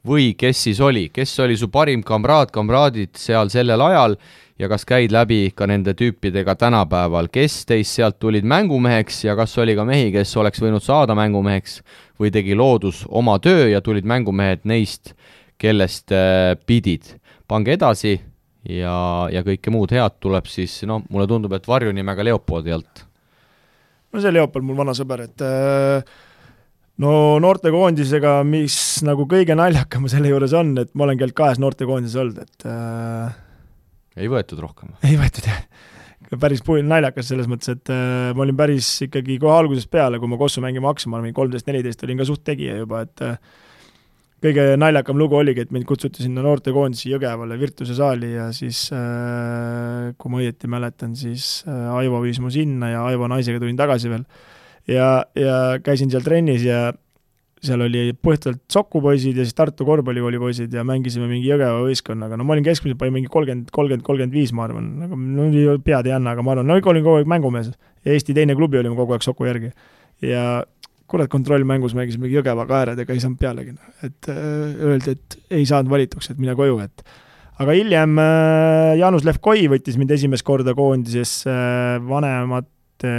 S2: või kes siis oli su parim kamraadid seal sellel ajal ja kas käid läbi ka nende tüüpidega tänapäeval, kes teist sealt tulid mängumeheks ja kas oli ka mehi, kes oleks võinud saada mängumeheks või tegi loodus oma töö ja tulid mängumehed neist, kellest pidid. Pange edasi ja kõike muud head tuleb siis, mulle tundub, et varjunimega Leopoldi alt.
S3: No see Leopold mul vana sõber, et noortekoondisega, mis nagu kõige naljakam selle juures on, et ma olen keelt 2 noortekoondises olnud, et
S2: ei võetud rohkem?
S3: Ei võetud, jah. Päris naljakas selles mõttes, et ma olin päris ikkagi kohe algusest peale, kui ma Kossu mängima hakkasin, ma olin 13-14, olin ka suht tegija juba, et kõige naljakam lugu oligi, et mind kutsuti sinna noortekoondisi Jõgevale Virtuse saali ja siis, kui ma õieti mäletan, siis Aivo viis mu sinna ja Aivo naisega tulin tagasi veel. Ja käisin seal trennis ja seal oli põhjalt Sokupoisid ja siis Tartu korvpallikooli poisid ja mängisime mingi Jõgeva võistkonnaga. No ma olin keskmiselt mingi 30-35, ma arvan. Pead ei anna, aga ma arvan, olin kogu aeg mängumees. Ja Eesti teine klubi olime kogu aeg Soku järgi. Ja kurat kontrollmängus mängisime Jõgeva kääredega, ei saanud pealegi. Et öeldi, et ei saanud valituks, et mine koju. Aga hiljem Jaanus Levkoi võttis mind esimest korda koondises vanemate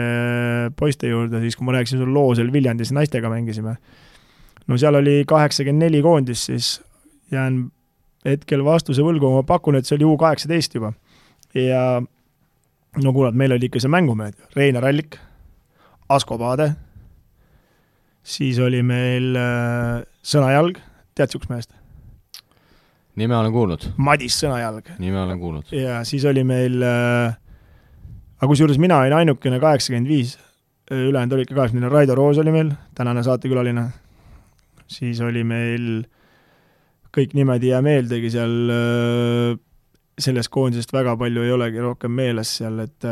S3: poiste juurde, siis kui ma rääkisin sul loo seal Viljandis naistega mängisime. No seal oli 84 koondis, siis jään hetkel vastuse võlgu, ma pakun, et see oli U18 juba. Ja no kurat, meil oli ikka see mängumehed. Reinar Allik, Asko Paade, siis oli meil Sõnajalg, tead siuks mehest?
S2: Nime olen kuulnud.
S3: Madis Sõnajalg.
S2: Nime olen kuulnud.
S3: Ja siis oli meil, aga kusjuures mina olin ainukene 85, ülejäänud oli ikka 80, Raido Roos oli meil, tänane saatekülaline. Siis oli meil kõik nimed ja meeldegi seal, sellest koondisest väga palju ei olegi rohkem meeles seal, et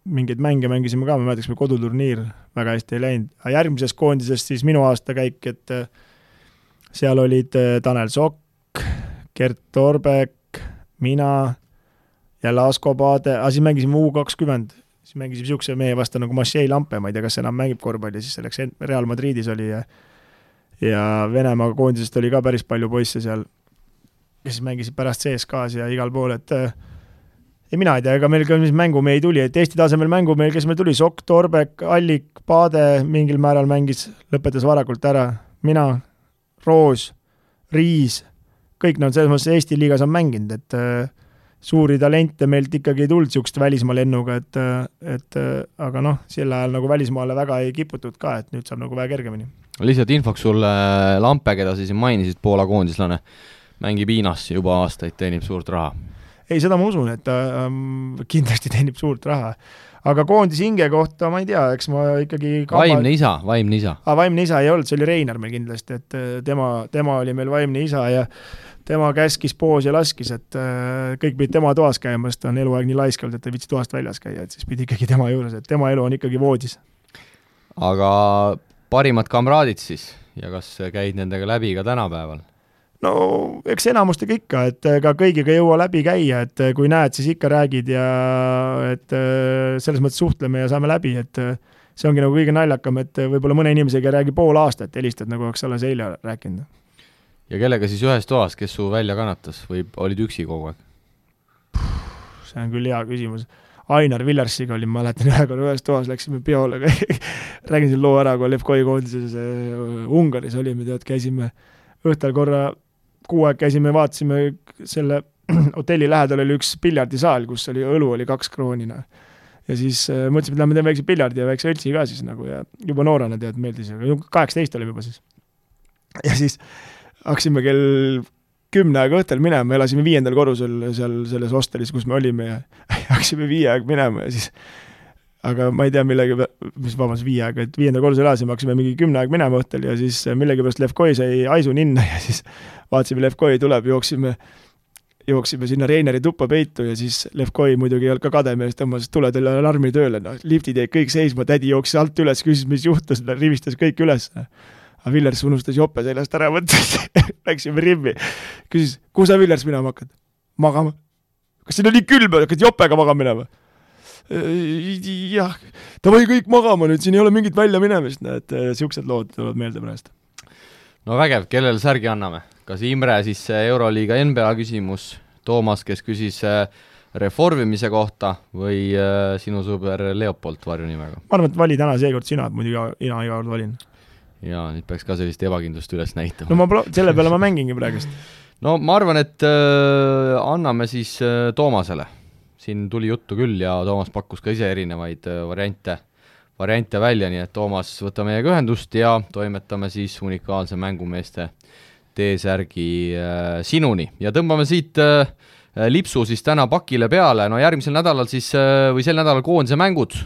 S3: mingeid mänge mängisime ka, me mäletasime koduturniir, väga hästi ei läinud. Aga järgmises koondisest siis minu aastakäik, et seal olid Tanel Sokk, Gert Torbek, mina, jälle Asko Paade, aga siis mängisime U20, siis mängisime siukse mehe vastu nagu Maciej Lampe, ma ei tea, kas enam mängib korvpalli, siis selleks Real Madridis oli ja Venemaa koondisest oli ka päris palju poisse seal, kes mängisid pärast CSKs ja igal pool, et ei, mina ei tea, ega meil ka mis mängumehi tuli, et Eesti tasemel mängumehi, kes meil tuli, Sokk, Torbek, Allik, Paade mingil määral mängis, lõpetas varakult ära, mina, Roos, Riis, kõik nad selles mõttes Eesti liigas on mänginud, et suuri talente meilt ikkagi ei tulnud siukest välismaa lennuga, et aga noh, sel ajal nagu välismaale väga ei kiputud ka, et nüüd saab nagu väga kergemini.
S2: Lihtsalt infoks sulle Lampe, keda siis mainisid, Poola koondislane, mängib Hiinas juba aastaid, teenib suurt raha.
S3: Ei, seda ma usun, et ta kindlasti teenib suurt raha. Aga koondis hinge kohta, ma ei tea, eks ma ikkagi...
S2: Vaimne isa.
S3: Vaimne isa ei olnud, see oli Reinar meil kindlasti, et tema oli meil vaimne isa ja tema käskis poos ja laskis, et kõik pidi tema toas käima, sest ta on eluaeg nii laiskald, et ta viitsi toast väljas käia, et siis pidi ikkagi tema juures, et tema elu on ikkagi voodis.
S2: Aga parimad kamraadid siis ja kas käid nendega läbi ka tänapäeval?
S3: No eks enamustega ikka, et ka kõigiga ei jõua läbi käia, et kui näed, siis ikka räägid ja et selles mõttes suhtleme ja saame läbi, et see ongi nagu kõige naljakam, et võib-olla mõne inimesega räägi pool aastat, helistad nagu oleks alles eile rääkinud.
S2: Ja kellega siis ühes toas, kes su välja kannatas või olid üksi kogu aeg?
S3: See on küll hea küsimus. Ainar Villersiga olin, ma mäletan ühe korra ühes toas, läksime peole, räägin siin loo ära, kui Levkoi koondises Ungaris olime, käisime õhtal korra 6 aeg käisime, vaatasime selle hotelli lähedal oli üks piljardisaal, kus oli õlu oli 2 kroonina. Ja siis mõtlesime, et lähme teeme väikse piljardi ja väikse õltsi ka siis nagu ja juba noorena tead meeldis, aga 18 olime juba siis. Ja siis haksime kell 10 aega õhtel minema, me elasime 5. korrusel seal selles hostelis, kus me olime ja haksime 5 aeg minema ja siis aga ma ei tea millegi, mis 5 aega, et 5. korrusel elasime, haksime mingi 10 aeg minema õhtel ja siis millegi pärast Levkoi sai aisu ninna ja siis vaatasime, Levkoi tuleb, jooksime sinna Reineri tuppa peitu ja siis Levkoi muidugi ei olnud ka kademees, tõmbas tuledel alarmi tööle, liftid jäid kõik seisma, tädi jooksis alt üles, küsis, mis juhtus, rivistas kõik üles. Aga Villers unustas jope seljast ära võttes, läksime rimmi. Küsis, kuhu sa Villers minema hakkad? Magama. Kas siin on nii külm, hakkad jopega magama minema? Jah, ta või kõik magama nüüd, siin ei ole mingit välja minemist, et siuksed lood tulevad meelde pärast.
S2: No vägev, kellele särgi anname? Kas Imre siis Euroliiga NBA küsimus, Toomas, kes küsis reformimise kohta või sinu sõber Leopold varjunimega?
S3: Ma arvan, et vali täna seekord sina, muidu ina iga kord valin.
S2: Ja nüüd peaks ka sellist ebakindlust üles näitama.
S3: No selle peale ma mängingi praegust.
S2: No ma arvan, et anname siis Toomasele. Siin tuli juttu küll ja Toomas pakkus ka ise erinevaid variante välja, nii et Toomas võta meiega ühendust ja toimetame siis unikaalse mängumeeste T-särgi sinuni. Ja tõmbame siit lipsu siis täna pakile peale. No järgmisel nädalal siis, või sel nädalal koondise mängud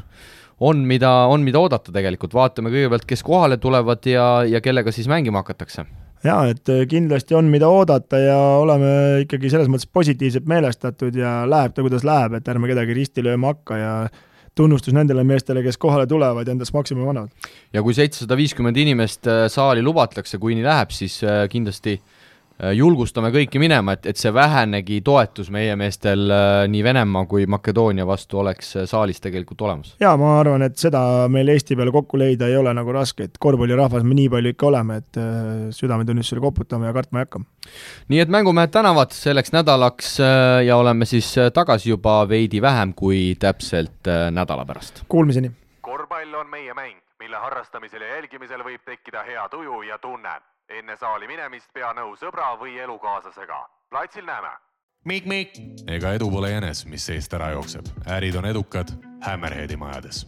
S2: on mida oodata tegelikult. Vaatame kõigepealt, kes kohale tulevad ja kellega siis mängima hakatakse.
S3: Jaa, et kindlasti on mida oodata ja oleme ikkagi selles mõttes positiivselt meelestatud ja läheb ta, kuidas läheb, et ärme kedagi risti lööma hakka ja tunnustus nendele meestele, kes kohale tulevad ja endast maksimumi annavad.
S2: Ja kui 750 inimest saali lubatakse, kui nii läheb, siis kindlasti julgustame kõiki minema, et see vähenegi toetus meie meestel nii Venemaa kui Makedoonia vastu oleks saalis tegelikult olemas.
S3: Jaa, ma arvan, et seda meil Eesti peale kokku leida ei ole nagu raske, et korvpallirahvas me nii palju ikka oleme, et südametunnistusele koputame ja kartma ei hakka.
S2: Nii et mängumehed tänavad selleks nädalaks ja oleme siis tagasi juba veidi vähem kui täpselt nädala pärast.
S3: Kuulmiseni!
S1: Korvpall on meie mäng, mille harrastamisel ja jälgimisel võib tekkida hea tuju ja tunne. Enne saali minemist pea nõu sõbra või elukaaslasega. Platsil näeme. Mik. Ega edu pole jänes, mis seest ära jookseb. Ärid on edukad Hammerheadi majades.